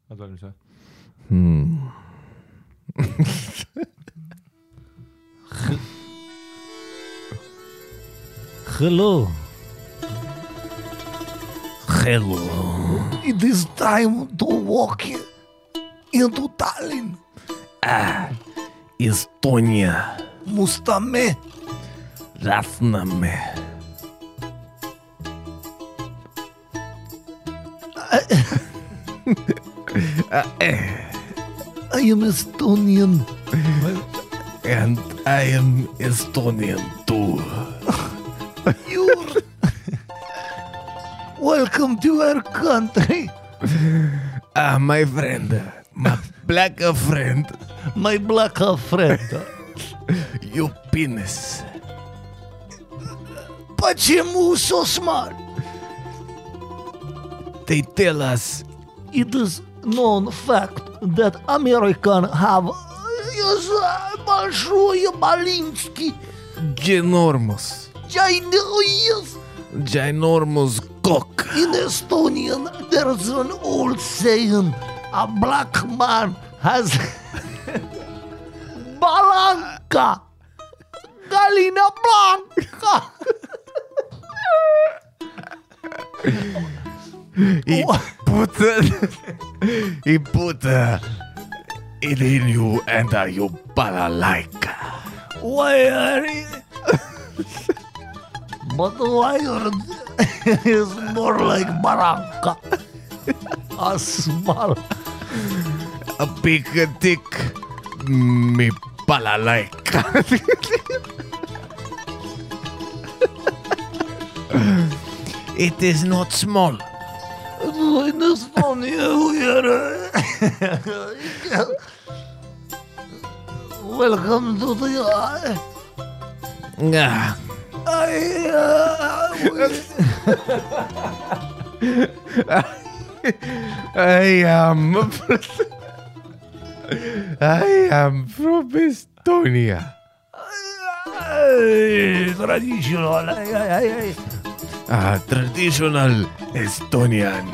Oled valmis või? Hello. Hello. It is time to walk into Tallinn. Estonia. Mustamäe. Lasnamäe. I am Estonian. And I am Estonian too. You're welcome to our country. My friend, my black friend, My black friend. your penis. Почему so smart? They tell us It is known fact that American have большой Малинский ginormous, ginormous cock. In Estonian, there's an old saying, a black man has Balanka, Galina Blanca. He put it in you and you balalaika. Why are you? But why are is more like Baranka? A small. A big dick, me balalaika. It is not small. In Estonia, we are. Welcome to the. I am from Estonia. Traditional. Traditional Estonian.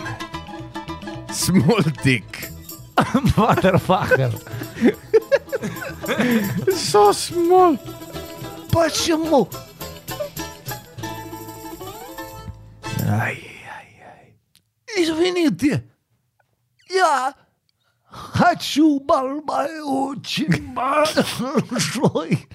Small dick. Motherfucker. So small. Почему? Извините. Я хочу очень большой.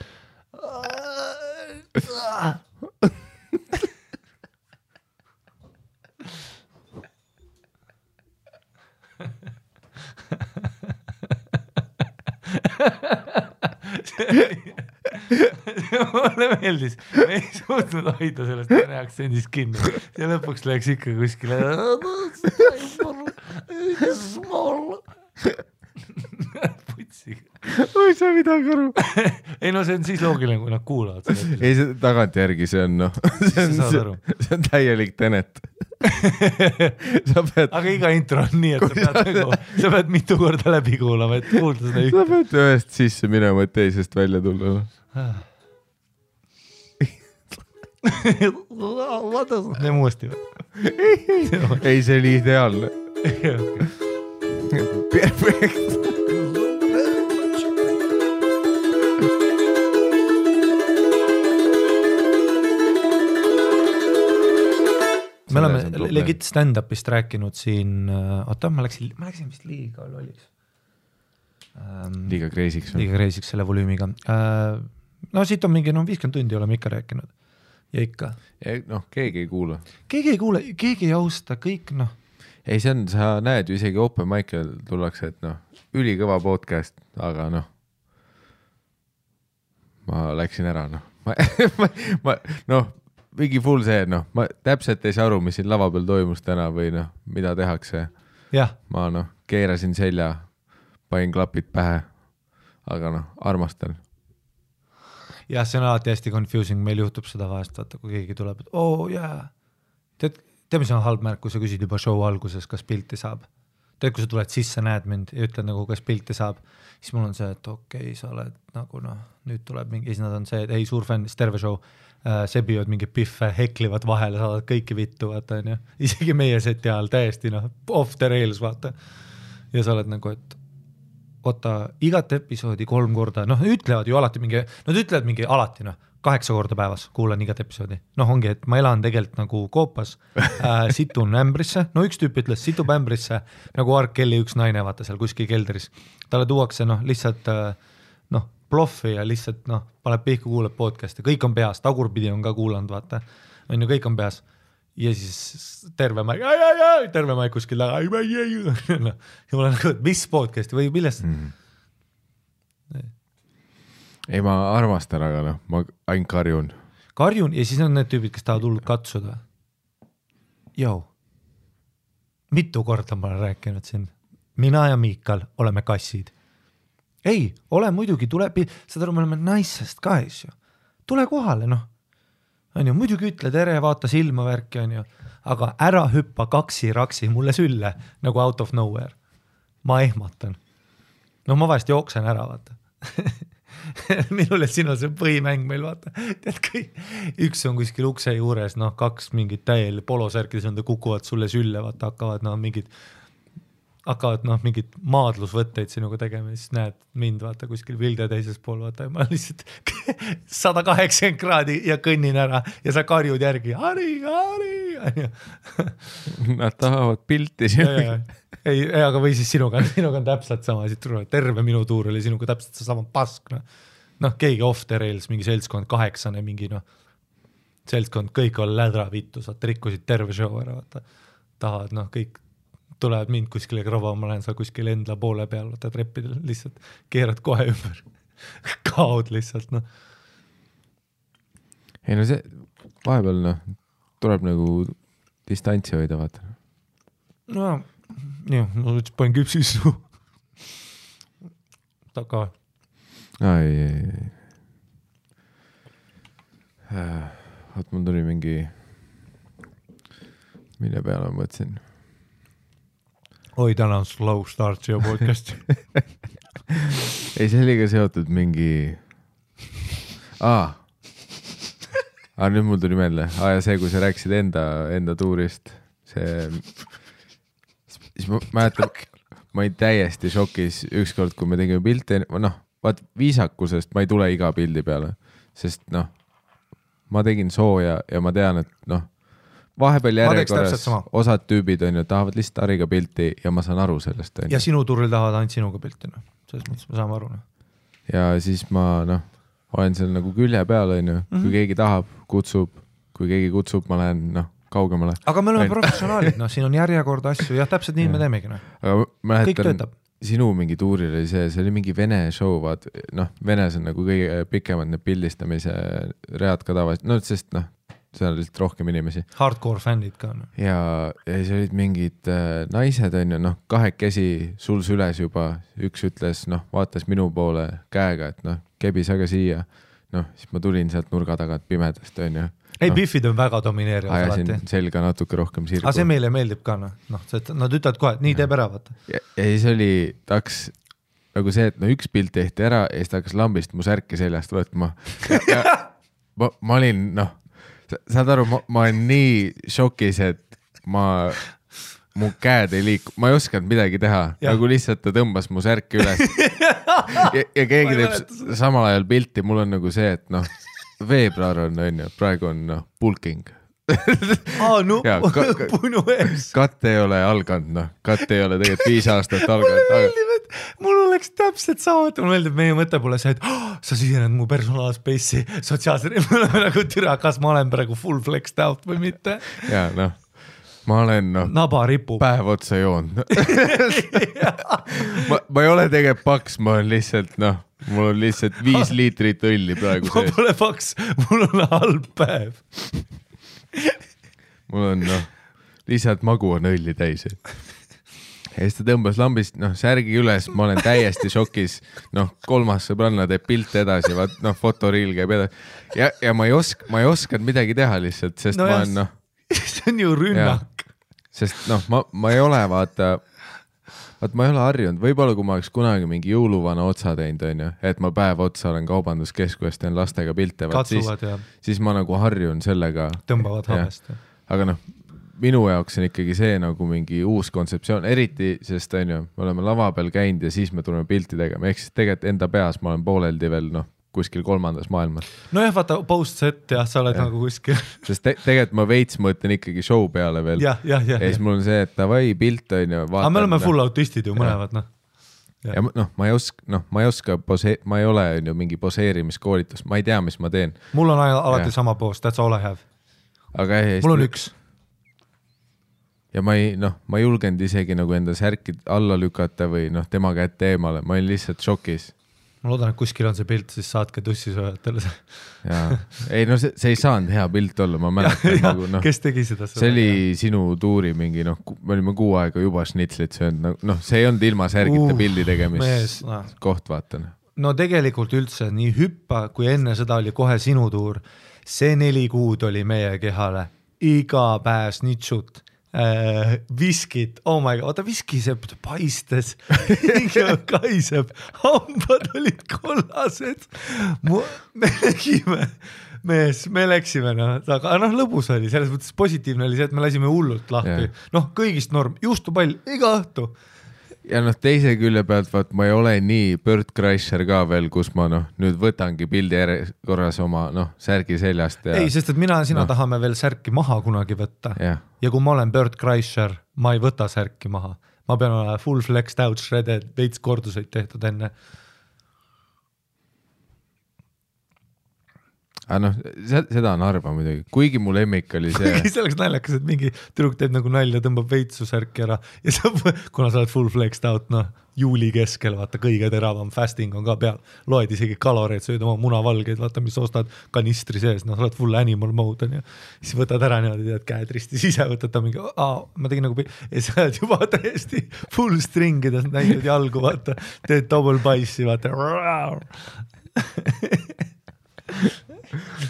Mulle meeldis, me ei suutnud hoida sellest vene aktsendist kinni ja lõpuks läks ikka kuskile putsiga. Oi, sa midagi aru. Ei no see on siis loogiline, kui nad kuulavad seda. Ei, see tagantjärgi see on see on täielik Tenet. Aga iga intro on nii, et sa pead mitu korda läbi kuulama, et kuulda seda sa pead ühest sisse minema, et teisest välja tulla. Teeme uuesti või? Ei, see oli ideaalne. Perfekt. Me oleme legit stand-upist rääkinud siin, oota, ma läksin vist liiga lolliks. Liiga kreisiks või? Liiga kreisiks selle volüümiga. No siit on mingi 50 tundi oleme ikka rääkinud. Ja ikka. Noh, keegi ei kuula. Keegi ei kuule, keegi ei austa, kõik noh. Ei, see on, sa näed ju isegi Open Mic'el tullakse, et noh, ülikõva podcast, aga noh, ma läksin ära, noh. Noh, mingi full see, noh, ma täpselt ei saa aru, mis siin lava peal toimus täna või noh, mida tehakse. Jah. Ma noh, keerasin selja, pain klapid pähe, aga noh, armastan. Jah, see on alati hästi confusing, meil juhtub seda vahest, vaata, kui keegi tuleb, et tead, mis on halb märk, kui sa küsid juba show alguses, kas pilti saab. Tead, kui sa tuled sisse, näed mind ja ütled nagu, kas pilti saab, siis mul on see, et okei, sa oled nagu noh, nüüd tuleb mingi, siis nad on see, et ei, suur fänn, terve show, sebivad mingi piffe, heklivad vahele, saavad kõiki vittu, vaata, on ju. Isegi meie seti ajal täiesti noh, off the rails, vaata. ja sa oled nagu, et oota, igat episoodi 3 korda, noh, ütlevad ju alati mingi, nad ütlevad mingi alati, 8 korda päevas kuulan igat episoodi. Noh, ongi, et ma elan tegelikult nagu koopas, situn ämbrisse, no üks tüüp ütles, situb ämbrisse nagu R. Kelly üks naine, vaata seal kuskil keldris. Talle tuuakse, lihtsalt, ploffi ja lihtsalt, paneb pihku, kuuleb podcast'i, kõik on peas, tagurpidi on ka kuulanud, vaata, on ju, kõik on peas. Ja siis terve maik kuskil taga, ja ma olen nagu, et mis podcast'i või millest? Ei, ma armastan, aga ma ainult karjun ja siis on need tüübid, kes tahavad hullult katsuda. Jou, mitu korda ma olen rääkinud siin. Mina ja Miikal oleme kassid. Ei, ole muidugi, seda me oleme naissest ka, ju. Tule kohale, on ju, muidugi ütle tere, vaata silma värki, on ju, aga ära hüppa kaksi-raksi mulle sülle nagu out of nowhere. Ma ehmatan. Ma vahest jooksen ära, vaata. Minul ja sinul see põhimäng meil, vaata. Tead, üks on kuskil ukse juures, 2 mingid täiel polosärkides on, kukuvad sulle sülle, vaata, hakkavad mingid maadlusvõtteid sinuga tegema, siis näed mind, vaata, kuskil Vilde teises pool, vaata, ja ma lihtsalt 180 kraadi ja kõnnin ära ja sa karjud järgi, Hari. Nad tahavad pilti sinuga. Ei, aga või siis sinuga on täpselt sama, terve minu tuur oli sinuga täpselt sama pask, keegi off the rails, mingi seltskond 8, mingi seltskond, kõik on lädra vittu, sa rikkusid terve show ära, vaata, tahavad, kõik tulevad mind kuskile krava, ma lähen seal kuskile endla poole peal, vaata treppidel, lihtsalt keerad kohe ümber, kaod lihtsalt, Ei see vahepeal, tuleb nagu distantsi hoida, vaata. Ma panen küpsisu taga. Ei. Vaat mul tuli mingi, mille peale ma mõtlesin. Oi, täna on slow start siia podcast. Ei, see oli ka seotud mingi... nüüd mul tuli meelde. Ja see, kui sa rääkisid enda tuurist, siis ma mäletan, ma olin täiesti šokis ükskord, kui me tegime pilte, vaat viisakusest ma ei tule iga pildi peale, sest ma tegin sooja ja ma tean, et vahepeal järjekorras osad tüübid on ju, tahavad lihtsalt Hariga pilti ja ma saan aru sellest. Ja sinu turul tahavad ainult sinuga pilti, selles mõttes me saame aru. Ja siis ma olen seal nagu külje peal, on ju, kui keegi tahab, kutsub, kui keegi kutsub, ma lähen kaugemale. Aga me oleme professionaalid, siin on järjekord asju, jah, täpselt nii me teemegi. Kõik töötab. Sinu mingi tuuril oli see oli mingi vene show, vaat, Venes on nagu kõige pikemad need pildistamise read ka tavaliselt, sest seal oli lihtsalt rohkem inimesi. Hardcore fännid ka. Ja siis olid mingid naised, on ju, kahekesi sul süles juba, üks ütles, vaatas minu poole käega, et kebis aga siia, siis ma tulin sealt nurga tagant pimedast, on ju. Ei, biffid on väga domineerivad. Ajasin selga natuke rohkem sirgu. Aga see meile meeldib ka, nad ütlevad kohe, et nii teeb ära, vaata. Ja siis oli, taks nagu see, et üks pilt tehti ära ja siis ta hakkas lambist mu särki seljast võtma. Ja ma olin, saad aru, ma olen nii šokis, et mu käed ei liiku, ma ei osanud midagi teha, nagu lihtsalt ta tõmbas mu särki üles ja keegi teeb samal ajal pilti, mul on nagu see, et veebruar on ju, praegu on pulking. Punu ees. Katt ei ole alganud, katt ei ole tegelikult 5 aastat alganud. Mul oleks täpselt sama, et mul meeldib, meie mõte pole see, et sa sisened mu personaalspace'i sotsiaalse, me oleme nagu türa, kas ma olen praegu full flexed out või mitte. Ja ma olen naba ripub. Päev otsa joonud. ma ei ole tegelikult paks, ma olen lihtsalt, mul on lihtsalt 5 liitrit õlli praegu sees. Ma pole paks, mul on halb päev. Mul on, lihtsalt magu on õlli täis. Ja siis ta tõmbas lambist, särgi üles, ma olen täiesti šokis, 3. sõbranna teeb pilte edasi, vaat, fotoriil käib edasi. Ja ma ei osanud midagi teha lihtsalt, sest ma olen, see on ju rünnak. Sest ma ei ole, vaata, ma ei ole harjunud, võib-olla kui ma oleks kunagi mingi jõuluvana otsa teinud, on ju, et ma päev otsa olen kaubanduskeskuses, teen lastega pilte, katsuvad, siis ma nagu harjun sellega. Tõmbavad hamest. Aga minu jaoks on ikkagi see nagu mingi uus kontseptsioon, eriti sest on ju, me oleme lava peal käinud ja siis me tuleme pilti tegema, ehk siis tegelikult enda peas ma olen pooleldi veel kuskil kolmandas maailmas. Nojah, vaata post-set ja sa oled nagu kuskil. Sest tegelikult ma veits mõtlen ikkagi show peale veel. Ja siis mul on see, et davai pilt on ju. Aga me oleme full autistid ju mõlevad, noh. Ja ma ei oska, ma ei ole ju mingi poseerimiskoolitus, ma ei tea, mis ma teen. Mul on alati sama post, that's all I have. Aga mul on üks. Ja ma ei julgenud isegi nagu enda särki alla lükata või tema kätte eemale, ma olin lihtsalt šokis. Ma loodan, et kuskil on see pilt, siis saatke tussisööjatele see. Ei, see ei saanud hea pilt olla, ma mäletan. Nagu, kes tegi seda? See oli sinu tuuri mingi, me olime 6 aega juba šnitslit söönud, see ei olnud ilma särgita pildi tegemist koht, vaatan. No tegelikult üldse nii hüppa, kui enne seda oli kohe sinu tuur, see 4 kuud oli meie kehale, iga päev snitsut. Viskid, oh my god, viskisepp paistes, kaiseb, hambad olid kollased, me läksime, aga lõbus oli, selles mõttes positiivne oli see, et me lasime hullult lahti, kõigist norm, juustupall, iga õhtu. Ja teise külje pealt, vaat ma ei ole nii Bert Kreischer ka veel, kus ma nüüd võtangi pildi korras oma särgi seljast. Ei, sest et sina tahame veel särki maha kunagi võtta. Ja kui ma olen Bert Kreischer, ma ei võta särki maha. Ma pean olema full flexed out, shredded, veits korduseid tehtud enne. Aga seda on harva muidugi, kuigi mu lemmik oli see. See oleks naljakas, et mingi tüdruk teeb nagu nalja, tõmbab veitsu särki ära ja kuna sa oled full flexed out, juuli keskel, vaata kõige teravam fasting on ka peal, loed isegi kaloreid, sööd oma munavalgeid, vaata mis ostad kanistri sees, sa oled full animal mode on ja siis võtad ära niimoodi, tead käed ristis ise, võtad ta mingi, ma tegin nagu ja sa oled juba täiesti full stringides, näitad jalgu, vaata, teed double bice'i, vaata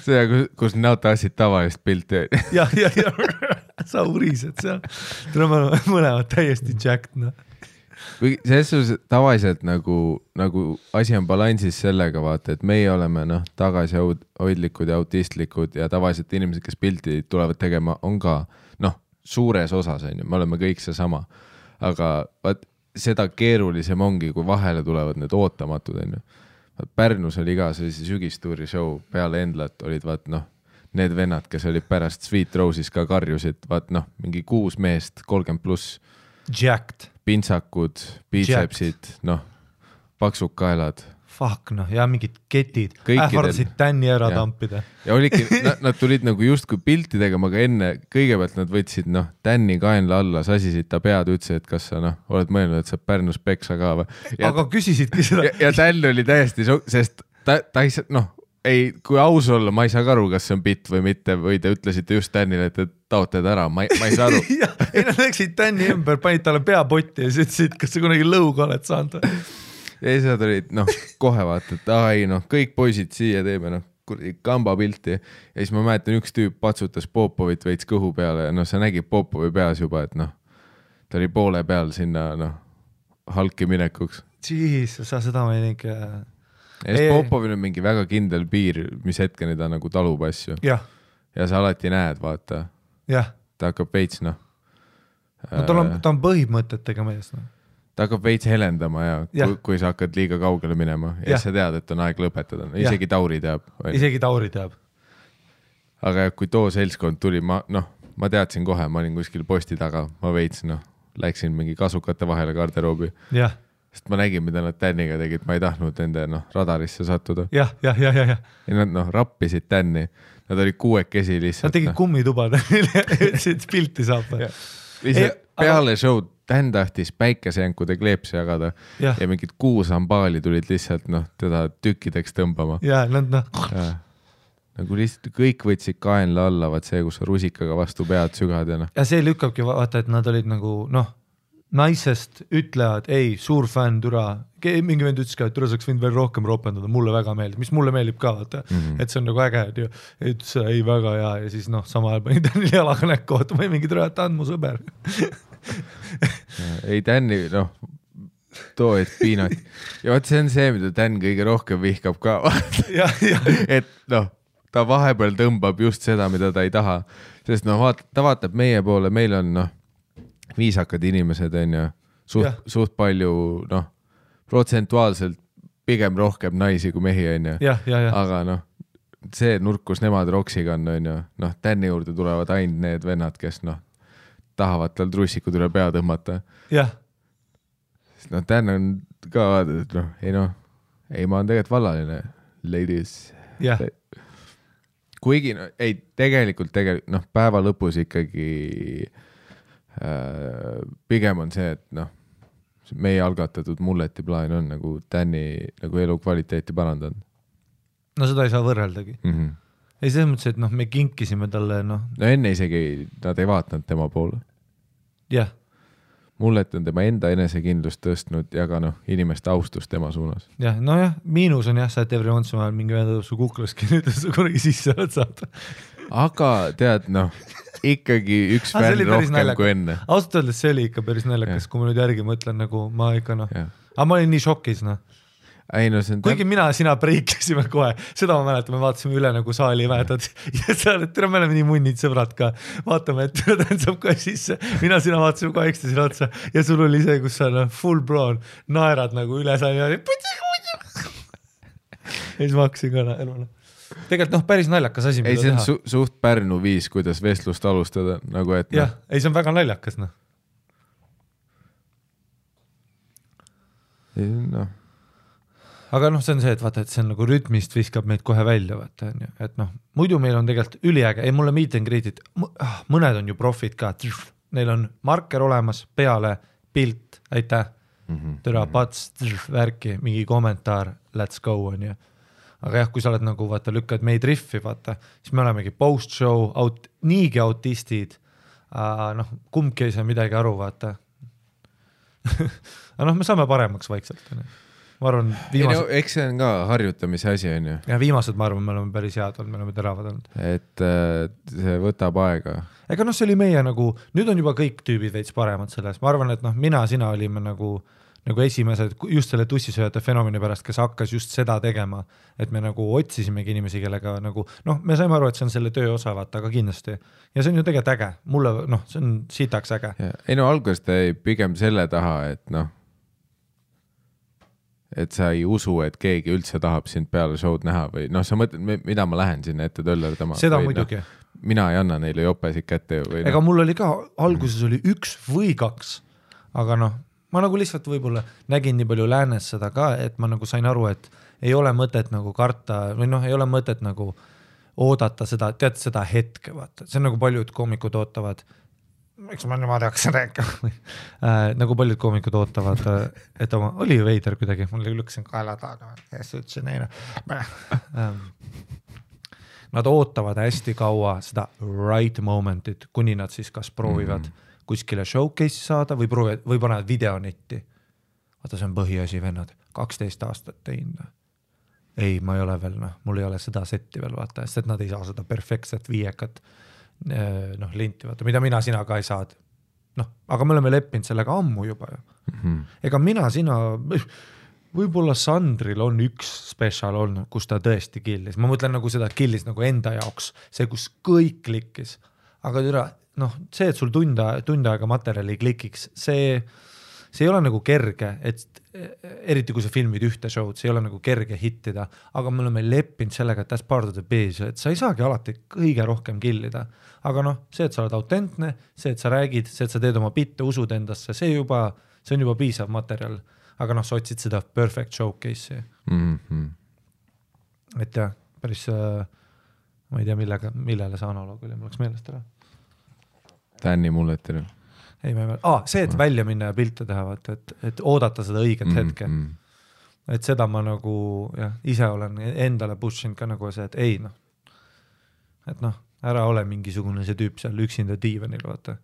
see, kus näota asjad tavalist pilti. ja sa urised seal. Tuleme mõlemad täiesti jacked. Selles tavaliselt nagu asi on balansis sellega, vaata, et meie oleme tagasihoidlikud ja autistlikud ja tavaliselt inimesed, kes pilti tulevad tegema, on ka suures osas, me oleme kõik see sama. Aga seda keerulisem ongi, kui vahele tulevad need ootamatud, Pärnus oli ka sellise sügistuuri show peale Endlat olid need vennad, kes olid pärast Sweet Rose'is ka karjusid, mingi 6 meest, 30+. Jacked. Pintsakud, biitsepsid, paksud kaelad. Fuck, ja mingid ketid. Ähvardasid tänni ära tampida. Ja oligi, nad tulid nagu justkui pilti tegema, aga enne kõigepealt nad võtsid tänni kaenla alla, sasisid ta pead, ütlesid, et kas sa oled mõelnud, et sa Pärnus peksa ka või. Aga küsisidki seda. Ja tänn oli täiesti, sest ta ei saa, kui aus olla, ma ei saa aru, kas see on bitt või mitte, või te ütlesite just tännile, et taotled ära, ma ei saa aru. Ei, nad läksid tänni ümber, panid talle peapotti ja siis ütlesid, kas sa kunagi lõuga oled saanud. Ja siis nad olid, kohe vaata, et kõik poisid siia teeme, kamba pilti. Ja siis ma mäletan, üks tüüp patsutas Popovit veits kõhu peale ja sa nägid Popovi peas juba, et ta oli poole peal sinna halki minekuks. Jesus, sa seda ma ei ning. Ja siis Popovil on mingi väga kindel piir, mis hetkeni ta nagu talub asju. Ja sa alati näed, vaata. Ta hakkab veits, ta on põhimõtetega mees, Ta hakkab veits helendama kui sa hakkad liiga kaugele minema ja sa tead, et on aeg lõpetada. Isegi Tauri teab. Isegi Tauri teab. Aga kui too seltskond tuli, ma teadsin kohe, ma olin kuskil posti taga, ma veits, läksin mingi kasukate vahele garderoobi. Sest ma nägin, mida nad tänniga tegid, ma ei tahtnud nende radarisse sattuda. Ja nad rappisid tänni. Nad olid 6 lihtsalt. Nad tegid kummitubad, ütlesid, pilti saab. Peale show'd Tän tahtis päikesejänkude kleepsi jagada ja mingid 6 ambaali tulid lihtsalt teda tükkideks tõmbama. Nagu lihtsalt kõik võtsid kaenla alla, vaat see, kus rusikaga vastu pead sügad. Ja see lükkabki vaata, et nad olid nagu naisest ütlevad, ei, suur fänn, türa. Mingi vend ütles ka, et türa saaks võinud veel rohkem ropendada, mulle väga meeldib, mis mulle meeldib ka, vaata, et see on nagu äge, et ütles, ei väga hea ja siis sama ajal pani Tänil jalaga näkku, vaata, ma ei mingi türa, et on mu sõber. Ei Tänni, too, et piinat. Ja vaat see on see, mida Tän kõige rohkem vihkab ka. Et ta vahepeal tõmbab just seda, mida ta ei taha. Sest ta vaatab meie poole, meil on viisakad inimesed, on ju, suht palju, protsentuaalselt pigem rohkem naisi kui mehi, on ju. Aga see nurk, kus nemad roksiga on ju, Tänni juurde tulevad ainult need vennad, kes tahavad tal trussikud üle pea tõmmata. Jah. Tän on ka vaadanud, ei, ma on tegelikult vallaline, ladies. Jah. Kuigi, ei, tegelikult, päeva lõpus ikkagi pigem on see, et meie algatatud mulleti plaan on nagu Tänni nagu elukvaliteeti parandanud. No seda ei saa võrreldagi. Ei selles mõttes, et me kinkisime talle, No enne isegi nad ei vaatanud tema poole. Jah. Mullet on tema enda enesekindlust tõstnud ja ka inimeste austus tema suunas. Jah, miinus on sa, et every once in a while mingi vendab su kuklaski, nüüd sa kunagi sisse oled saada. Aga tead, ikkagi üks fänn rohkem kui enne. Ausalt öeldes see oli ikka päris naljakas, kui ma nüüd järgi mõtlen, nagu ma ikka aga ma olin nii šokis, Ei, see on kuigi sina preiklasime kohe, seda ma mäletan, me vaatasime üle nagu saali väetad ja sa oled, tere, me oleme nii munnid sõbrad ka, vaatame, et ta saab kohe sisse, sina vaatasime kohe ekstasile otsa ja sul oli see, kus sa full blown naerad nagu üle saali ja siis ma hakkasin ka eluna. Tegelikult päris naljakas asi, mida teha. Ei, see on suht Pärnu viis, kuidas vestlust alustada, nagu et jah, ei, see on väga naljakas, Aga see on see, et vaata, et see on nagu rütmist viskab meid kohe välja, vaata, et muidu meil on tegelikult üliäge, ei mulle meet and greet'id, mõned on ju profid ka, neil on marker olemas, peale, pilt, aitäh, tere, pats, värki, mingi kommentaar, let's go, on ju. Aga jah, kui sa oled nagu, vaata, lükkad meid riffi, vaata, siis me olemegi post-show, niigi autistid, kumbki ei saa midagi aru, vaata. Aga me saame paremaks vaikselt, on ju. Ma arvan, eks see on ka harjutamise asi, on ju. Ja viimased, ma arvan, me oleme päris head olnud, me oleme teravad olnud. Et see võtab aega. Ega see oli meie nagu, nüüd on juba kõik tüübid veits paremad selles. Ma arvan, et sina olime nagu esimesed just selle tussisööjate fenomeni pärast, kes hakkas just seda tegema, et me nagu otsisimegi inimesi, kellega nagu, me saime aru, et see on selle töö osa, vaata, aga kindlasti. Ja see on ju tegelikult äge. Mulle, see on sitaks äge. Ei alguses ta ei pigem selle taha, et sa ei usu, et keegi üldse tahab sind peale show'd näha või sa mõtled, mida ma lähen sinna ette töllerdama. Seda muidugi. Mina ei anna neile jopesid kätte. Või ega mul oli ka, alguses oli 1 või 2, aga ma nagu lihtsalt võib-olla nägin nii palju läänes seda ka, et ma nagu sain aru, et ei ole mõtet nagu karta või ei ole mõtet nagu oodata seda, tead seda hetke, vaata. See on nagu paljud koomikud ootavad, eks ma niimoodi hakkasin rääkima, nagu paljud koomikud ootavad, et oli ju veider kuidagi, mul lükkasin kaela taga ja siis ütlesin neile. Nad ootavad hästi kaua seda right momentit, kuni nad siis kas proovivad kuskile showcase'i saada või panevad videonetti. Vaata, see on põhiasi, vennad, 12 aastat teinud. Ei, ma ei ole veel, mul ei ole seda setti veel, vaata, sest et nad ei saa seda perfektset viiekat linti, vaata, mida sina ka ei saad. Aga me oleme leppinud sellega ammu juba. Ega sina, võib-olla Sandril on üks special olnud, kus ta tõesti killis. Ma mõtlen nagu seda killis nagu enda jaoks, see, kus kõik klikkis. Aga see, et sul tund aega materjali klikiks, see ei ole nagu kerge, et eriti kui sa filmid ühte show'd, see ei ole nagu kerge hittida, aga me oleme leppinud sellega, et that's part of the biz, et sa ei saagi alati kõige rohkem killida. Aga see, et sa oled autentne, see, et sa räägid, see, et sa teed oma bitte, usud endasse, see on juba piisav materjal. Aga sa otsid seda perfect showcase'i. Et jah, päris, ma ei tea, millele see analoog oli, mul oleks meelest ära. Tänni mulletile. Ei, see, et välja minna ja pilte teha, et oodata seda õiget hetke. Et seda ma nagu, ise olen endale pushinud ka nagu see, et ei, et ära ole mingisugune see tüüp seal üksinda diivanil, vaata,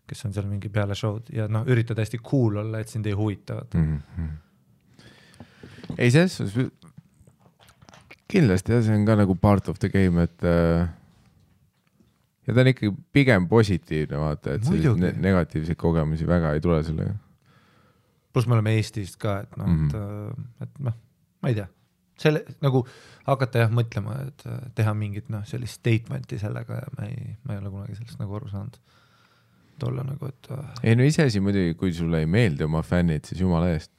kes on seal mingi peale show'd ja üritad hästi cool olla, et sind ei huvita. Ei, see kindlasti, see on ka nagu part of the game, et ja ta on ikkagi pigem positiivne, vaata, et negatiivseid kogemusi väga ei tule sellega. Plus me oleme Eestist ka, et ma ei tea. selle nagu hakata jah mõtlema, et teha mingit sellist statementi sellega ja ma ei ole kunagi sellest nagu aru saanud. Tolla nagu, et ei no iseasi muidugi, kui sulle ei meeldi oma fännid, siis jumala eest.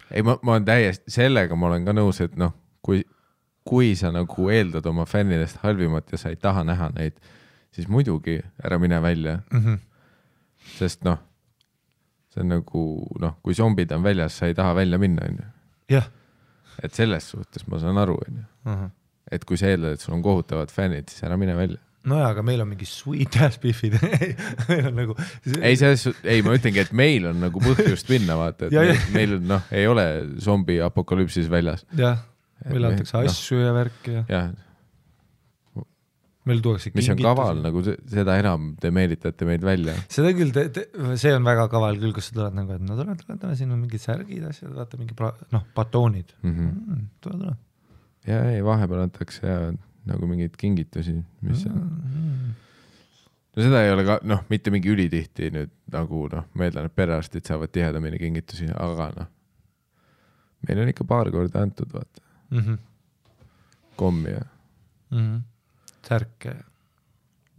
Ei, ma olen täiesti, sellega ma olen ka nõus, et kui sa nagu eeldad oma fännidest halvimat ja sa ei taha näha neid, siis muidugi ära mine välja. Sest see on nagu, kui zombid on väljas, sa ei taha välja minna, on ju. jah. Et selles suhtes ma saan aru, on ju. Et kui sa eeldad, et sul on kohutavad fännid, siis ära mine välja. No jaa, aga meil on mingi sweet ass biffid. Meil on nagu... Ei, ma ütlengi, et meil on nagu põhjust minna, vaata, et meil ei ole zombi apokalüpsis väljas. Jah, meil antakse asju ja värki ja... Meil tuuakse mis on kaval, nagu seda enam te meelitate meid välja. Seda küll, see on väga kaval küll, kus sa tuled nagu, et no tule, siin on mingid särgid asjad, vaata mingi batoonid. Tule. Ja ei, vahepeal antakse ja nagu mingid kingitusi, mis on... No seda ei ole ka, mitte mingi ülitihti nüüd nagu, ma eeldan, et perearstid saavad tihedamini kingitusi, aga meil on ikka paar korda antud, vaata. Kommi ja... Särke.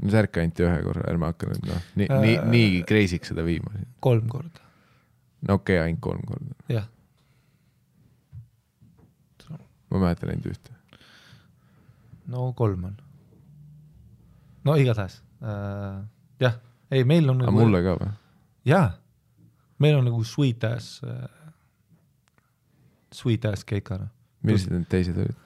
No särke anti ühe korra, ärme hakka nüüd, nii kreisiks seda viima. 3 korda. No okei, ainult 3 korda. Jah. Ma mäletan ainult ühte. No 3 on. No igatahes. Jah, ei, meil on... Aga mulle ka või? Jah, meil on nagu sweet ass keikana. Millised need teised olid?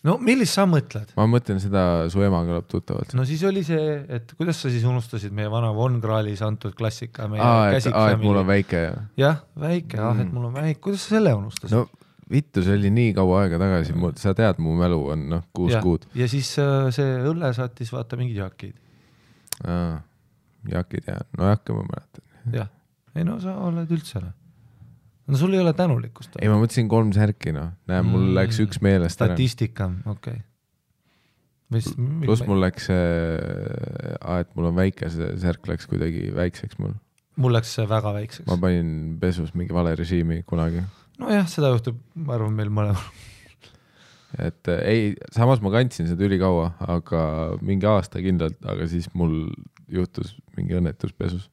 No millist sa mõtled? Ma mõtlen seda, su ema kõlab tuttavalt. No siis oli see, et kuidas sa siis unustasid meie vana Von Krahlis antud klassika? Et mul on väike. Jah, väike, et mul on väike. Kuidas sa selle unustasid? No vittu, see oli nii kaua aega tagasi. Sa tead, mu mälu on 6 kuud. Ja siis see õlle saatis vaata mingid jakid. Jakid ja, no jakka ma mäletan. Jah, ei no sa oled üldse. No sul ei ole tänulikkust. Ei, ma mõtlesin 3 särki, Näe, mul läks üks meelest statistika, okei. Plus mul läks et mul on väike, see särk läks kuidagi väikseks mul. Mul läks väga väikseks. Ma panin pesus mingi vale režiimi kunagi. No jah, seda juhtub, ma arvan, meil mõlemal. Et ei, samas ma kandsin seda ülikaua, aga mingi aasta kindlalt, aga siis mul juhtus mingi õnnetus pesus.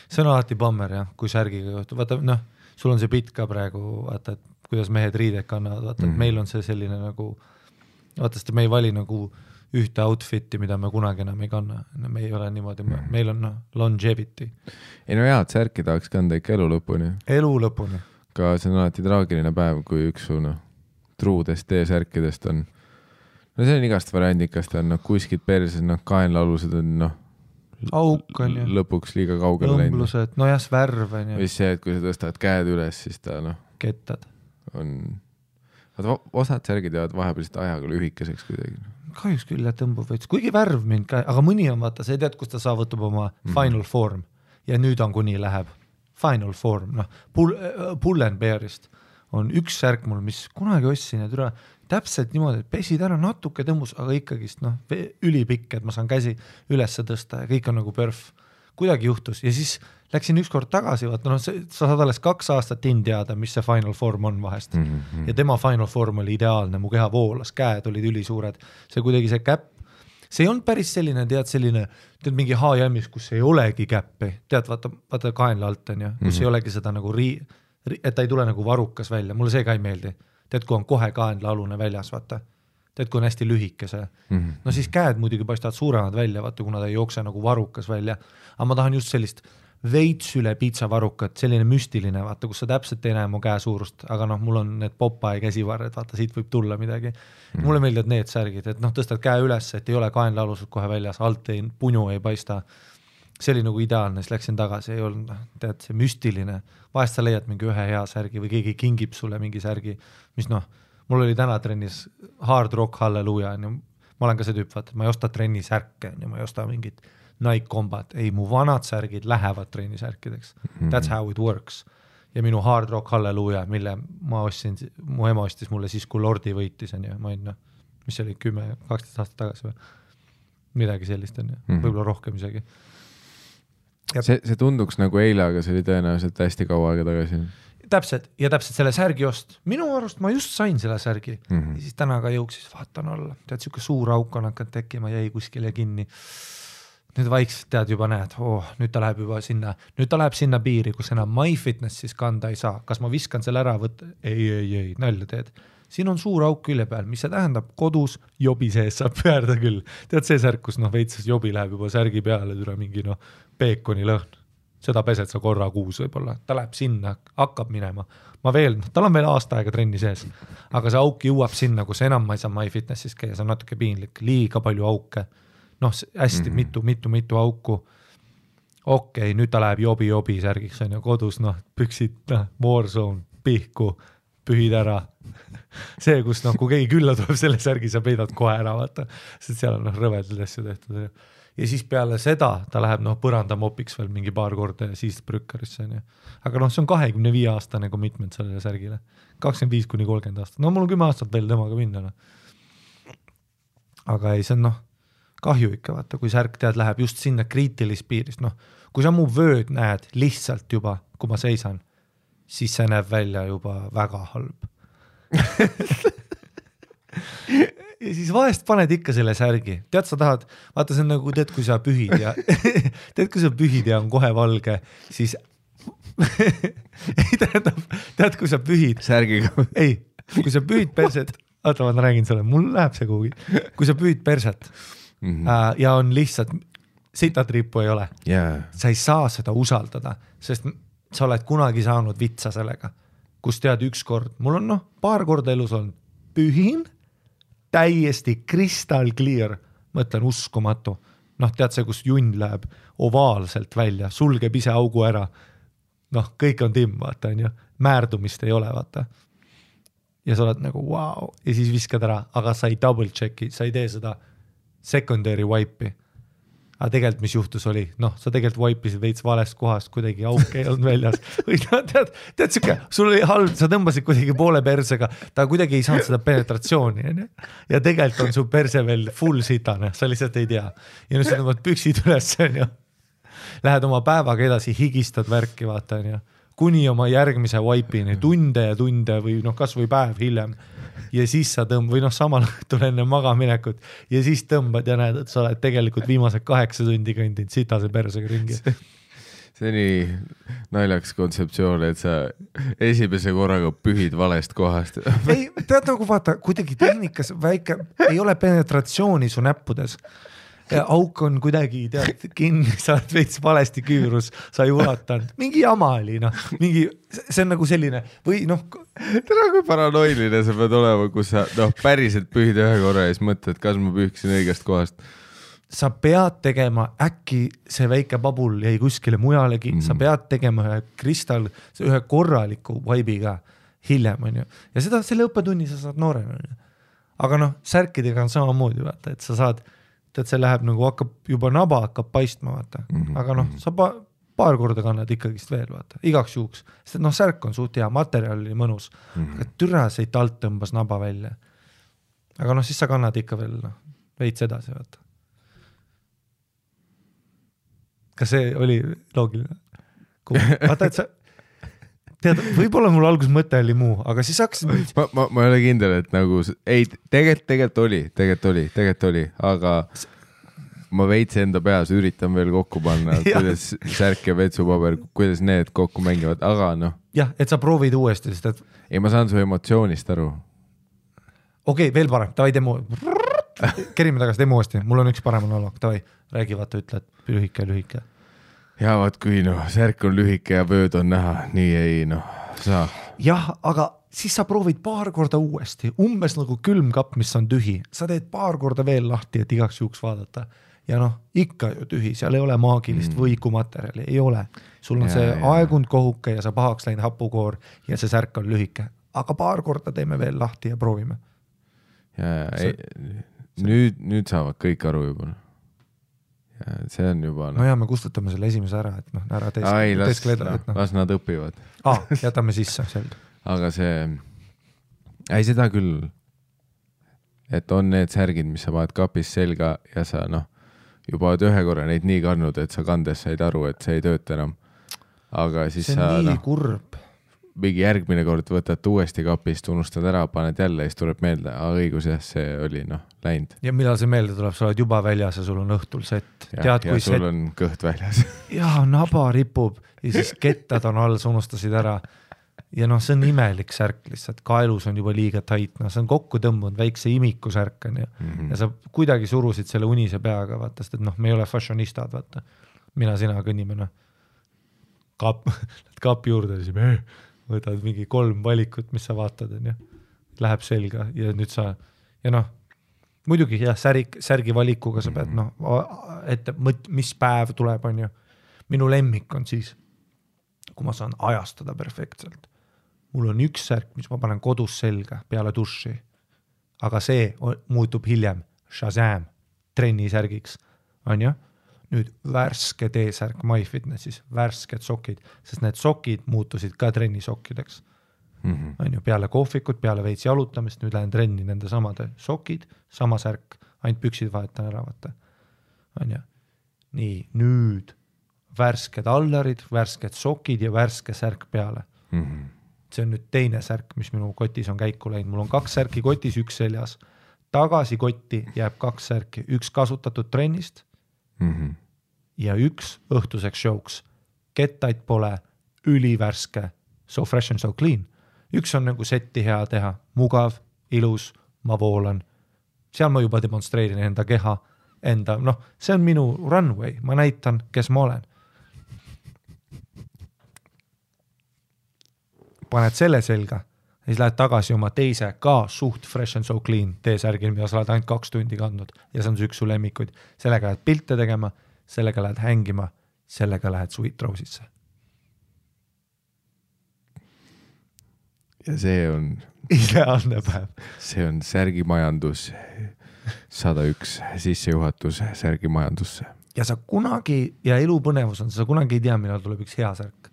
See on alati bammer, jah, kui särgiga juhtub. Vaata, sul on see pitt ka praegu, vaata, et kuidas mehed riided kannavad, vaata, et meil on see selline nagu, vaata, sest me ei vali nagu ühte outfiti, mida me kunagi enam ei kanna. Me ei ole niimoodi, meil on longevity. Ei no hea, et särki tahaks kanda ikka elu lõpuni. Elu lõpuni. Ka see on alati traagiline päev, kui üks su truudest T-särkidest on, no see on igast variandikast, on kuskid perses, kaenlaalused on auk on ju. Lõpuks liiga kaugele läinud. Õmblused, no jah, värv on ju. Või see, et kui sa tõstad käed üles, siis ta kettad. Osad särgid jäävad vahepealselt ajaga lühikeseks kuidagi. Kahjuks küll jah tõmbub veits, kuigi värv mind ka, aga mõni on vaata, sa ei tead, kus ta saavutab oma final form ja nüüd on kuni läheb final form, Pull and Bearist on üks särk mul, mis kunagi ostsin ja türa täpselt niimoodi, et pesid ära natuke tõmbus, aga ikkagist ülipikk, et ma saan käsi üles tõsta ja kõik on nagu perf. Kuidagi juhtus ja siis läksin ükskord tagasi, vaata, sa saad alles 2 aastat teada, mis see final form on vahest. Ja tema final form oli ideaalne, mu keha voolas, käed olid ülisuured, see kuidagi see käpp, see ei olnud päris selline, tead mingi H&M-is, kus ei olegi käppi, tead, vaata kaenla alt on ja, kus ei olegi seda nagu et ta ei tule nagu varukas välja, mulle see ka ei meeldi. Tead, kui on kohe kaenlaalune väljas, vaata. Tead, kui on hästi lühike see. No siis käed muidugi paistavad suuremad välja, vaata, kuna ta ei jookse nagu varukas välja. Aga ma tahan just sellist veits üle piitsa varukat, selline müstiline, vaata, kus sa täpselt ei näe mu käe suurust, aga mul on need Popeye käsivarred, vaata, siit võib tulla midagi. Mulle meeldivad need särgid, et tõstad käe üles, et ei ole kaenlaalused kohe väljas, alt puņu ei paista. See oli nagu ideaalne, siis läksin tagasi, ei olnud, tead, see müstiline. Vahest sa leiad mingi ühe hea särgi või keegi kingib sulle mingi särgi, mis mul oli täna trennis Hard Rock Halleluja, ma olen ka see tüüp, vaata, ma ei osta trenni särke, ma ei osta mingit Nike Combat, ei, mu vanad särgid lähevad trenni särkideks. That's how it works. Ja minu Hard Rock Halleluja, mille ma ostsin, mu ema ostis mulle siis, kui Lordi võitis, ma ei mis oli 10-12 aastat tagasi või midagi sellist on, võib-olla rohkem isegi. See tunduks nagu eile, aga see oli tõenäoliselt hästi kaua aega tagasi. täpselt selle särgi ost. Minu arust ma just sain selle särgi ja siis täna ka jõuksis, vaatan alla. Tead, siuke suur auk on hakanud tekkima, jäi kuskile kinni. Nüüd vaikselt tead juba näed, nüüd ta läheb juba sinna piiri, kus enam MyFitness siis kanda ei saa. Kas ma viskan selle ära võtta? Ei, nalja teed. Siin on suur auk külje peal, mis see tähendab kodus jobi sees saab pöörda küll. Tead see särk, kus veitses jobi läheb juba särgi peale, tule mingi peekoni lõhn. Seda pesed sa korra kuus võib-olla. Ta läheb sinna, hakkab minema. Tal on veel aasta aega trenni sees, aga see auk jõuab sinna, kus enam ma ei saa MyFitnessis käia, see on natuke piinlik, liiga palju auke. Hästi mitu auku. Okei, nüüd ta läheb jobi särgiks on ju kodus, püksid, Warzone, pihku, pühid ära. See, kus kui keegi külla tuleb selle särgi, sa peidad kohe ära, vaata, sest seal on rõvedad asju tehtud. Ja siis peale seda ta läheb põrandamopiks veel mingi paar korda ja siis brükkarisse on ju. Aga see on 25-aastane commitment sellele särgile. 25-30 aastat. Mul on 10 aastat veel temaga minna. Aga ei, see on kahju ikka, vaata, kui särk tead läheb just sinna kriitilist piirist. Kui sa mu vööd näed lihtsalt juba, kui ma seisan, siis see näeb välja juba väga halb. Ja siis vahest paned ikka selle särgi. Tead, sa tahad, vaata see on tead, kui sa pühid ja ja on kohe valge, siis ei tead, kui sa pühid. Särgiga. Ei, kui sa pühid perset, ma räägin sulle, mul läheb see kuhugi. Kui sa pühid perset ja on lihtsalt, sitatriipu ei ole. Sa ei saa seda usaldada, sest sa oled kunagi saanud vitsa sellega, kus tead ükskord, mul on paar korda elus olnud, pühin, täiesti crystal clear, mõtlen uskumatu. Tead see, kus junn läheb ovaalselt välja, sulgeb ise augu ära. Kõik on timm, vaata, on ju. Määrdumist ei ole, vaata. Ja sa oled wow. Ja siis viskad ära, aga sa ei double checki, sa ei tee seda secondary wipe'i. Aga tegelikult, mis juhtus oli, sa tegelikult wipe'isid veits valest kohast, kuidagi auk ei olnud väljas. Või tead siuke, sul oli halb, sa tõmbasid kuidagi poole persega, ta kuidagi ei saanud seda penetratsiooni. Ja tegelikult on su perse veel full sitane, sa lihtsalt ei tea. Ja nüüd sa tõmbad püksid üles, on ju. Lähed oma päevaga edasi, higistad värki, vaata, on ju. Kuni oma järgmise wipe'ini, tunde või kas või päev hiljem. Ja siis sa tõmbad, või samal õhtul enne magaminekut ja siis tõmbad ja näed, et sa oled tegelikult viimased 8 tundi kõndinud sitase persega ringi. See on nii naljaks kontseptsioon, et sa esimese korraga pühid valest kohast. Ei, tead vaata, kuidagi tehnikas väike, ei ole penetratsiooni su näppudes. Auk on kuidagi kinni, sa oled veits valesti küürus, sa ei ulatanud. Mingi jama oli, see on selline, või Täna kui paranoiline sa pead olema, kus sa päriselt pühid ühe korra ja siis mõtled, kas ma pühksin õigest kohast. Sa pead tegema, äkki see väike babul jäi kuskile mujalegi, sa pead tegema ühe korraliku vaibiga hiljem, on ju. Ja seda selle õppetunni sa saad noorena. Aga särkidega on samamoodi, vaata, et sa saad et see läheb hakkab juba naba hakkab paistma, vaata. Aga sa paar korda kannad ikkagist veel, vaata, igaks juhuks. Sest särk on suht hea, materjal oli mõnus. Aga türa see talt tõmbas naba välja. Aga siis sa kannad ikka veel veits edasi, vaata. Kas see oli loogiline? Vaata, et sa tead, võib-olla mul algus mõte oli muu, aga siis hakkasid... Ma ei ole kindel, et ei, tegelikult oli, aga ma veits enda peas üritan veel kokku panna, kuidas särk ja vetsupaber, kuidas need kokku mängivad, aga Jah, et sa proovid uuesti, sest et... Ei, ma saan su emotsioonist aru. Okei, veel parem, tavai demo. Kerime tagasi demo uuesti, mul on üks parem monoloog, tavai, räägi vaata, ütle, et lühike. Ja vaat kui särk on lühike ja vööd on näha, nii ei saa. Jah, aga siis sa proovid paar korda uuesti, umbes nagu külmkapp, mis on tühi. Sa teed paar korda veel lahti, et igaks juhuks vaadata. Ja ikka ju tühi, seal ei ole maagilist võikumaterjali, ei ole. Sul on see aegund kohuke ja sa pahaks läinud hapukoor ja see särk on lühike. Aga paar korda teeme veel lahti ja proovime. Nüüd saavad kõik aru juba. Ja see on juba... me kustutame selle esimese ära, et ära las nad õpivad. Jätame sisse, selge. Aga see... Ei, seda küll, et on need särgid, mis sa vaad kapis selga ja sa juba oled ühe korra neid nii kandnud, et sa kandes said aru, et see ei tööta enam. Aga siis see on nii kurb. mingi järgmine kord võtad uuesti kapist, unustad ära, paned jälle ja siis tuleb meelde, õigus jah, see oli läinud. Ja millal see meelde tuleb, sa oled juba väljas ja sul on õhtul sett. Ja sul on kõht väljas. Ja naba ripub ja siis kettad on all, sa unustasid ära. Ja see on imelik särk lihtsalt, kaelus on juba liiga tait, see on kokku tõmbunud väikse imiku särk on ja sa kuidagi surusid selle unise peaga, vaata, sest et me ei ole fashionistad, vaata. Mina, sina kõnnime, kapi juurde, siis võtad mingi 3 valikut, mis sa vaatad, läheb selga ja nüüd sa, muidugi jah, särgi valikuga sa pead, ette, mis päev tuleb, on ju. Minu lemmik on siis, kui ma saan ajastada perfektselt. Mul on üks särk, mis ma panen kodus selga peale duši, aga see muutub hiljem Shazam trennisärgiks, on ju? Nüüd värske T-särk MyFitnessis, värsked sokid, sest need sokid muutusid ka trennisokkideks. On ju, peale kohvikut, peale veits jalutamist, nüüd lähen trenni nende samade sokid, sama särk, ainult püksid vahetan ära, vaata. On ju. Nii, nüüd värsked allarid, värsked sokid ja värske särk peale. See on nüüd teine särk, mis minu kotis on käiku läinud. Mul on 2 särki kotis, üks seljas. Tagasi kotti jääb 2 särki, üks kasutatud trennist ja üks õhtuseks showks. Kettaid pole, ülivärske, so fresh and so clean. Üks on nagu setti hea teha, mugav, ilus, ma voolan. Seal ma juba demonstreerin enda keha, see on minu runway, ma näitan, kes ma olen. Paned selle selga, siis lähed tagasi oma teise ka suht fresh and so clean T-särgil, mida sa oled ainult 2 tundi kandnud ja see on üks su lemmikuid. Sellega lähed pilte tegema, sellega lähed hängima, sellega lähed Sweet Rose'isse. Ja see on ideaalne päev. See on särgimajandus 101 sissejuhatus särgimajandusse. Ja sa kunagi, ja elupõnevus on, sa kunagi ei tea, millal tuleb üks hea särk.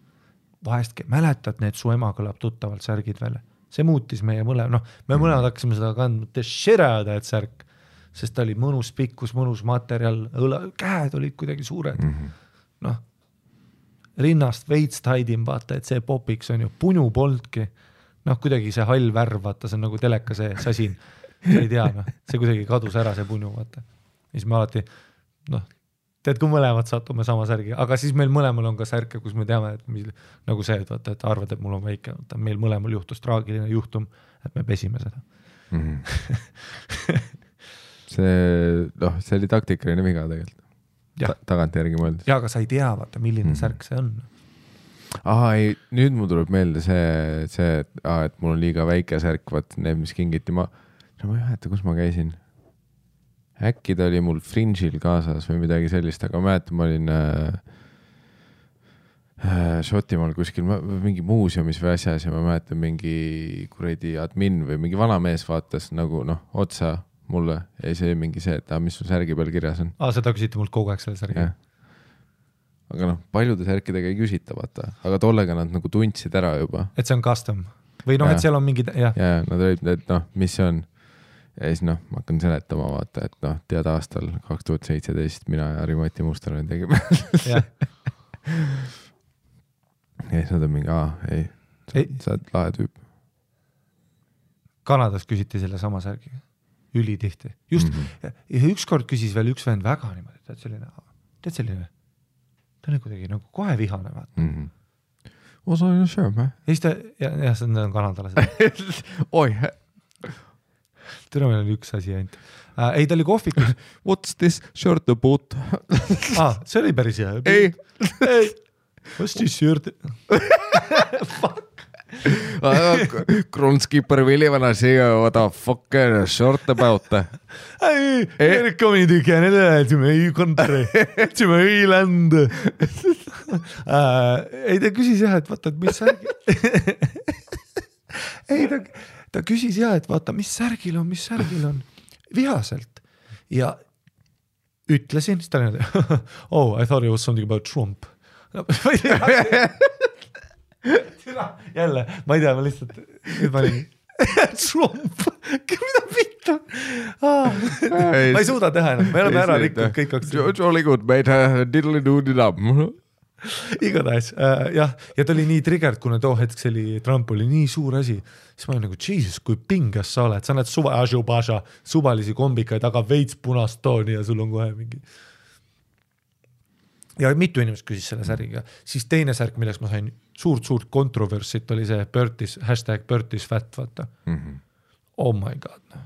Vahestki mäletad, need su ema kõlab tuttavalt särgid välja. See muutis meie mõlemad, me mõlemad hakkasime seda kandma, et särk, sest ta oli mõnus pikkus, mõnus materjal, käed olid kuidagi suured. Rinnast veits taidim, vaata, et see popiks on ju, punu polnudki. Kuidagi see hall värv, vaata, see on nagu teleka see sasin. Ei tea, see kuidagi kadus ära see punu, vaata. Siis me alati, tead, kui mõlemad satume sama särgi, aga siis meil mõlemal on ka särke, kus me teame, et nagu see, et arvad, et mul on väike, meil mõlemal juhtus traagiline juhtum, et me pesime seda. See oli taktikaline viga tegelikult. Tagant järgi mõeldes. Ja, aga sa ei tea, vaata, milline särk see on. Ei, nüüd mul tuleb meelde see, et mul on liiga väike särk, vaat need, mis kingiti ma ei mäleta, kus ma käisin. Äkki ta oli mul Fringe'il kaasas või midagi sellist, aga mäletan, ma olin Šotimaal kuskil mingi muuseumis või asjas ja ma mäletan mingi kuradi admin või mingi vana mees vaatas nagu otsa mulle ja see mingi see, et mis sul särgi peal kirjas on. Seda küsiti mult kogu aeg selle särgi. Aga paljude särkidega ei küsita, vaata. Aga tollega nad nagu tundsid ära juba. Et see on custom. Või et seal on mingi... Ja, nad olid, et mis see on. Ja siis ma hakkan seletama, vaata, et tead aastal 2017 mina ja Harri-Mati Mustonen tegime. Ja siis nad on mingi, sa oled lahe tüüp. Kanadas küsiti selle sama särgiga. Ülitihti. Just, ja ükskord küsis veel üks vend väga niimoodi, tead selline, ta on kuidagi nagu kohe vihane, vaata. Osa on sööme. Ja siis ta, ja see on kanadalased. Oi, Tõra meil oli üks asi ainult. Ei, ta oli kohvikus. What's this shirt about? See oli päris hea. Ei. What's this shirt? Fuck. Kronskipper Vilivana siia, what the fuck shirt about? Ei, coming again, ei kontre. Ei land. Ei, ta küsis jah, et vaata, et mis särgi. Ei, ta küsis jah, et vaata, mis särgil on. Vihaselt. Ja ütlesin, siis ta oli, I thought it was something about Trump. Jälle, ma ei tea, ma lihtsalt nüüd ma olin Trump, mida pitta ma ei suuda teha enam, me oleme ära rikkunud kõik Jolly good, mate, diddly-doo-didab igatahes jah, ja ta oli nii triggered, kuna too hetk see oli, Trump oli nii suur asi, siis ma olin nagu, Jesus, kui pingas sa oled, sa näed suvalisi kombikaid, aga veits punast tooni ja sul on kohe mingi. Ja mitu inimest küsis selle särgiga, siis teine särk, milleks ma sain suurt kontroversit, oli see #Bertis fat, vaata. Oh my god, no.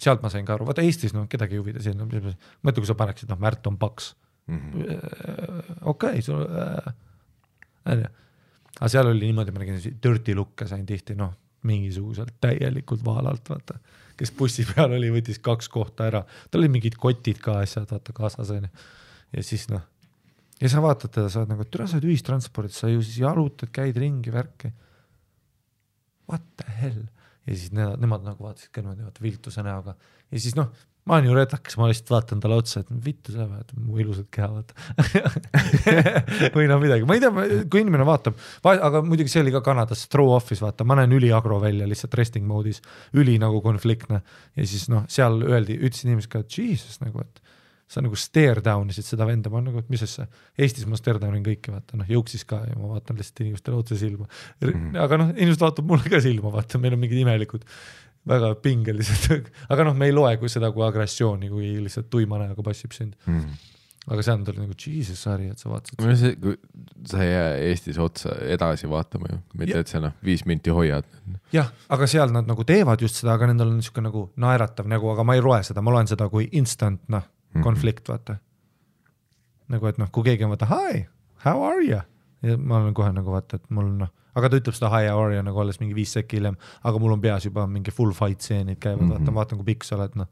Sealt ma sain ka aru, vaata Eestis, no kedagi huvida siin, mõtle, kui sa paneksid, noh, Märt on paks. Okei, aga seal oli niimoodi, ma nägin dirty look'e sain tihti, noh, mingisuguselt täielikult vaalalt, vaata, kes bussi peal oli, võttis 2 kohta ära, tal oli mingid kotid ka asjad, vaata, kaasas on ja siis noh, ja sa vaatad teda, sa oled nagu, türa sa oled ühistranspordid, sa ju siis jalutad, käid ringi, värki, what the hell, ja siis nemad nagu vaatasid ka niimoodi, vaata, viltuse näoga, ja siis noh, ma olen ju redaks, ma lihtsalt vaatan talle otsa, et vittu sa vaata, mu ilusad keha, vaata. või no midagi, ma ei tea, kui inimene vaatab, aga muidugi see oli ka Kanadas throw office, vaata, ma näen üli agro välja lihtsalt resting mode'is, üli nagu konfliktne ja siis noh, seal ütlesid inimesed ka, et Jesus nagu, et sa nagu stare down isid seda venda, ma nagu, et mis asja, Eestis ma stare downin kõike, vaata, noh, jõuksis ka ja ma vaatan lihtsalt inimestele otse silma, aga noh, inimesed vaatab mulle ka silma, vaata, meil on mingid imelikud väga pingelised, aga noh, me ei loe kui seda kui agressiooni, kui lihtsalt tuima näoga passib sind. Aga see on nagu Jesus sari, et sa vaatasid. Kui sa ei jää Eestis otsa edasi vaatama ju, mitte et sa 5 minti hoiad. Jah, aga seal nad nagu teevad just seda, aga nendel on niisugune nagu naeratav nagu, aga ma ei loe seda, ma loen seda kui instant konflikt, vaata. Nagu, et noh, kui keegi on vaata, hi, how are you? Ja ma olen kohe nagu vaata, et mul noh, aga ta ütleb seda hi, how are you nagu alles mingi 5 sekki hiljem, aga mul on peas juba mingi full fight seenid käivad, vaatan kui pikk sa oled, noh.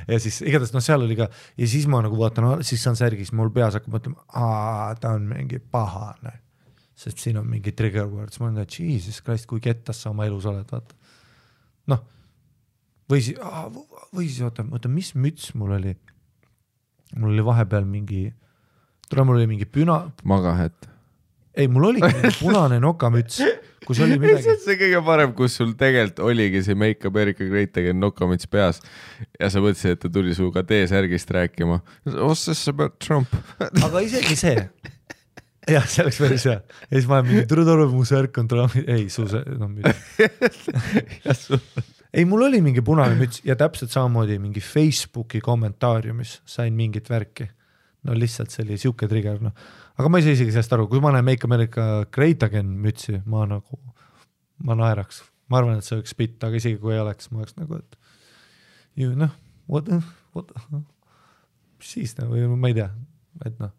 ja siis igatahes noh, seal oli ka ja siis ma nagu vaatan, siis on särgis, mul peas hakkab mõtlema, ta on mingi pahane, sest siin on mingi trigger words, ma olen Jesus Christ, kui kettas sa oma elus oled, vaata. Noh, või siis oota, mis müts mul oli vahepeal mingi, mul oli mingi Magahet. Ei, mul oli mingi punane nokamüts, kus oli midagi. See kõige parem, kus sul tegelikult oligi see Make America Great Again nokamüts peas ja sa mõtlesid, et ta tuli suuga T-särgist rääkima. What's this about Trump? Aga isegi see. Jah, see oleks päris hea. Ja siis ma olen mingi turutolu, mu särk on Trump. Ei, ei, mul oli mingi punane müts ja täpselt samamoodi mingi Facebooki kommentaariumis sain mingit värki. No lihtsalt see oli siuke trigger, noh. Aga ma ei saa isegi sellest aru, kui ma näen Make America Great Again mütsi, ma naeraks. Ma arvan, et see oleks spitt, aga isegi kui ei oleks, ma oleks nagu, et ju noh, what, siis nagu, ma ei tea, et noh,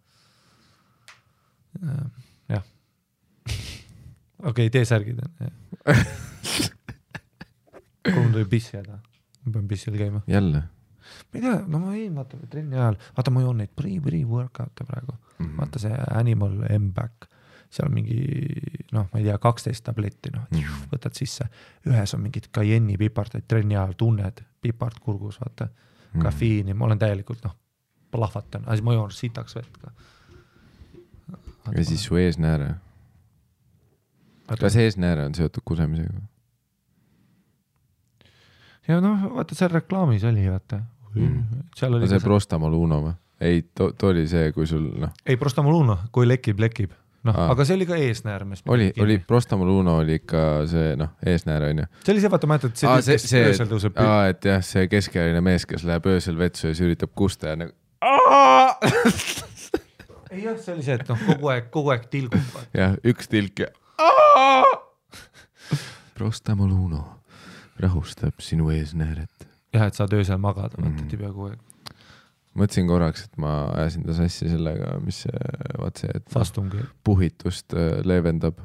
jah. Okei, T-särgid on. Kui mul tuli pissi jääda, ma pean pissil käima. Jälle? Ma ei tea, no ma ei vaata trenni ajal, vaata ma joon neid pre-workout'e praegu, vaata see Animal M-Back, seal on mingi, noh, ma ei tea, 12 tabletti, noh, võtad sisse, ühes on mingid kajenni pipardaid trenni ajal, tunned pipart kurgus, vaata, kafiini, ma olen täielikult, noh, plahvatan, aga siis ma joon sitaks vett ka. Ja siis su eesnääre? Kas eesnääre on seotud kusemisega? Ja noh, vaata, seal reklaamis oli, vaata. Seal oli see Prostamoluno või? Ei, too oli see, kui sul, noh. Ei, Prostamoluno, kui lekib. Noh, aga see oli ka eesnäär. Oli Prostamoluno oli ikka see, noh, eesnäär on ju. See oli see, vaata, ma ütlen, et see öösel tõuseb. Et jah, see keskealine mees, kes läheb öösel vetsu ja siis üritab kusta ja nagu ei jah, see oli see, et noh, kogu aeg tilgub. Jah, üks tilk ja Prostamoluno rahustab sinu eesnääret. Jah, et saad öösel magada, vaatati pea kogu aeg. Mõtlesin korraks, et ma ajasin ta sassi sellega, mis vaat see, et puhitust leevendab.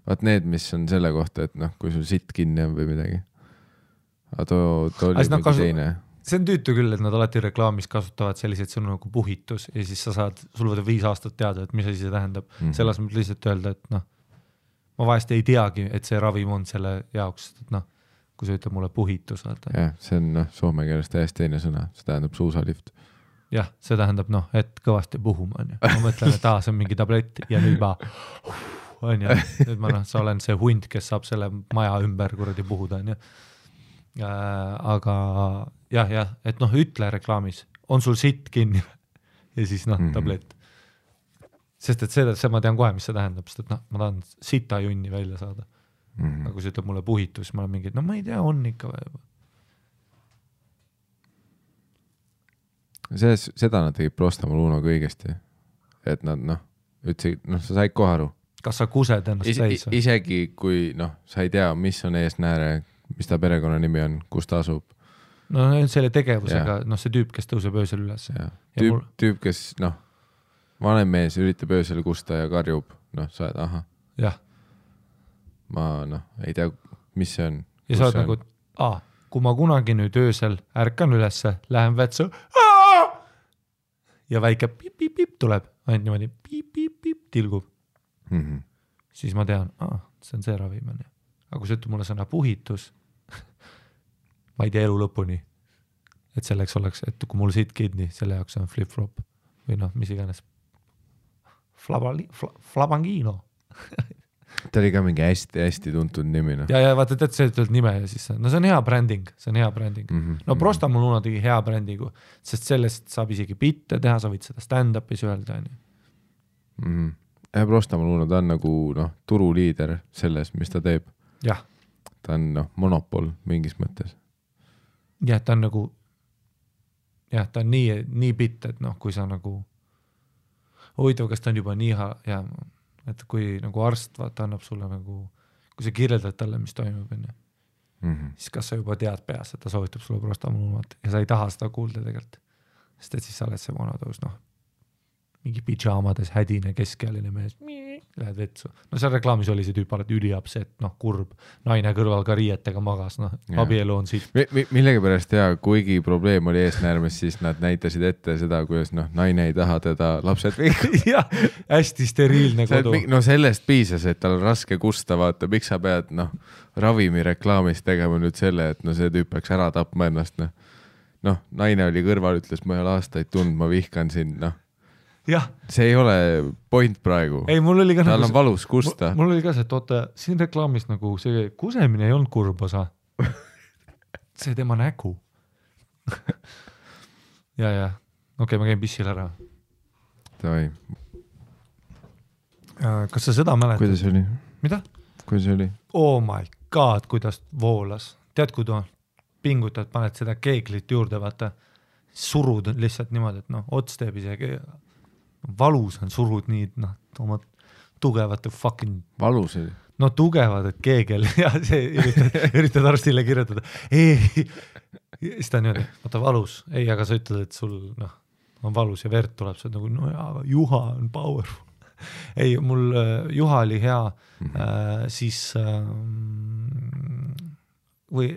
Vaat need, mis on selle kohta, et noh, kui sul sitt kinni on või midagi. Aga too oli mingi teine. See on tüütu küll, et nad alati reklaamis kasutavad selliseid sõnu nagu puhitus ja siis sa saad, sul võtab 5 aastat teada, et mis asi see tähendab. Selles mõttes lihtsalt öelda, et noh, ma vahest ei teagi, et see ravim on selle jaoks, et noh, kui sa ütleb mulle puhitus. Jah, see on noh, soome keeles täiesti teine sõna, see tähendab suusalift. Jah, see tähendab noh, et kõvasti puhuma on ju. Ma mõtlen, et see on mingi tablett ja nüüd ma on ju, nüüd ma noh, sa olen see hunt, kes saab selle maja ümber kuradi puhuda on ju. Aga jah, et noh, ütle reklaamis, on sul sitt kinni ja siis noh, tablett. sest et see ma tean kohe, mis see tähendab, sest et noh, ma tahan sita junni välja saada. Aga kui see ütleb mulle puhitus, ma olen mingi, no ma ei tea, on ikka või. Seda nad tegid Prostamoluunaga õigesti, et nad ütlesid, sa said kohe aru. Kas sa kused ennast täis? Isegi kui sa ei tea, mis on eesnääre, mis ta perekonna nimi on, kus ta asub. No selle tegevusega, see tüüp, kes tõuseb öösel üles. Tüüp, kes vanem mees üritab öösel kusta ja karjub, sa oled, ahah. Jah. Ma ei tea, mis see on. Ja sa oled nagu, kui ma kunagi nüüd öösel ärkan ülesse, lähen vetsu, ja väike pip-pip-pip tuleb, ainult niimoodi pip-pip-pip tilgub. Siis ma tean, see on see ravim. Aga kui see ütleb mulle sõna puhitus, ma ei tea elu lõpuni, et selleks oleks, et kui mul siit kidni, selle jaoks on flip-flop või mis iganes. Flabangino. Ta oli ka mingi hästi tuntud nimi. Ja vaata, tead, see ütled nime ja siis see on hea bränding, Prostamoluuna tegi hea brändigu, sest sellest saab isegi bitte teha, sa võid seda stand-up'is öelda. Prostamoluuna, ta on nagu turuliider selles, mis ta teeb. Jah. Ta on monopol mingis mõttes. Jah, ta on nagu ta on nii bitt, et kui sa nagu huvitav, kas ta on juba nii et kui nagu arst annab sulle kui sa kirjeldad talle, mis toimub, siis kas sa juba tead peas, et ta soovitab sulle Prostamoluunat ja sa ei taha seda kuulda tegelikult, sest et siis sa oled see vanatõus, mingi pidžaamades hädine keskealine mees, lähed vetsu. Seal reklaamis oli see tüüp alati üliapset, kurb, naine kõrval ka riietega magas, abielu on siit. Millegi pärast kuigi probleem oli eesnäärmes, siis nad näitasid ette seda, kuidas naine ei taha teda lapsed kõik. Jah, hästi steriilne kodu. Sellest piisas, et tal on raske kusta, vaata, miks sa pead ravimi reklaamis tegema nüüd selle, et see tüüp peaks ära tapma ennast. Naine oli kõrval, ütles, ma ei ole aastaid tund, ma vihkan sind, Jah. See ei ole point praegu. Ei, mul oli ka tal on valus kusta. Mul oli ka see, et oota, siin reklaamis see kusemine ei olnud kurb osa. See tema nägu. ja. Okei, ma käin pissil ära. Davai. Kas sa seda mäletad? Kuidas oli? Mida? Kuidas oli? Oh my god, kuidas voolas. Tead, kui pingutad, paned seda keeglit juurde, vaata, surud lihtsalt niimoodi, et ots teeb isegi valus on, surud nii, oma tugevate fucking... Valus oli? Tugevad, et keegel ja see üritad arstile kirjutada. Siis ta on niimoodi, vaata valus. Ei, aga sa ütled, et sul on valus ja verd tuleb, see on aga juha on powerful. Ei, mul juha oli hea, siis või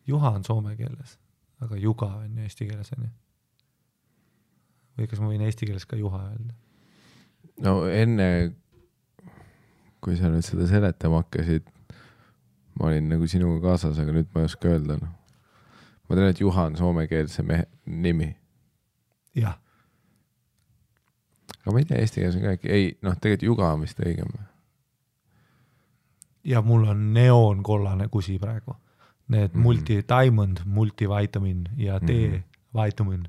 juha on soome keeles, aga juga on eesti keeles on ju. Või kas ma võin eesti keeles ka juha öelda? No enne, kui sa nüüd seda seletama hakkasid, ma olin nagu sinuga kaasas, aga nüüd ma ei oska öelda. Ma tean, et juha on soomekeelse mehe nimi. Jah. Aga ma ei tea, eesti keeles on ka äkki. Ei, tegelikult juga on vist õigem. Ja mul on neoonkollane kusi praegu. Need multi-diamond, multivitamin ja D-vitamin.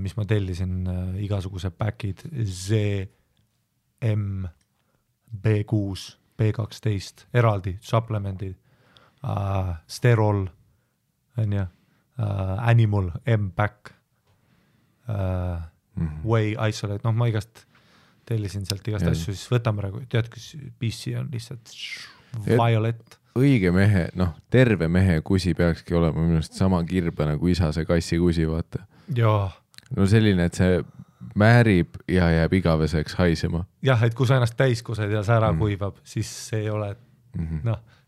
Mis ma tellisin igasuguse päkid ZM, B6, B12, eraldi, supplemendid, sterol, animal, M-back, whey isolate, ma igast tellisin sealt igast asju, siis võtame praegu, tead, kus PC on lihtsalt violet. Õige mehe, terve mehe kusi peakski olema minust sama kirbe nagu isa see kassi kusi, vaata. Jaa. No selline, et see määrib ja jääb igaveseks haisema. Jah, et kui sa ennast täiskused ja see ära kuivab, siis see ei ole,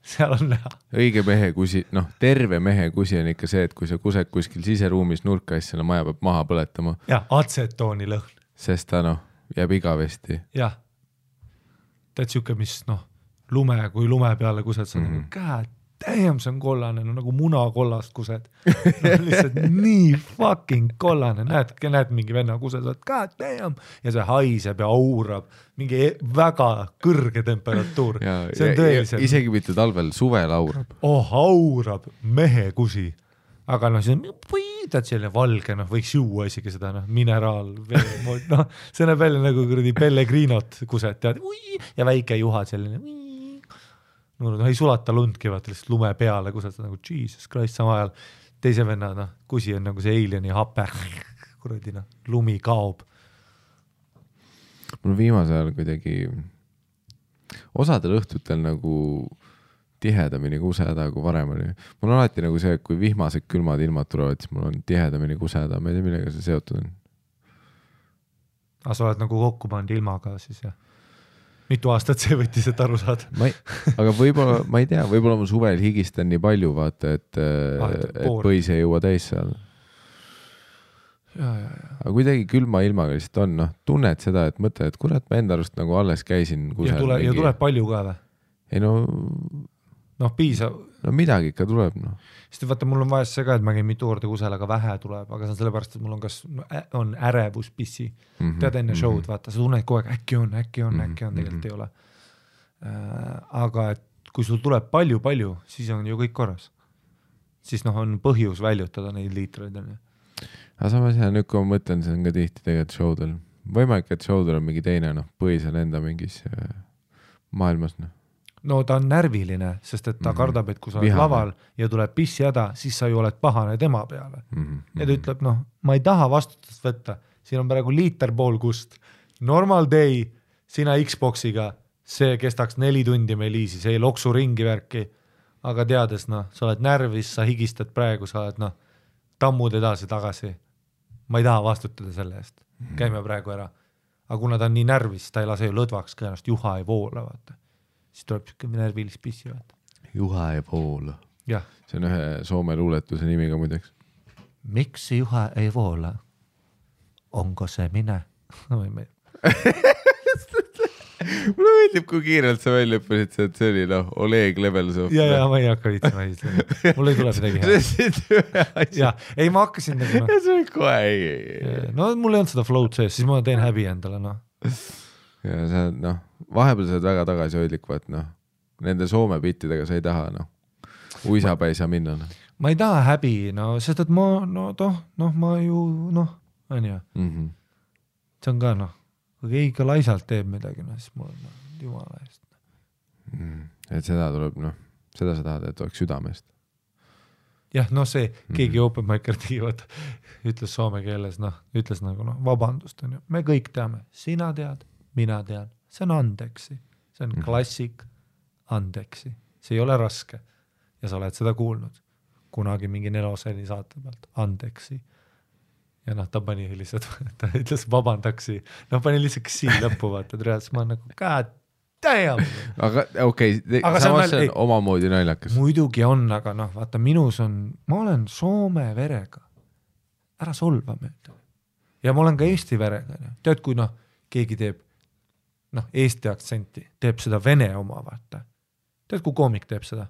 seal on näha. Õige mehe kusi, terve mehe kusi on ikka see, et kui sa kused kuskil siseruumis nurka, siis selle maja peab maha põletama. Jah, atsetooni lõhn. Sest ta jääb igavesti. Jah. Tead siuke, mis kui lume peale kused, sa on käed. Damn, see on kollane, nagu munakollast kused. Lihtsalt nii fucking kollane. Näed mingi venna kused, god damn. Ja see haiseb ja aurab. Mingi väga kõrge temperatuur. See on tõeliselt. Isegi mitte talvel, suvel aurab. Aurab mehe kusi. aga noh, siis on tead selline valge, noh, võiks juua isegi seda, noh, mineraalvee, noh, see näeb välja nagu kuradi Pellegrinot kused, tead, ja väike juha selline, no ei sulata lundki, vaata lihtsalt lume peale kused, nagu Jesus Christ, sama ajal teise venna, noh, kusi on nagu see alieni hape, kuradi, noh, lumi kaob. Mul viimasel ajal kuidagi osadel õhtutel nagu tihedamini kuseda, kui varem oli. Mul on alati nagu see, et kui vihmased külmad ilmad tulevad, siis mul on tihedamini kuseda. Ma ei tea, millega see seotud on. Aga sa oled nagu kokku pannud ilmaga siis, jah? Mitu aastat see võttis, et aru saada? Aga võib-olla, ma ei tea, võib-olla ma suvel higistan nii palju, vaata, et põis ei jõua täis seal. Ja. Aga kuidagi külma ilmaga lihtsalt on, noh, tunned seda, et mõtle, et kurat, ma enda arust nagu alles käisin kusel. Ja tuleb palju ka või? Ei no piisav. No midagi ikka tuleb, noh. Sest vaata, mul on vahest see ka, et ma käin mitu korda kusel, aga vähe tuleb, aga see on sellepärast, et mul on kas on ärevus pissi. Tead enne show'd, vaata, sa tunned kogu aeg, äkki on, tegelikult ei ole. Aga et kui sul tuleb palju, siis on ju kõik korras. Siis noh, on põhjus väljutada neid liitreid. Aga samas jah, nüüd kui ma mõtlen, see on ka tihti tegelikult show'del. Võimalik, et show'del on mingi teine, noh, põhisel enda mingis maailmas, noh. No ta on närviline, sest et ta kardab, et kui sa oled laval ja tuleb pissjäda, siis sa ju oled pahane tema peale. Ja ta ütleb, noh, ma ei taha vastutust võtta, siin on praegu liiter pool kust. Normal day, sina Xboxiga, see kestaks 4 tundi meil easy, see ei loksu ringi värki, aga teades, noh, sa oled närvis, sa higistad praegu, sa oled, noh, tammud edasi tagasi. Ma ei taha vastutada selle eest. Käime praegu ära. Aga kuna ta on nii närvis, ta ei lase ju lõdvaks, kõenast juha ei voola, vaata. Siis tuleb siuke närvilis pissi, vaata. Juha ei voola. Jah. See on ühe Soome luuletuse nimi ka muideks. Miks juha ei voola? Onko see mine? Mulle meeldib, kui kiirelt sa välja õppisid, et see oli, noh, Oleg Lebelsov. Ja, ma ei hakka viitsima. Mul ei tule midagi hea. Ja, ei, ma hakkasin nagu, noh. See oli kohe, ei. No, mul ei olnud seda float sees, siis ma teen häbi endale, noh. Ja see, noh, vahepeal sa oled väga tagasihoidlik, vaat, noh, nende Soome bittidega sa ei taha, noh, uisaba ei saa minna, noh. Ma ei taha häbi, no, sest et ma, ma ju, noh, on ju. See on ka, noh, kui keegi laisalt teeb midagi, no, siis mul on, jumala eest. Et seda tuleb, noh, seda sa tahad, et oleks südamest. Jah, no see, keegi open micer tegi, ütles soome keeles, noh, ütles nagu, noh, vabandust, on ju. Me kõik teame, sina tead, mina tean, see on andeksi, see on klassik andeksi, see ei ole raske ja sa oled seda kuulnud kunagi mingi Neloseni saate pealt, andeksi ja noh, ta pani lihtsalt, ta ütles vabandaksi, noh pani lihtsalt siin lõppu vaata, siis ma nagu god damn. Aga okei, samas see on omamoodi naljakas. Muidugi on, aga noh, vaata minus on, ma olen soome verega, ära solva mööda ja ma olen ka eesti verega, tead kui noh, keegi teeb noh, eesti aktsenti, teeb seda vene oma, vaata. Tead, kui koomik teeb seda?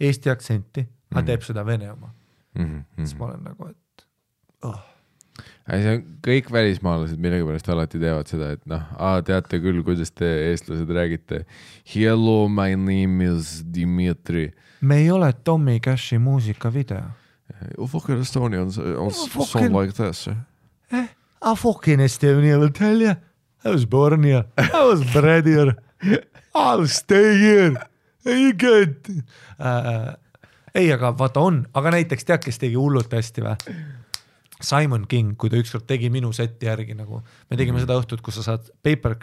Eesti aktsenti, aga teeb seda vene oma. Siis ma olen nagu, et See on kõik välismaalased millegipärast alati teevad seda, et noh, teate küll, kuidas te eestlased räägite. Hello, my name is Dimitri. Me ei ole Tommy Cashi muusikavideo. Fucking Estonian on song like this. I fucking Estonian, will tell you. I was born here. I was bred here. I'll stay here. You get... ei, aga vaata on. Aga näiteks tead, kes tegi hullult hästi või? Simon King, kui ta ükskord tegi minu seti järgi nagu, me tegime seda õhtut, kus sa saad paper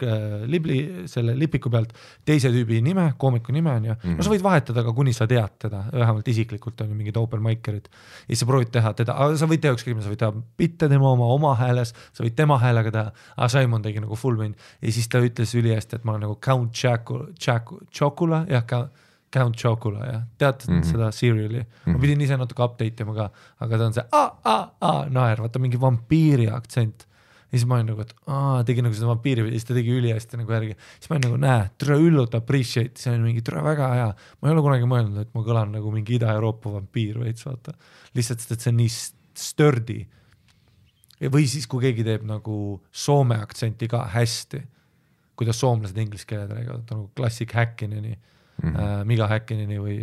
selle lipiku pealt teise tüübi nime, koomiku nime on ja no sa võid vahetada ka, kuni sa tead teda, vähemalt isiklikult on ju mingid open mikerid ja sa proovid teha teda, aga sa võid teha ükskõik, sa võid teha bitte tema oma hääles, sa võid tema häälega teha, aga Simon tegi nagu full mind ja siis ta ütles üli hästi, et ma olen nagu Count Chocula, jah, Count Chocula, jah. Tead seda seriali? Ma pidin ise natuke update ima ka, aga ta on see naer, vaata mingi vampiiri aktsent. Ja siis ma olen nagu, et tegi nagu seda vampiiri ja siis ta tegi üli hästi nagu järgi. Siis ma olen nagu, tere üllult appreciate, see on mingi tere väga hea. Ma ei ole kunagi mõelnud, et ma kõlan nagu mingi Ida-Euroopa vampiir veits, vaata. Lihtsalt, et see on nii sturdy. Või siis, kui keegi teeb nagu soome aktsenti ka hästi, kuidas soomlased inglise keeled räägivad, nagu klassik häkkineni. Miga Häkkinini või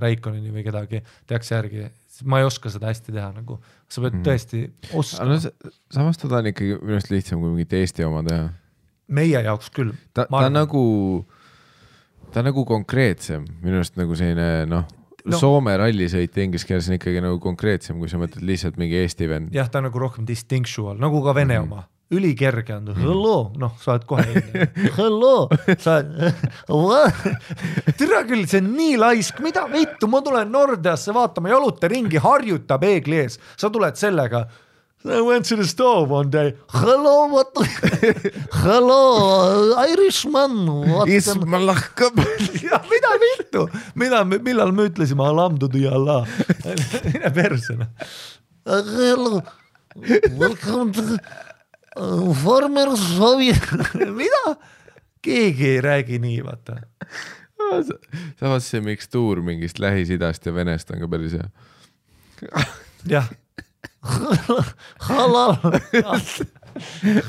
Reikonini või kedagi tehakse järgi, ma ei oska seda hästi teha nagu, sa pead tõesti oskama. Samas ta on ikkagi minust lihtsam kui mingit Eesti oma teha. Meie jaoks küll. Ta on nagu konkreetsem, minust nagu selline Soome rallisõit inglise keeles on ikkagi nagu konkreetsem, kui sa mõtled lihtsalt mingi Eesti vend. Jah, ta on nagu rohkem distinctual, nagu ka Vene oma. Ülikerge on, hello, sa oled kohe enne. Hello, sa oled, tere küll, see on nii laisk, mida vittu, ma tulen Nordeasse vaatama, jaluta ringi, harjuta peegli ees, sa tuled sellega. I went to the store one day. Hello, what? Hello, Irishman. Isma lahkab. Ja, mida vittu? Millal me ütlesime Alamdudu ja Allah? Mine persona. Hello, welcome to former Soviet. Mida? Keegi ei räägi nii, vaata. Samas see mikstuur mingist Lähis-Idast ja Venest on ka päris hea. Jah. Halal.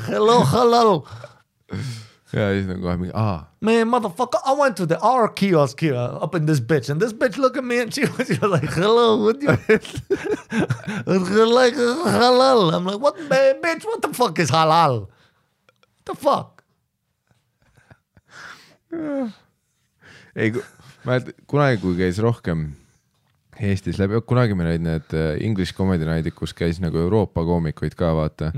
Hello, halal. Ja siis on kohe mingi, Man, motherfucker, I went to the R kiosk here up in this bitch and this bitch look at me and she was like, hello, what you like halal. I'm like, what, bitch, what the fuck is halal? What the fuck? Ei, kunagi kui käis rohkem Eestis läbi, kunagi meil olid need English Comedy Night'id, kus käis nagu Euroopa koomikuid ka, vaata.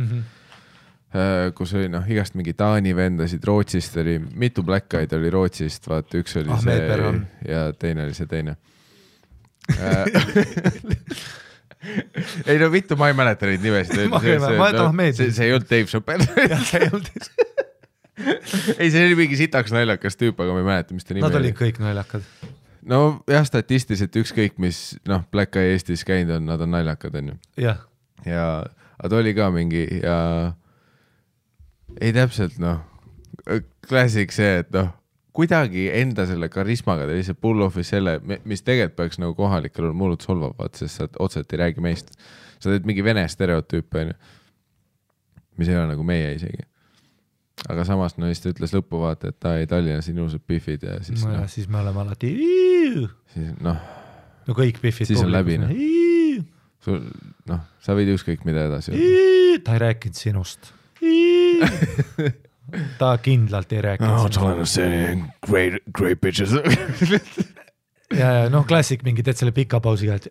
Kus oli igast mingi Taani vendasid, Rootsist oli, mitu Black Eyed oli Rootsist, vaata, üks oli see ja teine oli see teine. Ei no vittu, ma ei mäleta neid nimesid. See ei olnud Dave Chappelle. Ei, see oli mingi sitaks naljakas tüüp, aga ma ei mäleta, mis ta nime oli. Nad olid kõik naljakad. No jah, statistiliselt ükskõik, mis Black Eye Eestis käinud on, nad on naljakad, on ju. Jah. Ja ta oli ka mingi ja ei täpselt, klassik see, et kuidagi enda selle karismaga ta lihtsalt pull off'is selle, mis tegelikult peaks nagu kohalikel on mullud solvavad, sest sa otseselt ei räägi meist. Sa teed mingi vene stereotüüp, on ju, mis ei ole nagu meie isegi. Aga samas siis ta ütles lõppu vaata, et ta ei Tallinnas ilusad biffid ja siis siis me oleme alati siis no kõik biffid siis on läbi sa võid ükskõik mida edasi ta ei rääkinud sinust ta kindlalt ei rääkinud great bitches ja klassik mingi teed selle pika pausiga, et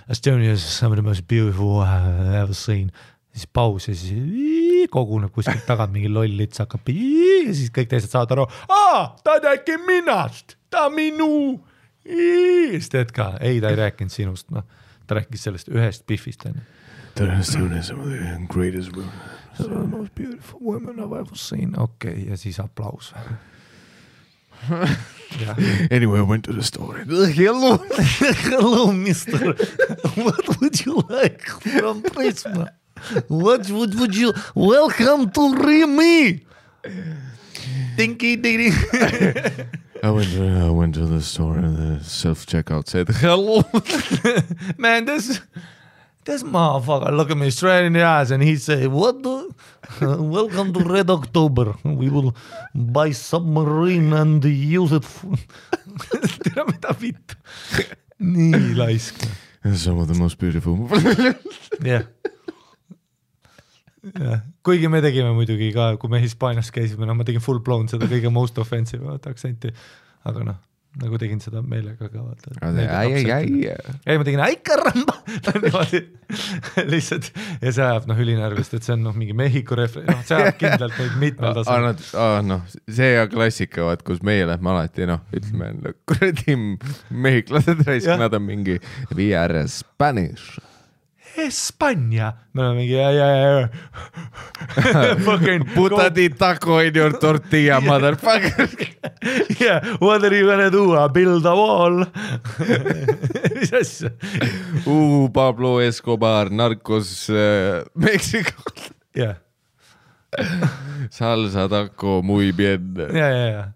Estonia is some of the most beautiful I have ever seen siis paus ja siis koguneb kuskilt tagant mingi loll lits hakkab ja siis kõik teised saavad aru, ta rääki minast, ta minu siis teed ka, ei ta ei rääkinud sinust, ta rääkis sellest ühest biffist ta on some of the greatest women some of the most beautiful women I've ever seen ja siis aplaus Anyway, I went to the store. Hello, mister. What would you like from Prisma? What would you welcome to Remy? Dinky dinky. I went to the store and the self-checkout said hello. Man, this motherfucker look at me straight in the eyes and he said, welcome to Red October. We will buy submarine and use it tere mida vittu. Nii laisk. Some of the most beautiful. Yeah. Kuigi me tegime muidugi ka, kui me Hispaanias käisime, ma tegin full blown seda kõige most offensive aktsenti, aga nagu tegin seda meelega ka vaata. Ei, ma tegin aikaramba lihtsalt ja see ajab ülinärvist, et see on mingi Mehhiko see ajab kindlalt neid mitmel tasel. See ja klassika, vaat, kus meie lähme alati, ütleme, kuradi mehhiklased raisk, nad on mingi we are Spanish. Espanja. Me oleme mingi Putadi taco in your tortilla, motherfucker. Yeah, what are you gonna do? Build a wall. Mis asja? Pablo Escobar, narcos Mexico. Yeah. Salsa taco, muy bien. Yeah.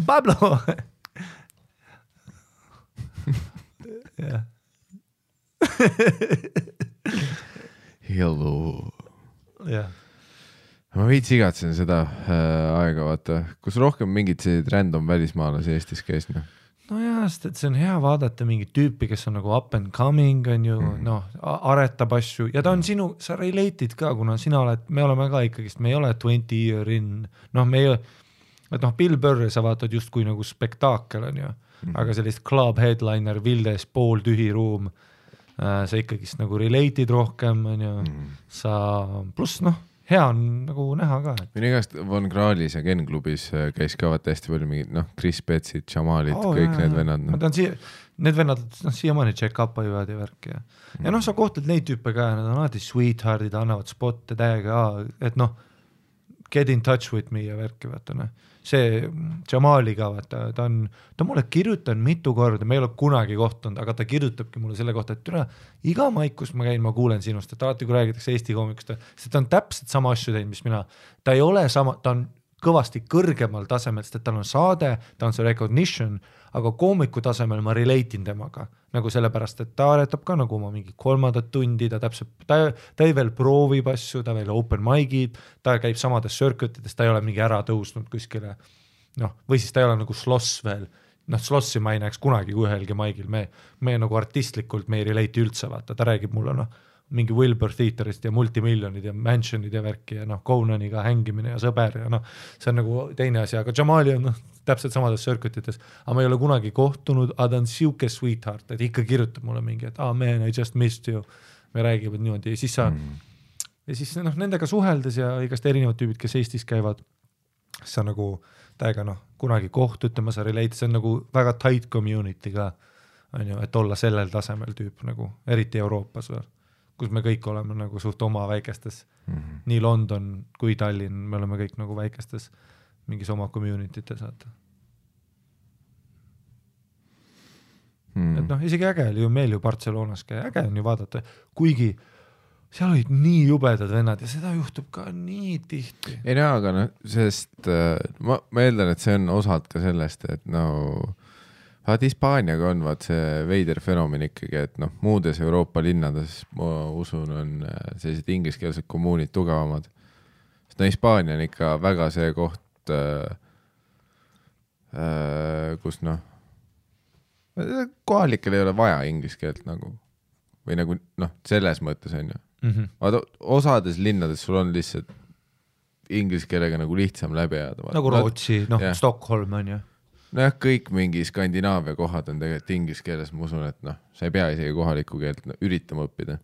Pablo. Yeah. Hello. Yeah. ma veits igatsen seda aega, vaata, kus rohkem mingid sellised random välismaalasi Eestis käis, noh. No jaa, sest et see on hea vaadata mingit tüüpi, kes on nagu up and coming, on ju, noh, aretab asju ja ta on sinu, sa relate'id ka, kuna sina oled, me oleme ka ikkagist, me ei ole 20 year in, noh, me ei ole, et noh, Bill Burr sa vaatad justkui nagu spektaakel on ju, aga sellist club headliner, Vildes, pooltühi ruum, sa ikkagist nagu relate'id rohkem, on ju, sa, pluss noh, hea on nagu näha ka. Minu igast Von Krahlis ja Ken klubis käis ka vaata hästi palju mingid, noh, Chris Petsid, Jamalid, kõik need vennad. Ma tean, need vennad, noh, siiamaani check-up ajuvad ja värki ja noh, sa kohtled neid tüüpe ka, nad on alati sweetheartid, annavad spotte täiega, et noh, get in touch with me ja värki, vaata noh. See Jamaliga, vaata, ta mulle kirjutan mitu korda, me ei ole kunagi kohtunud, aga ta kirjutabki mulle selle kohta, et türa, iga maik, kus ma käin, ma kuulen sinust, et alati kui räägitakse Eesti koomikust, sest ta on täpselt sama asju teinud, mis mina. Ta ei ole sama, ta on kõvasti kõrgemal tasemel, sest et tal on saade, ta on see recognition, aga koomiku tasemel ma relate'in temaga, nagu sellepärast, et ta aretab ka nagu oma mingi 3. tundi, ta täpselt, ta ei veel proovib asju, ta veel open mic'id, ta käib samades circuitides, ta ei ole mingi ära tõusnud kuskile, noh, või siis ta ei ole nagu sloss veel, noh, slossi ma ei näeks kunagi ühelgi mic'il, me nagu artistlikult me ei relate üldse, vaata, ta räägib mulle, noh, mingi Wilbur Theaterist ja multimiljonid ja mansionid ja värki ja noh, Conaniga hängimine ja sõber ja noh, see on nagu teine asi, aga Jamali on noh, täpselt samades circuitites, aga ma ei ole kunagi kohtunud, aga ta on siuke sweetheart, et ikka kirjutab mulle mingi, et man, I just missed you, me räägivad niimoodi ja siis sa ja siis noh, nendega suheldes ja igast erinevad tüübid, kes Eestis käivad, sa nagu täiega noh, kunagi kohtutama, sa relate, see on nagu väga tight community ka, on ju, et olla sellel tasemel tüüp nagu, eriti Euroopas või kus me kõik oleme nagu suht oma väikestes, nii London kui Tallinn, me oleme kõik nagu väikestes mingis oma community'tes, vaata. Et noh, isegi äge oli ju meil ju Barcelonas käia, äge on ju vaadata, kuigi seal olid nii jubedad vennad ja seda juhtub ka nii tihti. Ei no, aga noh, sest ma eeldan, et see on osalt ka sellest, et no vaat Hispaaniaga on vaat see veider fenomen ikkagi, et noh, muudes Euroopa linnades ma usun on sellised ingliskeelsed kommuunid tugevamad. Sest no Hispaania on ikka väga see koht, kus noh, kohalikel ei ole vaja ingliskeelt nagu, või nagu noh, selles mõttes on ju. Vaata, osades linnades sul on lihtsalt ingliskeelega nagu lihtsam läbi ajada. Nagu Rootsi, noh, Stockholm on ju. Nojah, kõik mingi Skandinaavia kohad on tegelikult inglise keeles, ma usun, et noh, sa ei pea isegi kohalikku keelt üritama õppida.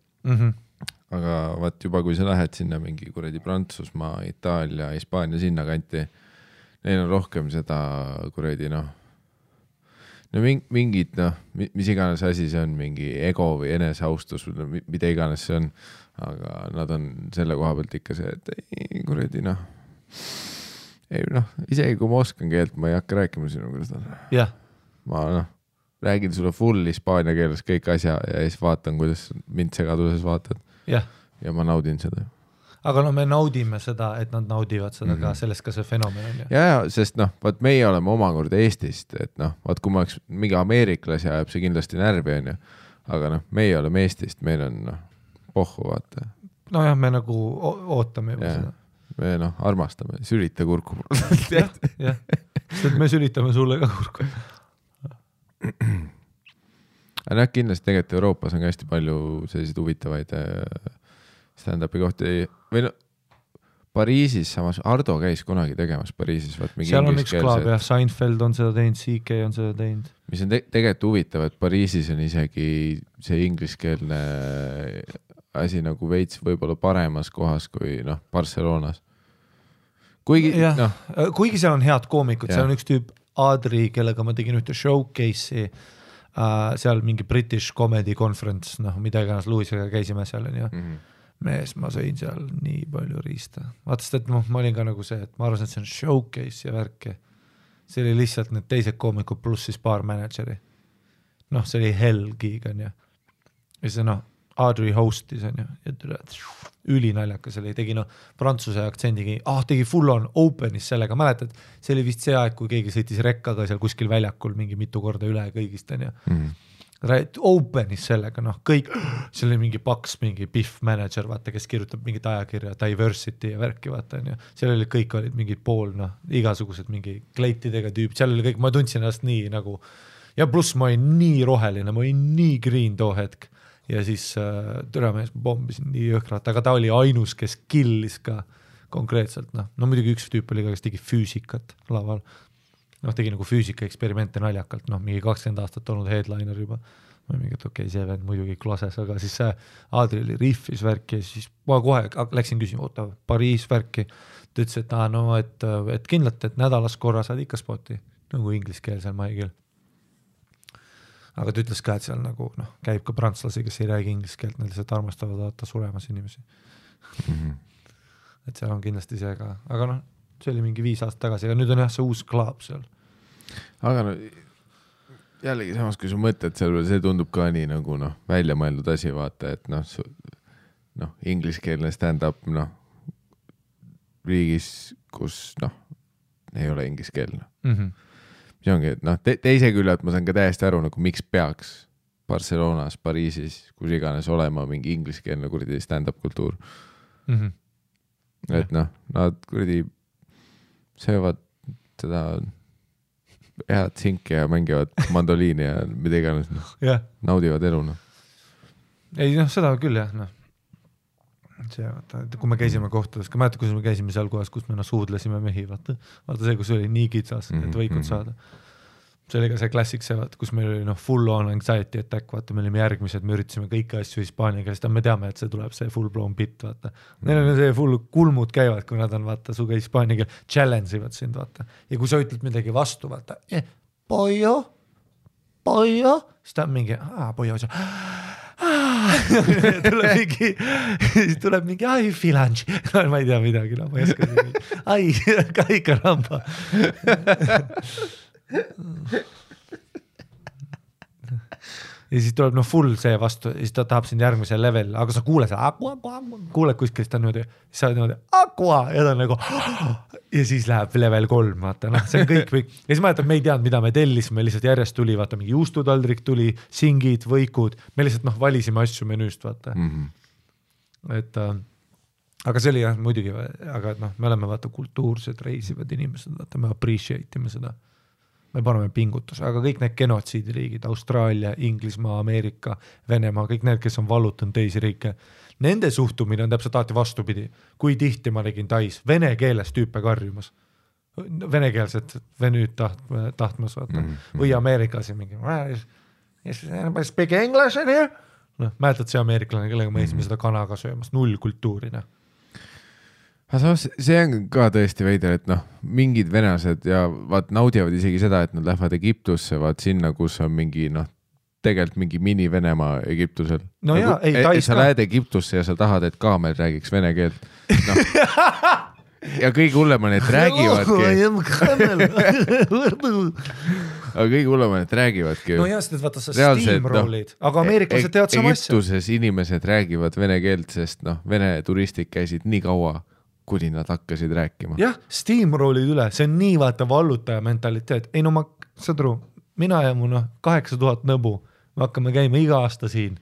Aga vaat juba, kui sa lähed sinna mingi kuradi Prantsusmaa, Itaalia, Hispaania sinna kanti, neil on rohkem seda kuradi noh, no mingid noh, mis iganes asi see on, mingi ego või eneseaustus, mida iganes see on, aga nad on selle koha pealt ikka see, et ei kuradi noh, ei noh, isegi kui ma oskan keelt, ma ei hakka rääkima sinuga seda. Yeah. Ma noh, räägin sulle full hispaania keeles kõik asja ja siis vaatan, kuidas mind segaduses vaatad. Yeah. Ja ma naudin seda. Aga no me naudime seda, et nad naudivad seda ka, sellest ka see fenomen on. Ja, sest noh, vaat meie oleme omakorda Eestist, et noh, vaat kui ma oleks mingi ameeriklasi ajab see kindlasti närvi on ju, aga noh, meie oleme Eestist, meil on noh, pohhu vaata. No jah, me nagu ootame juba seda. Me noh, armastame, sülita kurku. jah, sest me sülitame sulle ka kurku. Aga noh, kindlasti tegelikult Euroopas on hästi palju selliseid huvitavaid stand-upi kohti või no Pariisis samas, Ardo käis kunagi tegemas Pariisis. Seal on üks klaab jah, Seinfeld on seda teinud, CK on seda teinud. Mis on tegelikult huvitav, et Pariisis on isegi see ingliskeelne asi nagu veits võib-olla paremas kohas kui noh, Barcelonas. Kuigi seal on head koomikud, seal on üks tüüp Adri, kellega ma tegin ühte showcase'i, seal mingi British Comedy Conference, noh, mida iganes Louisega käisime seal on ju. Mees, ma sõin seal nii palju riista. Vaatast, et ma olin ka nagu see, et ma arvasin, et see on showcase ja värki. See oli lihtsalt need teised koomikud pluss siis paar manageri. Noh, see oli hell gig on ju. Ja see noh, Audrey hostis on ju, ja ülinaljakas oli, tegi noh, prantsuse aktsendigi, tegi full on openis sellega, mäletad, see oli vist see aeg, kui keegi sõitis rekkaga seal kuskil väljakul mingi mitu korda üle kõigist on ju. open'is sellega, noh, kõik, seal oli mingi paks, mingi Biff manager, vaata, kes kirjutab mingit ajakirja, diversity ja värki, vaata, on ju. Seal oli kõik olid mingid pool, noh, igasugused mingi kleitidega tüüp, seal oli kõik, ma tundsin ennast nii nagu, ja pluss ma olin nii roheline, ma olin nii green too hetk ja siis türamees ma pommisin nii jõhkrat, aga ta oli ainus, kes killis ka konkreetselt, noh, no muidugi üks tüüp oli ka, kes tegi füüsikat laval. Noh, tegi nagu füüsika eksperimente naljakalt, noh, mingi 20 aastat olnud headliner juba. Ma mingi, et okei, see vend muidugi klases, aga siis see Aadri oli riffis värki ja siis ma kohe läksin küsima, oota, Pariis värki. Ta ütles, et no, et kindlalt, et nädalas korra saad ikka spoti, nagu ingliskeelsel maigil. Aga ta ütles ka, et seal nagu, noh, käib ka prantslasi, kes ei räägi ingliskeelt, need lihtsalt armastavad vaata suremas inimesi. Et seal on kindlasti see ka, aga noh, see oli mingi 5 aastat tagasi, aga nüüd on jah see uus klaab seal. Aga no, jällegi samas, kui sa mõtled seal, see tundub ka nii nagu noh, välja mõeldud asi, vaata, et noh, ingliskeelne stand-up, noh, riigis, kus noh, ei ole ingliskeelne. See ongi, et noh, teise küljelt ma saan ka täiesti aru, nagu miks peaks Barcelonas, Pariisis, kus iganes olema mingi ingliskeelne kuradi stand-up kultuur. Et noh, nad kuradi söövad seda head sinki ja mängivad mandoliini ja mida iganes, noh, naudivad elu, noh. Ei, noh, seda küll, jah, noh. See, vaata, kui me käisime kohtades, ka mäeta, kus me käisime seal kohas, kus me suudlesime mehi, vaata see, kus oli nii kitsas, et võikud saada. See oli ka see klassik, see, vaata, kus meil oli full on anxiety attack, vaata, me olime järgmised, me üritasime kõiki asju hispaania keelest, me teame, et see tuleb see full blown bit, vaata. Neil on see full kulmud käivad, kui nad on, vaata, suga hispaania keel, challenge ivad sind, vaata. Ja kui sa ütled midagi vastu, vaata, pollo, siis ta on mingi, pollo, tuleb mingi, ai, filangi, ma ei tea midagi, no, ma ei oska mingi, ai, kaika ramba. Ja siis tuleb full see vastu ja siis ta tahab sind järgmisel level, aga sa kuuled kuuled kuskil, ta niimoodi, sa oled niimoodi aqua ja ta on nagu ja siis läheb level 3, vaata, noh, see on kõik või ja siis ma jätan, me ei teadnud, mida me tellisime, lihtsalt järjest tuli, vaata, mingi juustutaldrik tuli, singid, võikud, me lihtsalt valisime asju menüüst, vaata. Et aga see oli jah, muidugi, aga noh, me oleme vaata kultuursed, reisivad inimesed, vaata, me appreciate ime seda. Me paneme pingutuse, aga kõik need genotsiidiriigid, Austraalia, Inglismaa, Ameerika, Venemaa, kõik need, kes on vallutanud teisi riike, nende suhtumine on täpselt alati vastupidi. Kui tihti ma nägin Tais vene keeles tüüpe karjumas, venekeelset venüüd tahtmas, vaata. Või Ameerikas ja mingi, speak English in here? No, mäletad see ameeriklane, kellega me eesime seda kanaga söömas, 0 kultuurina. See on ka tõesti veider, et noh, mingid venased ja vaat naudivad isegi seda, et nad lähevad Egiptusse, vaat sinna, kus on mingi noh, tegelikult mingi mini-Venemaa Egiptusel. No jaa, ei, Tais sa lähed Egiptusse ja sa tahad, et kaamel räägiks vene keelt. No. Ja kõige hullem on, et räägivadki. Aga kõige hullem on, et räägivadki. No jah, sest vaata sa steamrollid, aga ameeriklased teevad sama asja. Egiptuses inimesed räägivad vene keelt, sest noh, vene turistid käisid nii kaua, kuni nad hakkasid rääkima. Jah, steamrollid üle, see on nii vaata vallutaja mentaliteet. Ei no ma, saad aru, mina ja mu 8000 nõbu, me hakkame käima iga aasta siin,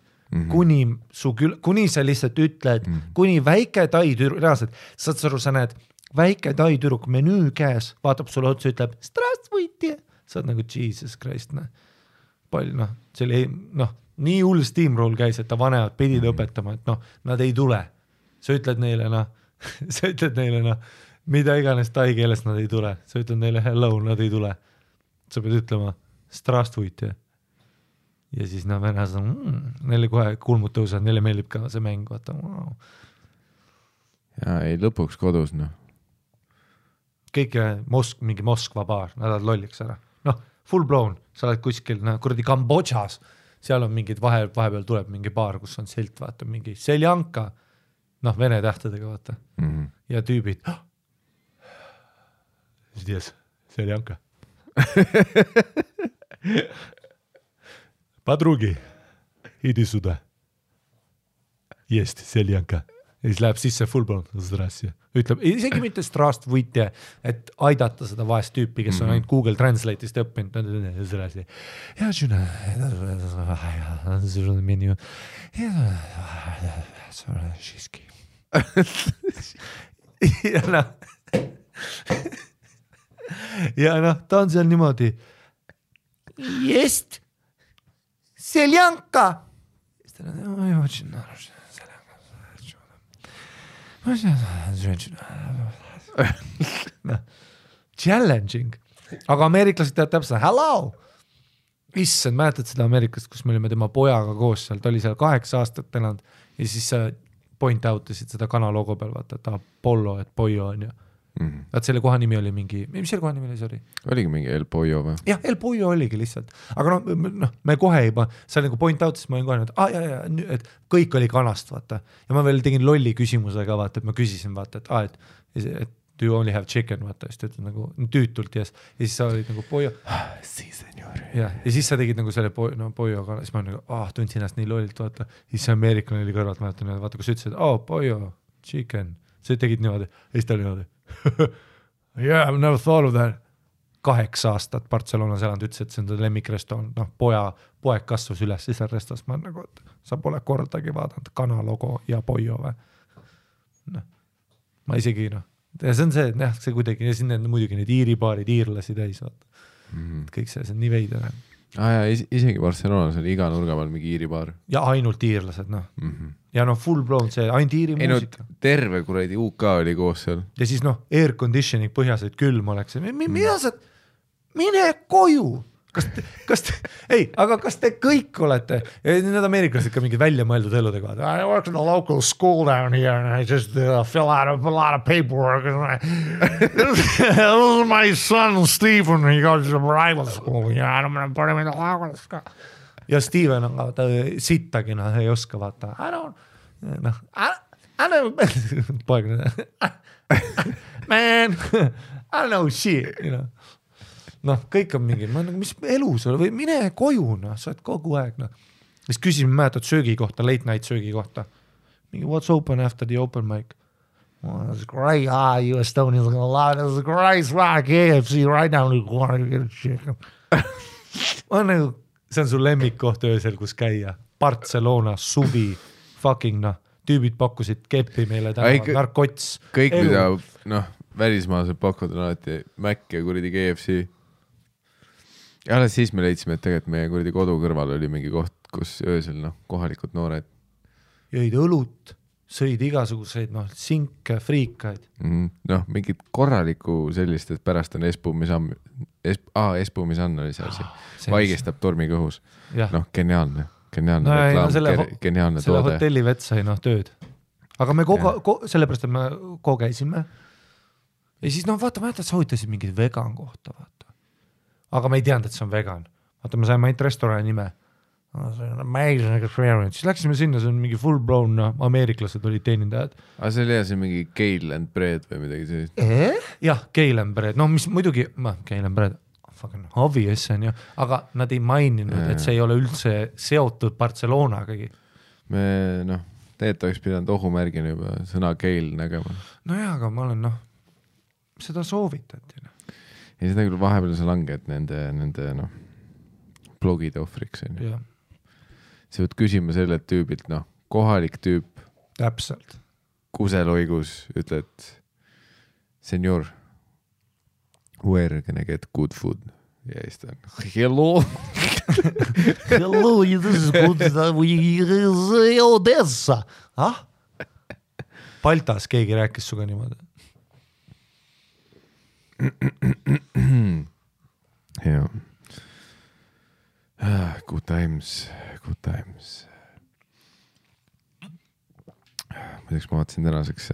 kuni sa lihtsalt ütled, kuni väike tai tüdruk, reaalselt, saad aru, sa näed, väike tai tüdruk menüü käes, vaatab sulle otsa, ütleb, strastvõiti, sa oled nagu Jesus Christ, palju, see oli, nii hull steamroll käis, et ta vanemad pidid õpetama, et nad ei tule. Sa ütled neile, sa ütled neile, mida iganes tai keeles nad ei tule. Sa ütled neile hello, nad ei tule. Sa pead ütlema strastvõiti. Ja siis vennas on, neile kohe kulmud tõusad, neile meeldib ka see mäng, vaata. Wow. Ja ei lõpuks kodus, Kõik mingi Moskva baar, nad oled lolliks ära. Full blown, sa oled kuskil, kuradi Kambodžas, seal on mingid vahepeal tuleb mingi baar, kus on silt, vaata, mingi seljanka, vene tähtedega, vaata. Ja tüübid. Здесь seljanka. Подруги, иди сюда. Есть seljanka. ja siis läheb sisse full blown, ütleb isegi mitte strastvuitje, et aidata seda vaest tüüpi, kes on ainult Google Translate'ist õppinud. ja noh, ta on seal niimoodi. Jest seljanka. Challenging, aga ameeriklased teavad täpselt, hello. Issand, mäletad seda Ameerikast, kus me olime tema pojaga koos seal, ta oli seal 8 aastat elanud ja siis point out isid seda kana logo peal, vaata, et Apollo, et Pollo on ju. Vaat selle koha nimi oli mingi, mis selle koha nimi oli, sorry? Oligi mingi El Pollo või? Jah, El Pollo oligi lihtsalt, aga noh, me kohe juba, sa nagu point out, siis ma olin kohe, et kõik oli kanast, vaata. Ja ma veel tegin lolli küsimusega, vaata, et ma küsisin, vaata, et do you only have chicken, vaata, siis ta ütled nagu tüütult yes. Ja siis sa olid nagu Pollo. Si, senor. Ja siis sa tegid nagu selle Pollo kana, siis ma nagu, tundsin ennast nii lollilt, vaata. Siis see ameeriklane oli kõrvalt, mäletan, vaata, kus ütlesid, Pollo, chicken. Sa tegid niimoodi, ja siis ta oli niimoodi. Yeah, I've never thought of that. 8 aastat Barcelonas elanud, ütles, et see on ta lemmikrestoran, noh, poeg kasvas üles seal restos, ma nagu, et sa pole kordagi vaadanud kana logo ja Pollo või. No, ma isegi, noh, ja see on see, et jah, see kuidagi, ja siin muidugi need iiribaarid, iirlasi täis, vaata. Kõik see on nii veidene. Ja isegi Barcelonas oli iga nurga peal mingi iiribaar. Ja ainult iirlased, noh. Ja noh, full blown see, ainult iiri muusika. Terve kuradi UK oli koos seal. Ja siis noh, air conditioning põhjas, et külm oleks. Mida sa, mine koju! Kas te kõik olete, ja need ameeriklased ka mingid välja mõeldud eludega. I work in a local school down here and I just fill out a lot of paperwork. This is my son Stephen, he goes to rival school. Ja I'm gonna put him in the house. Ja Steven on ta sittagi, noh, ei oska vaata. I don't man, I don't know shit, you know. Noh, kõik on mingi, mis elu sul või mine koju, noh, sa oled kogu aeg, noh. Siis küsime, mäletad söögi kohta, late night söögi kohta. Mingi, what's open after the open mic? Well, that's great. You Estonians are gonna love it. That's great. It's like KFC right now. You get a chicken. See on su lemmikkoht öösel, kus käia. Barcelona, suvi, fucking, noh, tüübid pakkusid keppi meile täna, narkots. Kõik, mida, noh, välismaased pakud on alati Mac ja kuradi KFC. Ja alles siis me leidsime, et tegelikult meie kuradi kodu kõrval oli mingi koht, kus öösel, noh, kohalikud noored. Jõid õlut, sõid igasuguseid, noh, sinke, friikaid. Noh, mingid korraliku sellist, et pärast on espuumisann oli see asi. Vaigestab tormiga õhus. Noh, geniaalne reklaam, geniaalne selle toode. Hotelli vett sai, noh, tööd. Aga me sellepärast, et me käisime. Ja siis, noh, vaata, sa huvitasid mingid vegan kohta, vaata. Aga me ei teadnud, et see on vegan. Vaata, me saime ainult restorani nime. Amazing experience. Siis läksime sinna, see on mingi full blown, ameeriklased olid teenindajad. Aga see oli see mingi kale and bread või midagi sellist? Jah, kale and bread. No mis muidugi, kale and bread, fucking obvious on ju, aga nad ei maininud, et see ei ole üldse seotud Barcelonagagi. Me, noh, tegelikult oleks pidanud ohumärgina juba sõna kale nägema. No jah, aga ma olen, noh, seda soovitati. Ja seda küll vahepeal sa langed nende noh, blogide ohvriks. Sa võid küsima selle tüübilt, noh, kohalik tüüp. Täpselt. Kuseloigus ütled, senor, where can I get good food? Ja siis ta on, hello. Hello, this is good. Odessa. Baltas keegi rääkis suga niimoodi. Ja. Good times. Muideks ma vaatasin tänaseks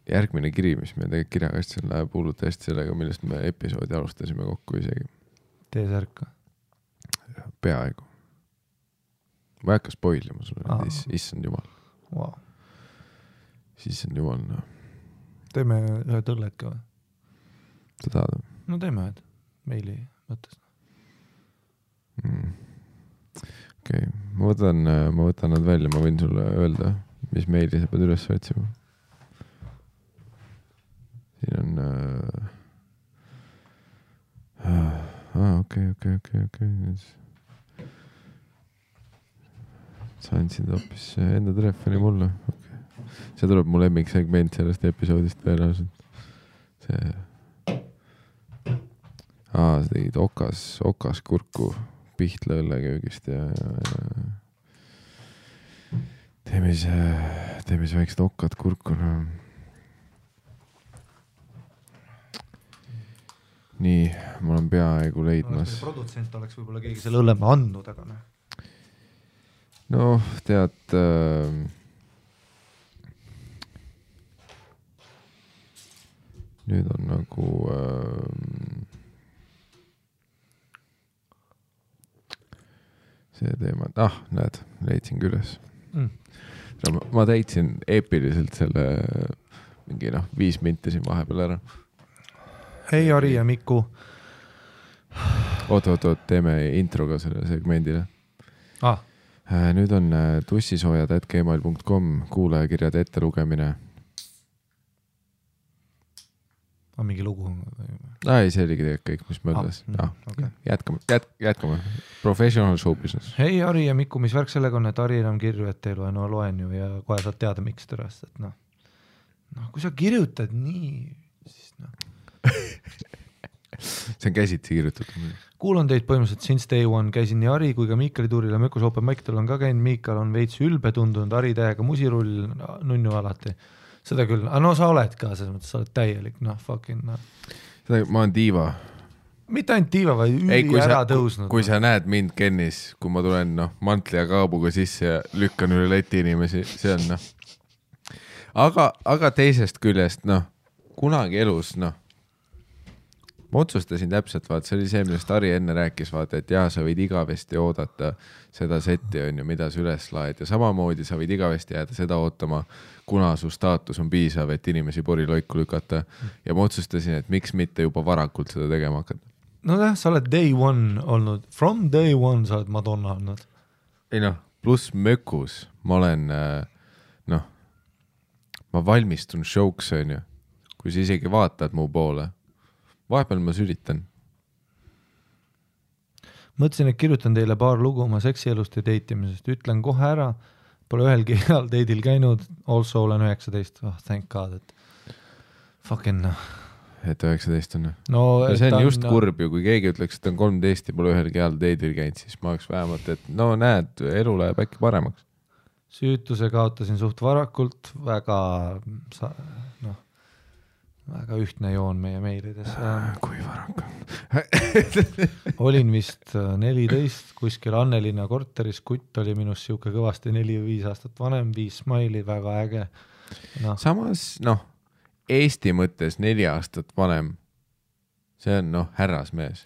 järgmine kiri, mis me tegelikult kirjakastil läheb hullult hästi sellega, millest me episoodi alustasime kokku isegi. T-särka. Peaaegu. Ma ei hakka spoilima sulle, issand jumal. Wow. Siis on jumal, noh. Teeme ühe tõllet ka või? Sa tahad? No teeme ühed meili mõttes. Okay. Ma võtan nad välja, ma võin sulle öelda, mis meili sa pead üles otsima? Siin on okei. Sa andsid hoopis enda telefoni mulle. Okay. See tuleb mu lemmiksegment sellest episoodist tõenäoliselt. Sa tegid okas kurku Pihtla õlleköögist ja teeme siis väiksed okkad kurku. No. Nii, mul on peaaegu leidmas. Produtsent oleks võib-olla keegi selle õlleme andnud, aga noh. No, tead... nüüd on nagu... see teema... näed, leidsin küles. Ma täitsin eepiliselt selle mingi 5 minti siin vahepeal ära. Hei, Ari ja Miku. Oot, teeme intro ka selle segmendile. Nüüd on tussisoojad@gmail.com kuulajakirjade ettelugemine. Mingi lugu? Ei, see oligi tegelikult kõik, mis mõeldes. Okay. Jätkame. Professional show business. Hei, Ari ja Miku, mis värk sellega on, et Ari enam kirju ette ei loe? No loen ju ja kohe saad teada, miks tõrast. Et kui sa kirjutad nii, siis see on käsitsi kirjutatud. Kuulan teid põhimõtteliselt since day one, käisin nii Ari kui ka Miikali tuuril ja Mökus Open Mic-tal on ka käinud. Miikal on veits ülbe tundunud, Ari täiega musirull, nunnu alati. Seda küll, aga sa oled ka, selles mõttes sa oled täielik, fucking. Ma olen diiva. Mitte ainult diiva, vaid üli ära tõusnud. Kui sa näed mind Kennis, kui ma tulen mantli ja kaabuga sisse ja lükkan üle leti inimesi, see on Aga teisest küljest, kunagi elus, ma otsustasin täpselt, see oli see, millest Ari enne rääkis, et sa võid igavesti oodata seda setti, mida sa üles laed ja samamoodi sa võid igavesti jääda seda ootama, kuna su staatus on piisav, et inimesi poriloiku lükata ja ma otsustasin, et miks mitte juba varakult seda tegema hakata. Sa oled day one olnud, from day one sa oled Madonna olnud. Ei pluss Mökus, ma olen, ma valmistun showks, kui sa isegi vaatad mu poole. Vahepeal ma sülitan. Mõtlesin, et kirjutan teile paar lugu oma seksielust ja deitimisest. Ütlen kohe ära, pole ühelgi heal deidil käinud, also olen 19. Thank God, et fucking Et 19 on. No, see on just kurb ju, kui keegi ütleks, et on 13 ja pole ühelgi heal deidil käinud, siis ma oleks vähemalt, et näed, elu läheb äkki paremaks. Süütuse kaotasin suht varakult, väga ühtne joon meie meilides. Kui varakult? Olin vist 14, kuskil Annelinna korteris, kutt oli minust siuke kõvasti 4 või 5 aastat vanem, 5 smaili, väga äge. Samas, Eesti mõttes 4 aastat vanem, see on härrasmees.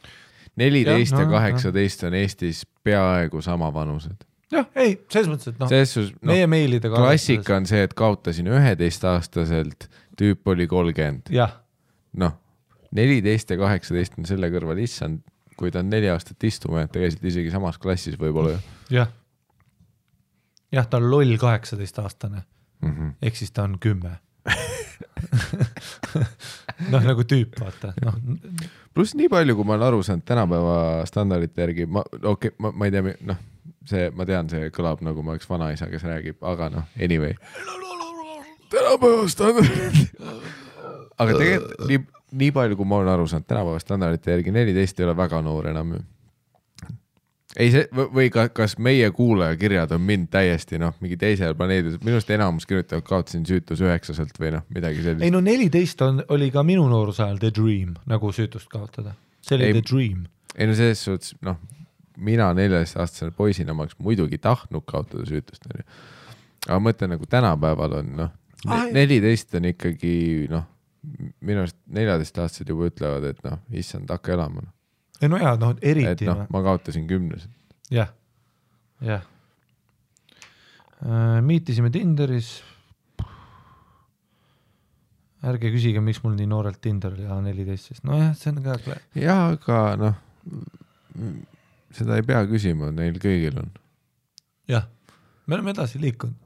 14 ja 18 on Eestis peaaegu sama vanused. Jah, ei, selles mõttes, et meie meilidega klassika on see, et kaotasin 11-aastaselt, tüüp oli 30. Jah. 14 ja 18 on selle kõrval issand, kui ta on 4 aastat istuma, et tegelikult isegi samas klassis võib-olla. Jah. Jah, ta on loll 18-aastane. Ehk siis ta on 10. Nagu tüüp, vaata. Plus nii palju, kui ma olen aru saanud tänapäeva standardite järgi, ma ei tea, ma tean, see kõlab nagu ma oleks vanaisa, kes räägib, aga anyway. Tänapäeva standardid. Aga tegelikult nii palju, kui ma olen aru saanud tänapäeva standardite järgi, 14 ei ole väga noor enam. Ei see, või kas meie kuulajakirjad on mind täiesti mingi teisel planeedil, minust enamus kirjutavad kaotasin süütus 9-selt või midagi sellist. Ei 14 oli ka minu noorusajal the dream, nagu süütust kaotada. See oli the dream. Ei selles suhtes, mina 14-aastasel poisina ma oleks muidugi tahtnud kaotada süütust. Aga mõtlen nagu tänapäeval on 14 on ikkagi minust 14-aastased juba ütlevad, et issand, hakka elama. Ei eriti. Et ma kaotasin 10. Jah. Miitisime Tinderis. Ärge küsige, miks mul nii noorelt Tinder oli 14. See on ka... Jah, aga seda ei pea küsima, neil kõigil on. Jah, me oleme edasi liikunud.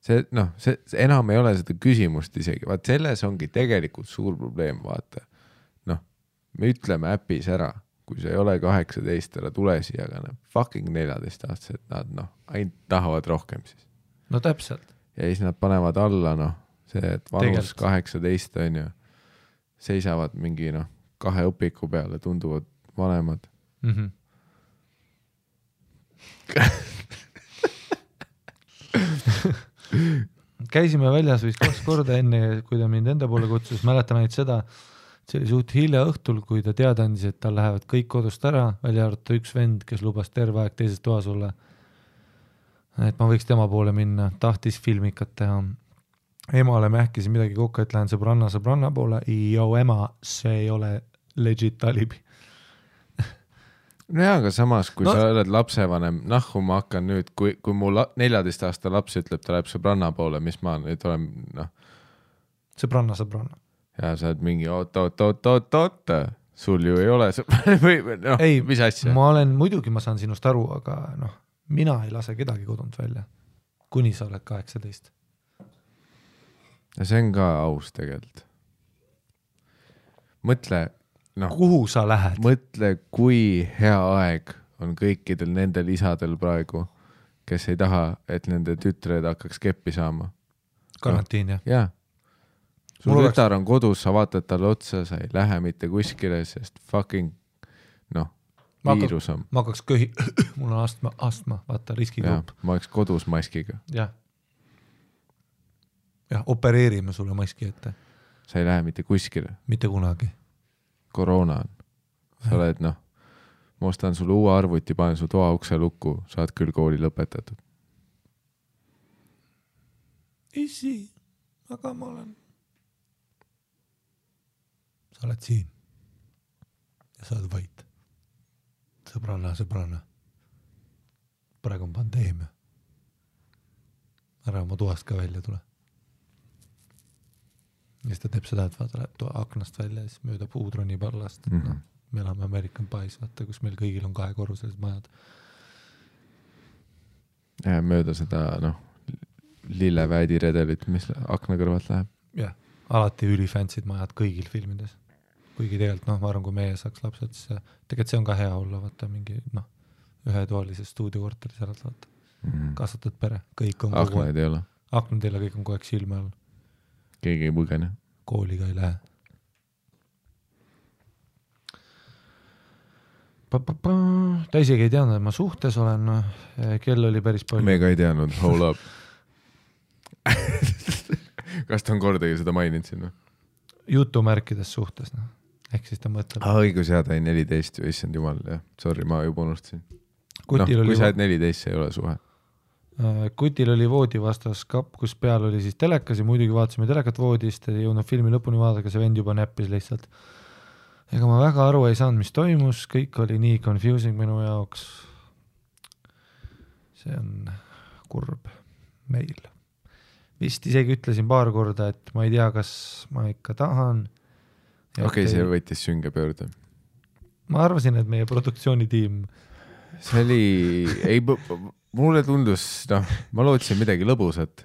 see enam ei ole seda küsimust isegi, vaat selles ongi tegelikult suur probleem, vaata. Me ütleme äpis ära, kui see ei ole 18, ära tule siia, aga fucking 14-aastased, nad ainult tahavad rohkem siis. No täpselt. Ja siis nad panevad alla, see, et vanus 18 on ju, seisavad mingi 2 õpiku peale, tunduvad vanemad. Käisime väljas vist 2 korda enne, kui ta mind enda poole kutsus, mäletan ainult seda, see oli suht hilja õhtul, kui ta teada andis, et tal lähevad kõik kodust ära, välja arvata üks vend, kes lubas terve aeg teises toas olla. Et ma võiks tema poole minna, tahtis filmikat teha. Emale mähkisin midagi kokku, et lähen sõbranna poole. Ema, see ei ole legit alibi. No jaa, aga samas, kui sa oled lapsevanem, nahku ma hakkan nüüd, kui mu 14 aasta laps ütleb, ta läheb sõbranna poole, mis ma nüüd olen, Sõbranna. Ja sa oled mingi oot, sul ju ei ole või mis asja? Muidugi ma saan sinust aru, aga mina ei lase kedagi kodunt välja, kuni sa oled 18. Ja see on ka aus tegelikult. Mõtle, kuhu sa lähed? Mõtle, kui hea aeg on kõikidel nendel isadel praegu, kes ei taha, et nende tütred hakkaks keppi saama. Karantiin, jah? Jaa. Sul tütar on kodus, sa vaatad talle otsa, sa ei lähe mitte kuskile, sest fucking, viirus on. Ma hakkaks mul on astma, vaata, riskigrupp. Ma oleks kodus maskiga. Jah, opereerime sulle maski ette. Sa ei lähe mitte kuskile. Mitte kunagi. Koroona on. Sa oled, ma ostan sulle uue arvuti, panen su toa ukse lukku, saad küll kooli lõpetatud. Isi, aga ma olen... Sa oled siin ja sa oled vait. Sõbranna. Praegu on pandeemia. Ära oma toast ka välja tule. Ja siis ta teeb seda, et vaata läheb aknast välja ja siis mööda puudroni pallast. Me elame American Pies, vaata, kus meil kõigil on 2-korruselised majad. Ja mööda seda, lilleväädi redelit, mis akna kõrvalt läheb. Jah, alati ülifantsid majad kõigil filmides. Kuigi tegelikult, ma arvan, kui meie saaks lapsed, siis tegelikult see on ka hea olla, vaata mingi, ühetoalises stuudiokorteris ära vaata. Kasvatud pere, kõik on aknaid ei ole. Aknad ei ole, kõik on kogu aeg silme all. Keegi ei põgene. Kooliga ei lähe. Ta isegi ei teadnud, et ma suhtes olen, kell oli päris palju. Me ka ei teadnud, hold up. Kas ta on kordagi seda maininud sinna? Jutumärkides suhtes, ehk siis ta mõtleb. Õigus, ta ei 14 ju, issand jumal, jah. Sorry, ma juba unustasin. Kui sa oled 14, see ei ole suhe. Kutil oli voodi vastas kapp, kus peal oli siis telekas ja muidugi vaatasime telekat voodist, ei jõudnud filmi lõpuni vaadata, see vend juba näppis lihtsalt. Ega ma väga aru ei saanud, mis toimus, kõik oli nii confusing minu jaoks. See on kurb meil. Vist isegi ütlesin paar korda, et ma ei tea, kas ma ikka tahan. Okei, see võttis sünge pöörde. Ma arvasin, et meie produktsioonitiim... See oli... Mulle tundus, ma lootsin midagi lõbusat.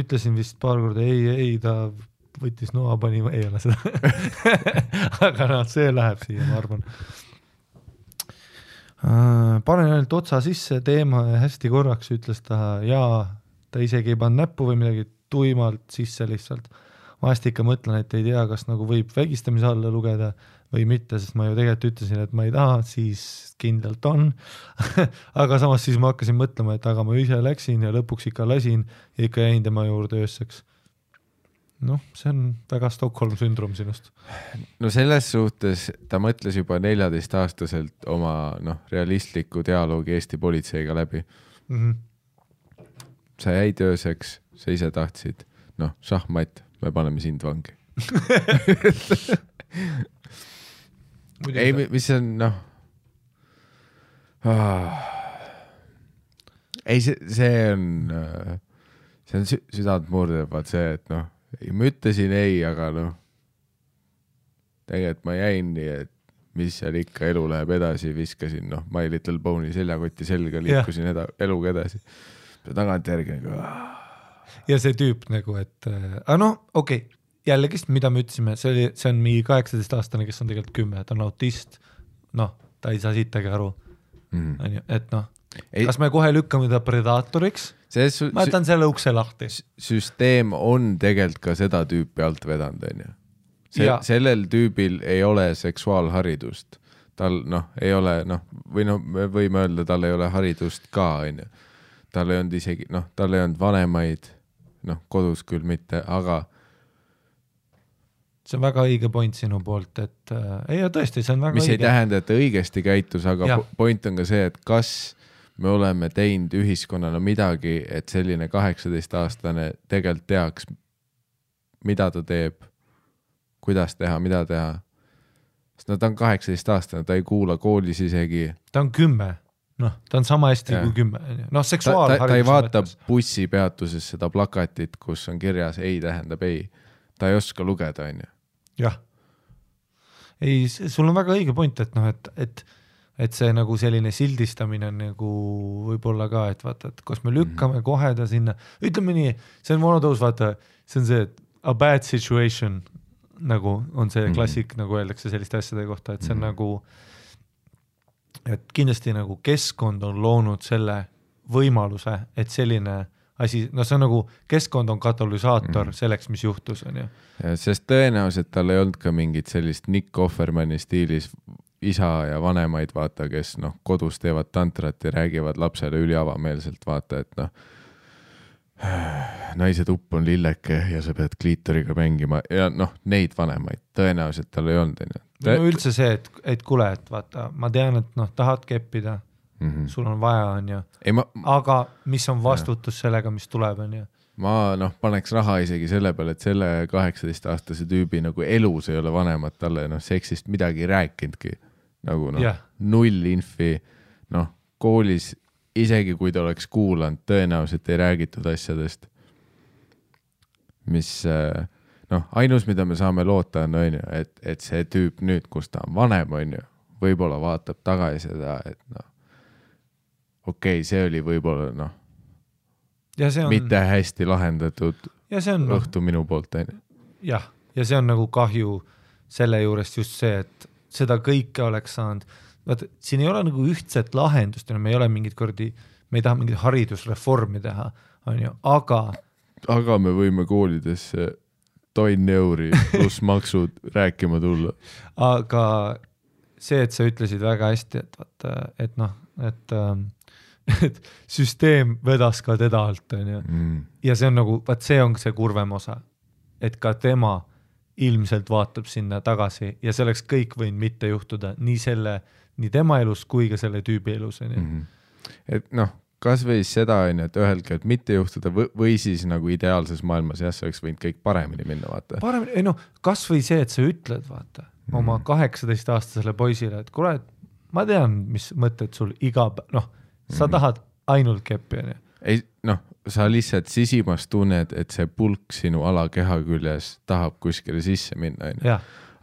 Ütlesin vist paar korda, ei, ta võttis noa, pani, ei ole seda. Aga see läheb siia, ma arvan. Panen ainult otsa sisse teema ja hästi korraks ütles ta ta isegi ei pannud näppu või midagi tuimalt sisse lihtsalt. Vahest ikka mõtlen, et ei tea, kas nagu võib vägistamise alla lugeda või mitte, sest ma ju tegelikult ütlesin, et ma ei taha, siis kindlalt on. Aga samas siis ma hakkasin mõtlema, et aga ma ise läksin ja lõpuks ikka lasin ja ikka jäin tema juurde öösseks. See on väga Stockholm sündrom sinust. No selles suhtes ta mõtles juba 14-aastaselt oma realistliku dialoogi Eesti politseiga läbi. Sa jäid ööseks, sa ise tahtsid, šahmat, me paneme sind vangi. Ei, mis on, ei, see on südant murdev, vaat see, et ma ütlesin ei, aga tegelikult ma jäin nii, et mis seal ikka elu läheb edasi, viskasin, My Little Pony seljakotti selga, liikusin eluga edasi. tagantjärgi nagu ja see tüüp nagu, et okei, jällegi, mida me ütlesime, see on mingi 18-aastane, kes on tegelikult 10, ta on autist, ta ei saa sittagi aru, et kas me kohe lükkame ta predaatoriks, ma jätan selle ukse lahti. Süsteem on tegelikult ka seda tüüpi alt vedanud, on ju. Sellel tüübil ei ole seksuaalharidust. Tal ei ole, või me võime öelda, tal ei ole haridust ka, on ju. Tal ei olnud isegi, tal ei olnud vanemaid, kodus küll mitte, aga see on väga õige point sinu poolt, et tõesti, see on väga mis õige. Ei tähenda, et ta õigesti käitus, aga point on ka see, et kas me oleme teinud ühiskonnana midagi, et selline 18-aastane tegelikult teaks, mida ta teeb, kuidas teha, mida teha. Sest ta on 18-aastane, ta ei kuula koolis isegi. Ta on 10, ta on sama hästi kui 10. Seksuaalharidus. Ta ei vaata bussipeatuses seda plakatit, kus on kirjas ei tähendab ei. Ta ei oska lugeda, on ju. Jah. Ei, sul on väga õige point, et see nagu selline sildistamine on nagu võib-olla ka, et vaata, et kas me lükkame kohe ta sinna. Ütleme nii, see on monotõus, vaata, see on see, et a bad situation nagu on see klassik, nagu öeldakse selliste asjade kohta, et see on nagu, et kindlasti nagu keskkond on loonud selle võimaluse, et selline asi, see on nagu keskkond on katalüsaator selleks, mis juhtus, on ju. Sest tõenäoliselt tal ei olnud ka mingit sellist Nick Offermani stiilis isa ja vanemaid, vaata, kes kodus teevad tantrat ja räägivad lapsele üliavameelselt, vaata, et naise tupp on lilleke ja sa pead kliitoriga mängima ja neid vanemaid tõenäoliselt tal ei olnud. Üldse see, et kuule, et vaata, ma tean, et tahad keppida, sul on vaja, on ju, aga mis on vastutus sellega, mis tuleb, on ju. Ma paneks raha isegi selle peale, et selle 18-aastase tüübi nagu elus ei ole vanemad talle seksist midagi rääkinudki. Nagu null infi, koolis isegi kui ta oleks kuulanud, tõenäoliselt ei räägitud asjadest, mis ainus, mida me saame loota on ju, et see tüüp nüüd, kus ta on vanem, on ju, võib-olla vaatab tagasi seda, et okei, see oli võib-olla mitte hästi lahendatud õhtu minu poolt. Jah, ja see on nagu kahju selle juurest just see, et seda kõike oleks saanud. Vaata, siin ei ole nagu ühtset lahendust, me ei ole mingid kordi, me ei taha mingid haridusreformi teha, on ju, aga me võime koolidesse €1 pluss maksud rääkima tulla. Aga see, et sa ütlesid väga hästi, et vaata, et süsteem vedas ka teda alt, on ju. Ja see on nagu, see on see kurvem osa, et ka tema ilmselt vaatab sinna tagasi ja see oleks kõik võinud mitte juhtuda nii tema elus kui ka selle tüübi elus. Et kas või seda, et ühelgi, et mitte juhtuda või siis nagu ideaalses maailmas, see oleks võinud kõik paremini minna, vaata. Kas või see, et sa ütled, vaata, oma 18-aastasele poisile, et kuule, ma tean, mis mõtted sul sa tahad ainult keppi, on ju. Ei, sa lihtsalt sisimas tunned, et see pulk sinu alakeha küljes tahab kuskile sisse minna, on ju.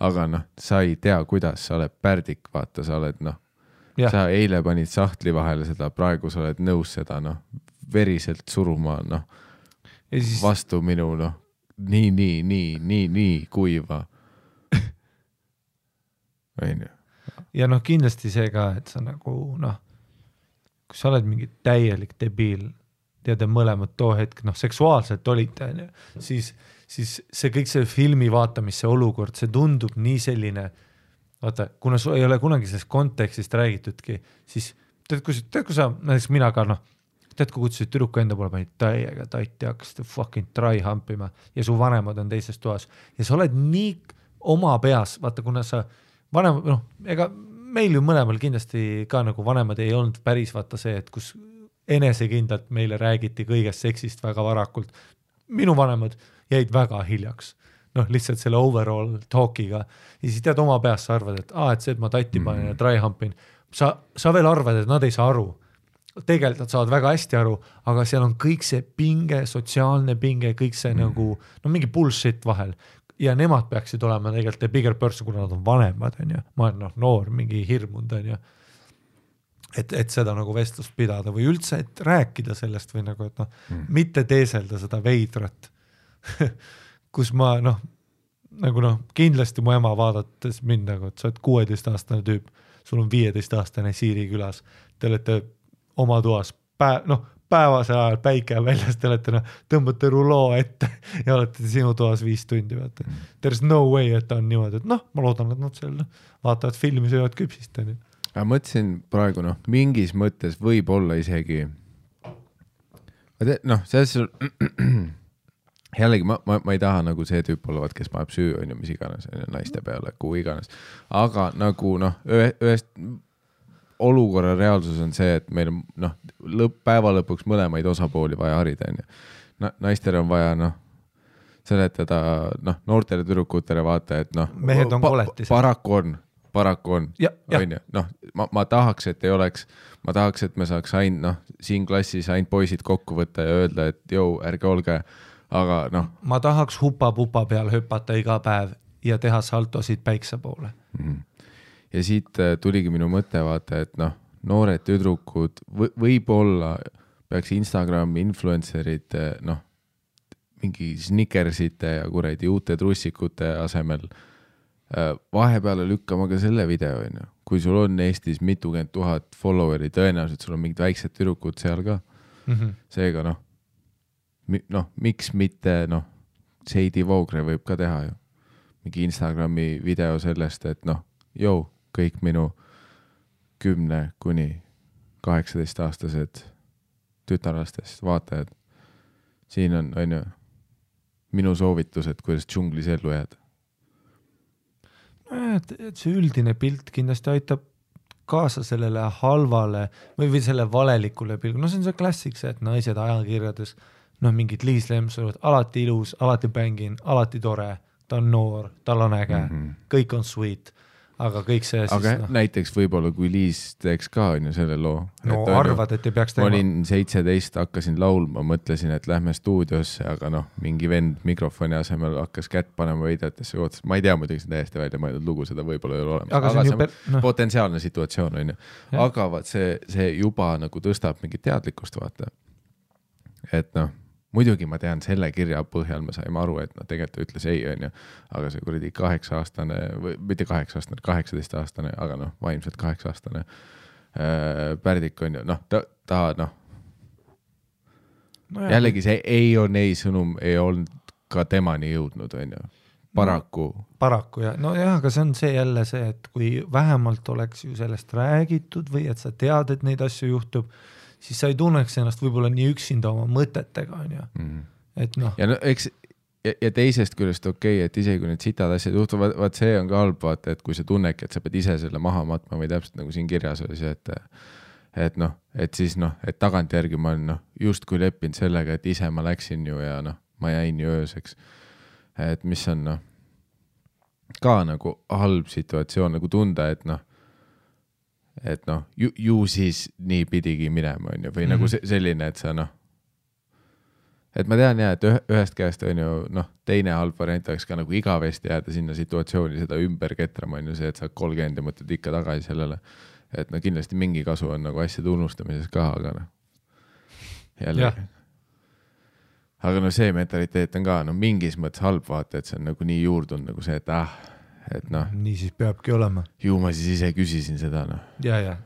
Aga sa ei tea, kuidas, sa oled pärdik, vaata, sa oled sa eile panid sahtli vahele seda, praegu sa oled nõus seda veriselt suruma vastu minu nii kuiva. Ja kindlasti see ka, et sa nagu kui sa oled mingi täielik debiil, tead mõlemad too hetk, seksuaalselt olite, siis see kõik see filmi vaatamise olukord, see tundub nii selline, vaata, kuna sul ei ole kunagi sellest kontekstist räägitudki, siis tead, kui sa, näiteks mina ka, tead, kui kutsusid tüdruku enda poole, panid täiega tatti, hakkasid fucking try hampima ja su vanemad on teises toas ja sa oled nii oma peas, vaata, kuna sa vanem, ega meil ju mõlemal kindlasti ka nagu vanemad ei olnud päris vaata see, et kus enesekindlalt meile räägiti kõigest seksist väga varakult. Minu vanemad jäid väga hiljaks. Lihtsalt selle overall talkiga. Ja siis tead oma peas sa arvad, et see, et ma tatti panen ja try humpin. Sa veel arvad, et nad ei saa aru. Tegelikult nad saavad väga hästi aru, aga seal on kõik see pinge, sotsiaalne pinge, kõik see nagu, mingi bullshit vahel. Ja nemad peaksid olema tegelikult the bigger person, kuna nad on vanemad, on ju. Ma olen noor, mingi hirmund, on ju. et seda nagu vestlust pidada või üldse, et rääkida sellest või nagu, et noh, mitte teeselda seda veidrat, kus ma noh, nagu noh, kindlasti mu ema vaadates mind nagu, et sa oled 16-aastane tüüp, sul on 15-aastane Siiri külas, te olete oma toas päevasel ajal päike väljas, te olete tõmbate ruloo ette ja olete sinu toas 5 tundi. Vaata. There's no way, et ta on niimoodi, et noh, ma loodan, et nad seal vaatavad filmi, söövad küpsist. Ma mõtlesin praegu mingis mõttes võib-olla isegi selles jällegi ma ei taha nagu see tüüp olevat, kes paneb süü on ju mis iganes naiste peale, kuhu iganes, aga nagu ühest olukorra reaalsus on see, et meil on päeva lõpuks mõlemaid osapooli vaja harida on ju. Naistel on vaja seletada noortele tüdrukutele vaata, et mehed on koletis. Paraku on, on ju. Ma tahaks, et ei oleks, ma tahaks, et me saaks siin klassis ainult poisid kokku võtta ja öelda, et jõu, ärge olge, aga ma tahaks hupa-pupa peal hüpata iga päev ja teha saltosid päikse poole. Ja siit tuligi minu mõte vaata, et noored tüdrukud võib-olla peaks Instagrami influencerid mingi snickersite ja kuradi uute trussikute asemel vahepeale lükkama ka selle video, kui sul on Eestis mitukümmend 1000 followeri, tõenäoliselt sul on mingid väiksed tüdrukud seal ka. Seega miks mitte Seidi Voogre võib ka teha ju. Mingi Instagrami video sellest, et kõik minu 10 kuni 18-aastased tütarlastest vaatajad. Siin on ju minu soovitused, kuidas džunglis ellu jääda. Et see üldine pilt kindlasti aitab kaasa sellele halvale või selle valelikule pilgu. See on see klassik, see, et naised ajakirjades, mingid Liis Lemsalu, alati ilus, alati bängin, alati tore, ta on noor, tal on äge, kõik on sweet, aga kõik see aga siis näiteks võib-olla, kui Liis teeks ka on ju selle loo. Arvad, et ei peaks tegema. Ma olin 17, hakkasin laulma, mõtlesin, et lähme stuudiosse, aga mingi vend mikrofoni asemel hakkas kätt panema veidetesse, ma ei tea muidugi see täiesti välja mõeldud lugu, seda võib-olla ei ole olemas. Aga see potentsiaalne situatsioon on ju. Aga vaat see juba nagu tõstab mingit teadlikkust vaata. Et muidugi ma tean selle kirja põhjal, me saime aru, et tegelikult ütles ei on ju, aga see kuradi 8-aastane või mitte 8-aastane, 18-aastane, aga vaimselt 8-aastane Pärdik on ju, jällegi see ei on ei sõnum, ei olnud ka temani jõudnud on ju, paraku. Paraku jah, aga see on see jälle see, et kui vähemalt oleks ju sellest räägitud või et sa tead, et neid asju juhtub, siis sa ei tunneks ennast võib-olla nii üksinda oma mõtetega, on ju. Et ja teisest küljest okei, et isegi kui need sitad asjad juhtuvad, vaat see on ka halb, vaata, et kui sa tunnedki, et sa pead ise selle maha matma või täpselt nagu siin kirjas oli see, et siis et tagantjärgi ma olen just kui leppinud sellega, et ise ma läksin ju ja ma jäin ju ööseks. Et mis on ka nagu halb situatsioon nagu tunda, et ju siis nii pidigi minema on ju, või nagu selline, et sa et ma tean jah, et ühest käest on ju teine halb variant oleks ka nagu igavesti jääda sinna situatsiooni seda ümber ketrama on ju see, et sa 30 ja mõtled ikka tagasi sellele, et kindlasti mingi kasu on nagu asjade unustamises ka, aga jälle aga see mentaliteet on ka mingis mõttes halb vaata, et see on nagu nii juurdunud nagu see, et nii siis peabki olema. Ju ma siis ise küsisin seda Ja.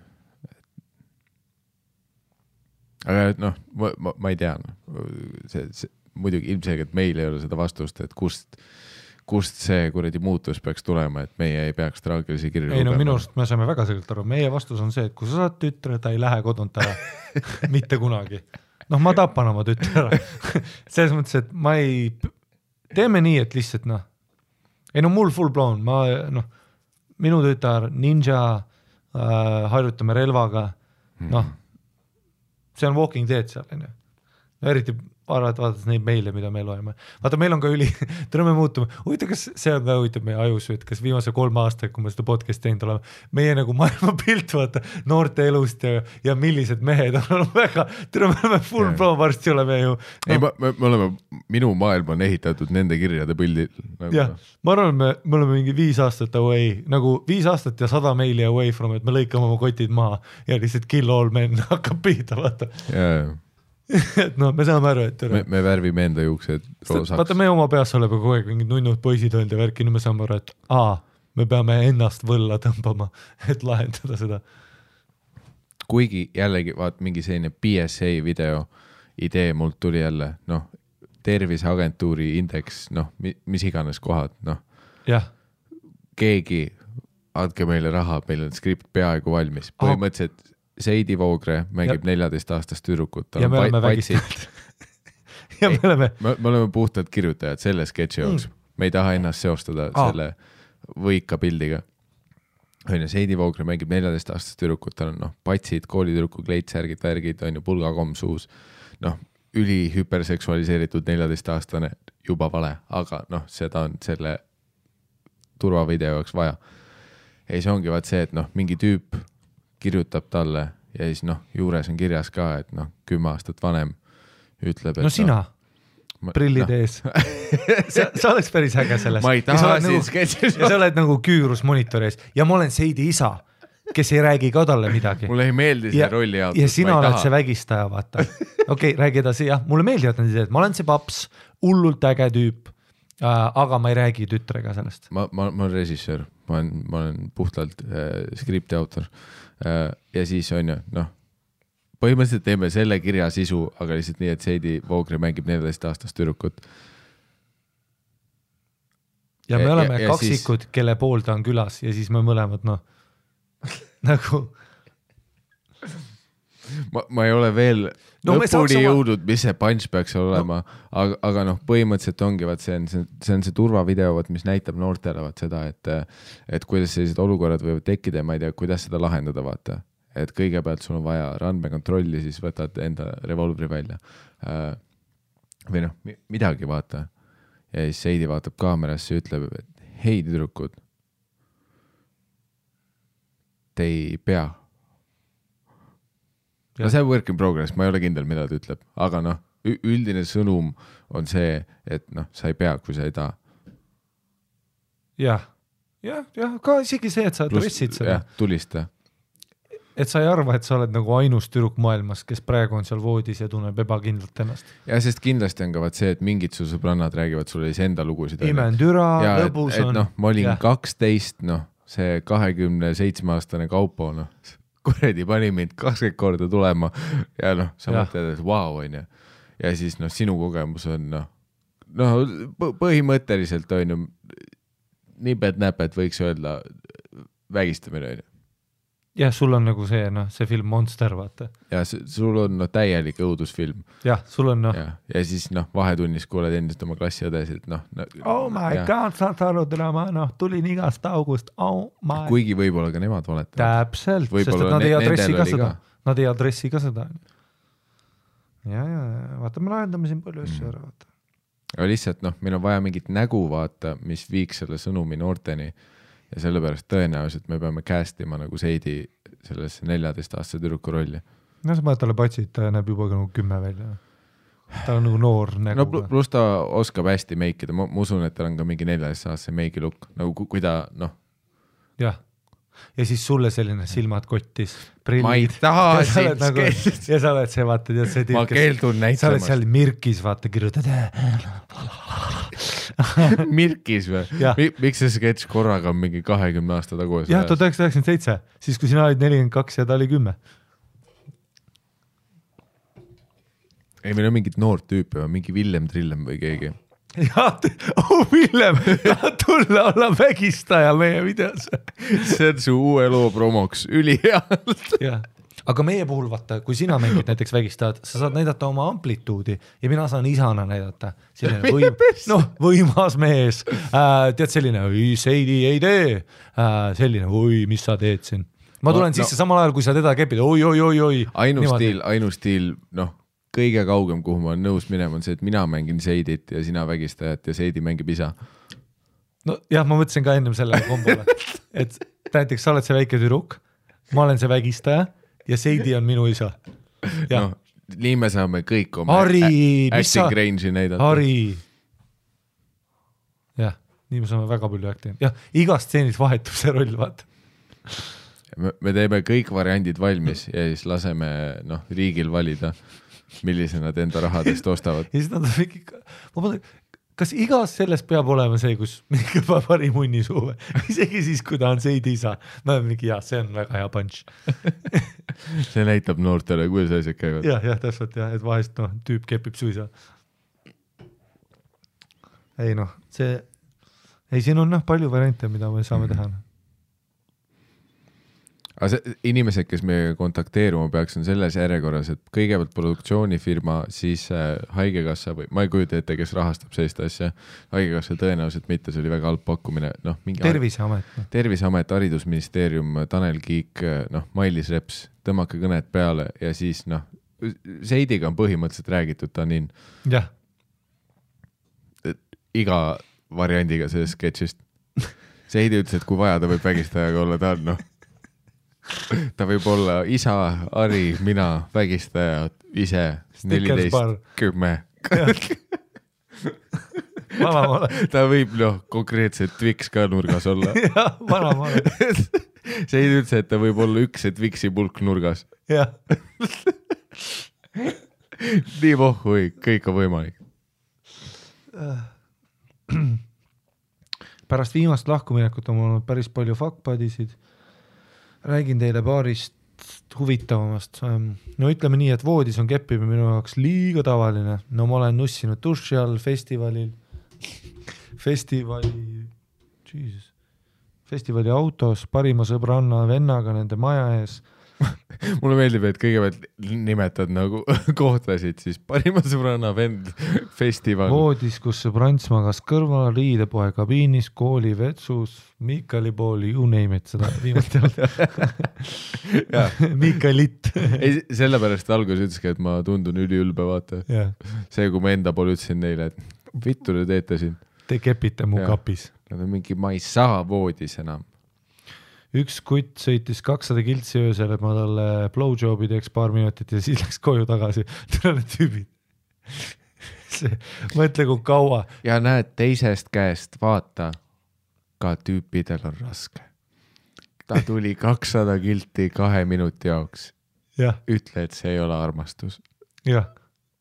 Aga ma ei tea see muidugi ilmselgelt meil ei ole seda vastust, et kust see kuradi muutus peaks tulema, et meie ei peaks traagilisi kirju ei minu arust me saame väga selgelt aru, meie vastus on see, et kui sa saad tütre, ta ei lähe kodunt ära mitte kunagi, ma tapan oma tütre ära selles mõttes, et ma ei teeme nii, et lihtsalt ei mul full blown, minu tütar ninja, harjutame relvaga, see on Walking Dead seal, eriti vaadates neid meile, mida me loeme. Vaata, meil on ka me muutume, huvitav, kas see on ka huvitav meie ajus, et kas viimase 3 aastaga, kui me seda podcast teinud oleme, meie nagu maailmapilt, vaata, noorte elust ja millised mehed on väga, me oleme full pro, varsti oleme ju. Ei, me oleme, minu maailm on ehitatud nende kirjade pildil. Jah, ma arvan, me oleme mingi 5 aastat away, nagu 5 aastat ja 100 meili away from, et me lõikame oma kotid maha ja lihtsalt kill all men hakkab pihta, vaata. Et no me saame aru, et me värvime enda juuksed roosaks. Vaata, me oma peas oleme kogu aeg mingid nunnud poisid olnud ja värki, nüüd me saame aru, et me peame ennast võlla tõmbama, et lahendada seda. Kuigi jällegi, vaat mingi selline PSA video idee mult tuli jälle, noh, terviseagentuuri indeks, noh, mis iganes kohad, noh. Jah. Keegi, andke meile raha, meil on skript peaaegu valmis. Põhimõtteliselt Seidi Voogre mängib 14-aastast tüdrukut. Ja me oleme vägistanud. Ja me oleme puhtalt kirjutajad selle sketši jooks. Me ei taha ennast seostada selle võika pildiga. Seidi Voogre mängib 14-aastast tüdrukut, tal on patsid, koolitüdruku kleitsärgid, värgid, on ju pulgakomm suus. Üli hüperseksualiseeritud 14-aastane juba vale, aga seda on selle turvavideo jaoks vaja. Ja siis ongi vaat see, et mingi tüüp kirjutab talle ja siis juures on kirjas ka, et 10 aastat vanem ütleb, et sina, prillid ees. Sa oleks päris äge sellest. Ma ei taha siin sketšis. Ja sa oled nagu küürus monitori ees ja ma olen Seidi isa, kes ei räägi ka talle midagi. Mulle ei meeldi see rolli jaotus. Ja sina oled see vägistaja, vaata. Okei, räägi edasi, jah. Mulle meeldivad need ideed. Ma olen see paps, hullult äge tüüp, aga ma ei räägi tütrega sellest. Ma olen režissöör, ma olen puhtalt skripti autor. Ja siis on ju, põhimõtteliselt teeme selle kirja sisu, aga lihtsalt nii, et Seidi Voogre mängib 14-aastast tüdrukut. Ja me oleme kaksikud, kelle pool ta on külas ja siis me mõlemad, nagu ma ei ole veel lõpuni jõudnud, mis see punch peaks olema, aga põhimõtteliselt ongi, see on see turvavideo, mis näitab noortele seda, et kuidas sellised olukorrad võivad tekkida ja ma ei tea, kuidas seda lahendada, vaata. Et kõigepealt sul on vaja randmekontrolli, siis võtad enda revolvri välja. Või midagi, vaata. Ja siis Seidi vaatab kaamerasse ja ütleb, et hei tüdrukud, te ei pea. See on work in progress, ma ei ole kindel, mida ta ütleb, aga üldine sõnum on see, et sa ei pea, kui sa ei taha. Jah, ka isegi see, et sa adressid seda. Jah, tulista. Et sa ei arva, et sa oled nagu ainus tüdruk maailmas, kes praegu on seal voodis ja tunneb ebakindlalt ennast. Ja sest kindlasti on ka see, et mingid su sõbrannad räägivad sulle enda lugusid. Imendüra, lõbus on. Ma olin 12, see 27-aastane Kaupo, kuredi pani mind 20 korda tulema ja sa mõtled, et vau, on ju. Ja siis sinu kogemus on põhimõtteliselt on ju nipet-näpet võiks öelda vägistamine, on ju. Jah, sul on nagu see film Monster, vaata. Ja sul on täielik õudusfilm. Jah, sul on Ja siis vahetunnis kuuled endist oma klassiõdesid. Oh my god, saad aru drama, tulin igast august. Oh my. Kuigi võib-olla ka nemad valetavad. Täpselt, sest et nad ei adressi ka seda. Nad ei adressi ka seda. Ja, vaata, me lahendame siin palju asju ära, vaata. Aga lihtsalt, meil on vaja mingit nägu, vaata, mis viiks selle sõnumi noorteni. Ja sellepärast tõenäoliselt me peame castima nagu Seidi sellesse 14-aastase tüdruku rolli. Sa mõtled talle patsid, ta näeb juba nagu 10 välja. Ta on nagu noor nägu. Plus ta oskab hästi meikida. Ma usun, et tal on ka mingi 14-aastase meigi lukk. Nagu kui ta, Jah. Ja siis sulle selline silmad kottis. Ma ei taha siin sketšist. Ja sa oled see, vaata, tead see tüüp. Ma keeldun näitamas. Sa oled seal Mirkis, vaata, kirjutad. Mirkis või? Miks see sketš korraga on mingi 20 aasta tagu? Jah, 1997, siis kui sina olid 42 ja ta oli 10. Ei, meil on mingid noort tüüpi, mingi Villem Trillem või keegi. Jah, Villem, tahad tulla olla vägistaja meie videos. See on su uue loo promoks, ülihealt. Jah. Aga meie puhul, vaata, kui sina mängid näiteks vägistajad, sa saad näidata oma amplituudi ja mina saan isana näidata. Võimas mees. Tead selline, Seidi ei tee. Selline, mis sa teed siin? Ma tulen sisse samal ajal, kui sa teda kepid. Oi. Ainus stiil, kõige kaugem, kuhu ma olen nõus minema, on see, et mina mängin Seidit ja sina vägistajat ja Seidi mängib isa. no jah, ma mõtlesin ka ennem sellele kombole, et näiteks sa oled see väike tüdruk, ma olen see vägistaja ja Seidi on minu isa. No, nii me saame kõik oma acting range'i näidata. Harri. Jah, nii me saame väga palju acting. Jah, igast stseenis vahetub see roll, vaata. Me teeme kõik variandid valmis ja siis laseme riigil valida, millise nad enda rahadest ostavad. Ja siis nad on mingi, ma mõtlen, kas igas sellest peab olema see, kus mingi pari munni suuve, isegi siis, kui ta on Seidi isa. Ma olen mingi, see on väga hea punch. See näitab noortele, kuidas asjad käivad. Jah, täpselt jah, et vahest tüüp kepib su isa. Ei siin on palju variante, mida me saame teha. Aga inimesed, kes meiega kontakteeruma peaks, on selles järjekorras, et kõigepealt produktsioonifirma, siis haigekassa või ma ei kujuta ette, kes rahastab sellist asja. Haigekassa tõenäoliselt mitte, see oli väga halb pakkumine. Terviseamet, haridusministeerium, Tanel Kiik, Mailis Reps, tõmmake kõned peale ja siis Seidiga on põhimõtteliselt räägitud, ta on jah. Iga variandiga sellest sketšist. Seidi ütles, et kui vaja, ta võib vägistajaga olla, ta on ta võib olla isa, Ari, mina, vägistaja, ise, 14, 10. Ta võib konkreetselt Twix ka nurgas olla. Jah, vanamaale. See ei üldse, et ta võib olla üks Twixi pulk nurgas. Jah. Nii pohhui, kõik on võimalik. Pärast viimast lahkuminekut on olnud päris palju fuckbuddisid. Räägin teile paarist huvitavamast. No ütleme nii, et voodis on keppima minu jaoks liiga tavaline. No ma olen nussinud duši all festivali autos parima sõbranna vennaga nende maja ees. Mulle meeldib, et kõigepealt nimetad kohtasid, siis parima sõbranna vend festival. Voodis, kus sõbrants magas kõrval, riidepoe kabiinis, kooli vetsus, Miikali pooli, you name it, seda viimast Miikalit. Ei, sellepärast alguses ütleski, et ma tundun üliülbe, vaata. See, kui ma enda poole ütlesin neile, et vittu te teete siin. Te kepite mu kapis. Nad on mingi, ma ei saa voodis enam. Üks kutt sõitis 200 kiltsi öösel, et ma talle blowjobi teeks paar minutit ja siis läks koju tagasi. Tõrele tüübid. Mõtle, kui kaua. Ja näed teisest käest, vaata, ka tüüpidel on raske. Ta tuli 200 kilti 2 minuti jaoks. Ütle, et see ei ole armastus. Jah,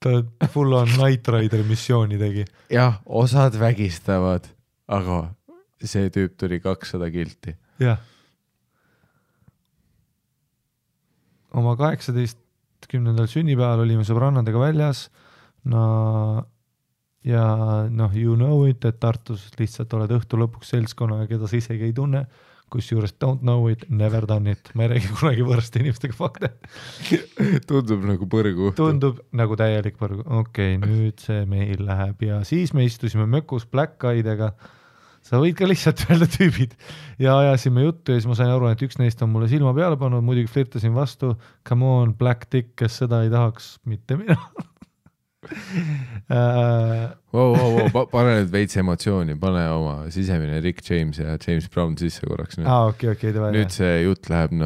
ta full on Night Rider missiooni tegi. Jah, osad vägistavad, aga see tüüp tuli 200 kilti. Jah. Oma 18. sünnipäeval olime sõbrannadega väljas ja you know it, et Tartus lihtsalt oled õhtu lõpuks seltskonna, keda sa isegi ei tunne, kus juures don't know it, never done it. Ma ei räägi kunagi võõraste inimestega fakte. Tundub nagu põrgu. Tundub nagu täielik põrgu. Okei, nüüd see meil läheb ja siis me istusime mökus Black Eyedega. Sa võid ka lihtsalt öelda tüübid ja ajasime juttu ja siis ma sain aru, et üks neist on mulle silma peale pannud, muidugi flirtasin vastu, come on, Black Dick, kes seda ei tahaks, mitte mina. Pane nüüd veits emotsiooni, pane oma sisemine Rick James ja James Brown sisse korraks. Nüüd see jutt läheb,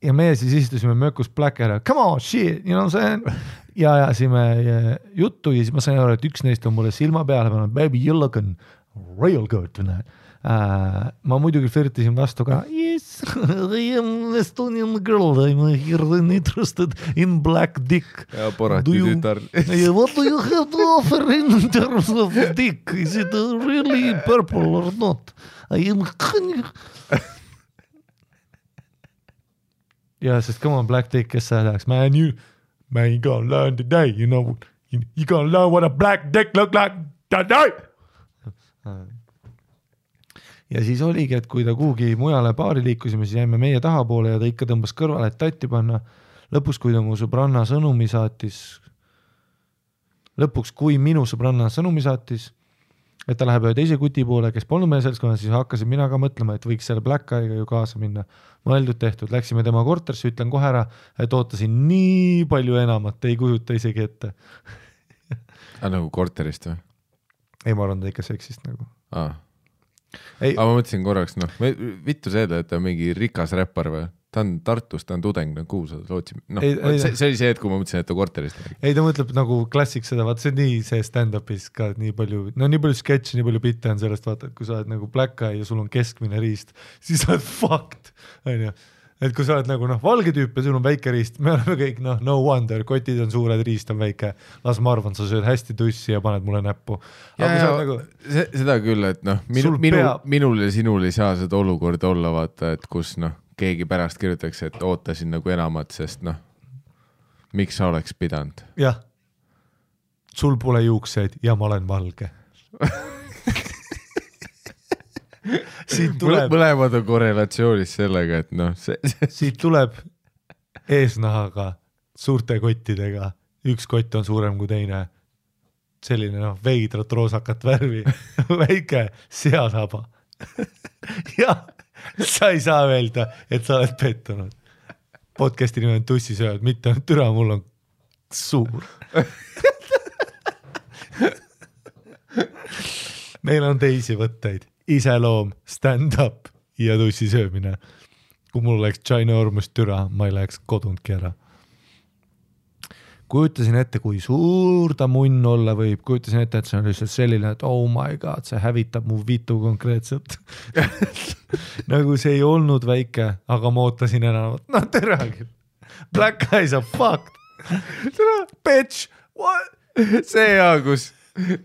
Ja meie siis istusime mökus Black Eyed, come on, shit, you know what I'm saying? Ja ajasime juttu ja siis ma sain aru, et üks neist on mulle silma peale pannud, baby, you looking real good tonight. Ma muidugi flirtisin vastu ka. Yes, I am Estonian girl. I'm here interested in Black Dick. Ja porati tütar. What do you have to offer in terms of dick? Is it really purple or not? I am... Ja, sest come on, Black Dick, kes sa tahaks? Man, you gonna learn today, you know. You gonna learn what a black dick look like today. Ja siis oligi, et kui ta kuhugi mujale baari liikusime, siis jäime meie tahapoole ja ta ikka tõmbas kõrvale, et tatti panna. Lõpuks, kui minu sõbranna sõnumi saatis, et ta läheb ühe teise kuti poole, kes polnud meie seltskonnas, siis hakkasin mina ka mõtlema, et võiks selle Black Eye'ga ju kaasa minna. Mõeldud tehtud, läksime tema korterisse, ütlen kohe ära, et ootasin nii palju enamat, ei kujuta isegi ette. Nagu korterist või? Ei, ma arvan, ta ikka seksist nagu. Aga ma mõtlesin korraks, vittu seda, et ta on mingi rikas räppar või? Ta on Tartus, ta on tudeng, kuhu sa lootsid. See oli see, et kui ma mõtlesin, et ta korterist. Ei, ta mõtleb nagu klassik seda, vaata see on nii see stand-up'is ka nii palju sketši, nii palju bitte on sellest, vaata, et kui sa oled nagu Black Eye ja sul on keskmine riist, siis sa oled fucked, on ju. Et kui sa oled nagu valge tüüp ja sul on väike riist, me oleme kõik no wonder, kotid on suured, riist on väike, las ma arvan, sa sööd hästi tussi ja paned mulle näppu. Nagu... Seda küll, et minul ja sinul ei saa seda olukorda olla, vaata, et kus keegi pärast kirjutaks, et ootasin nagu enamat, sest miks sa oleks pidanud? Jah, sul pole juukseid ja ma olen valge. Mõlemad on korrelatsioonis sellega, et siit tuleb eesnahaga suurte kottidega, üks kott on suurem kui teine, selline veidrat roosakat värvi, väike seasaba. Ja sa ei saa öelda, et sa oled pettunud. Podcasti nime on Tussisööd, mitte türa, mul on suur. Meil on teisi võtteid. Iseloom, stand-up ja tussi söömine. Kui mul oleks ginormous türa, ma ei läheks kodundki ära. Kujutasin ette, kui suur ta munn olla võib. Kujutasin ette, et see on lihtsalt selline, et oh my god, see hävitab mu vitu konkreetselt. Nagu see ei olnud väike, aga ma ootasin enamat. No teragi. Black Eyes are fucked. Bitch, what? See hea, kus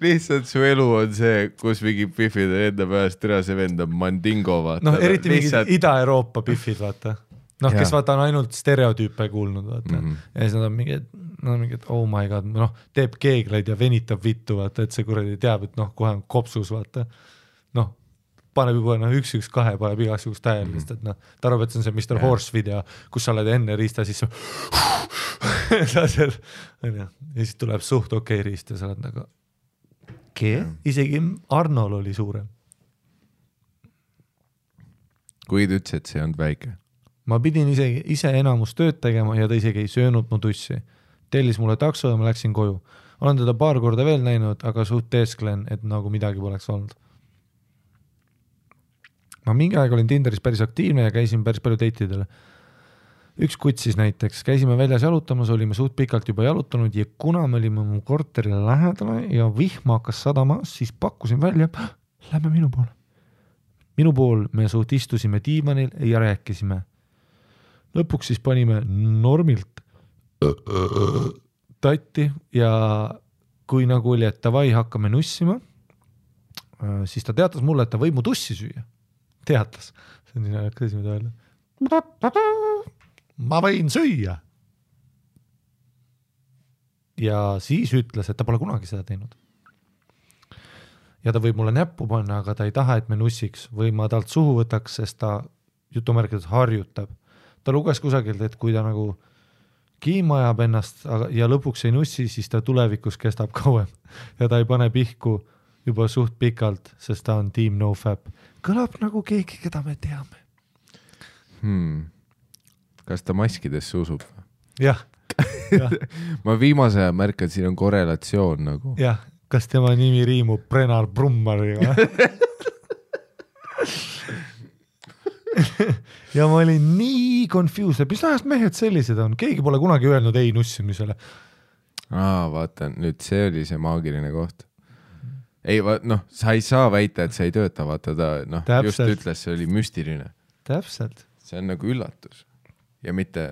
lihtsalt su elu on see, kus mingi pifid on enda pärast türa, see vend on mandingo, vaata. Eriti lihtsalt... mingi Ida-Euroopa pifid, vaata. Kes vaata on ainult stereotüüpe kuulnud, vaata. Ja siis nad on mingid, oh my god, teeb keegleid ja venitab vittu, vaata, et see kuradi teab, et kohe on kopsus, vaata. Paneb juba 1-1-2, paneb igasugust täielist, et ta arvab, et see on see Mr. Horse video, kus sa oled enne riista, siis ja siis tuleb suht okei riist ja sa oled nagu isegi Arnol oli suurem. Kui ta ütles, et see on väike? Ma pidin ise enamus tööd tegema ja ta isegi ei söönud mu tussi. Tellis mulle takso ja ma läksin koju. Olen teda paar korda veel näinud, aga suht teesklen, et nagu midagi poleks olnud. Ma mingi aeg olin Tinderis päris aktiivne ja käisin päris palju dateidele. Üks kutsis näiteks, käisime väljas jalutamas, olime suht pikalt juba jalutanud ja kuna me olime mu korterile lähedale ja vihma hakkas sadama, siis pakkusin välja, lähme minu poole. Minu pool me suht istusime diivanil ja rääkisime. Lõpuks siis panime normilt tatti ja kui nagu oli, et davai hakkame nussima, siis ta teatas mulle, et ta võib mu tussi süüa. Teatas. See on nii näikas mida öelda. Ma võin süüa. Ja siis ütles, et ta pole kunagi seda teinud. Ja ta võib mulle näppu panna, aga ta ei taha, et me nussiks või ma talt suhu võtaks, sest ta jutumärkides harjutab. Ta luges kusagilt, et kui ta nagu kiima ajab ennast ja lõpuks ei nussi, siis ta tulevikus kestab kauem. Ja ta ei pane pihku juba suht pikalt, sest ta on team NoFap. Kõlab nagu keegi, keda me teame. Kas ta maskidesse usub? Jah. Ma viimase aja märkan, siin on korrelatsioon nagu. Jah, kas tema nimi riimub Brennar Brummariga? Ja ma olin nii confused, mis ajast mehed sellised on? Keegi pole kunagi öelnud ei nussimisele. Vaata, nüüd see oli see maagiline koht. Ei, sa ei saa väita, et see ei tööta, vaata ta just ütles, see oli müstiline. Täpselt. See on nagu üllatus. Ja mitte,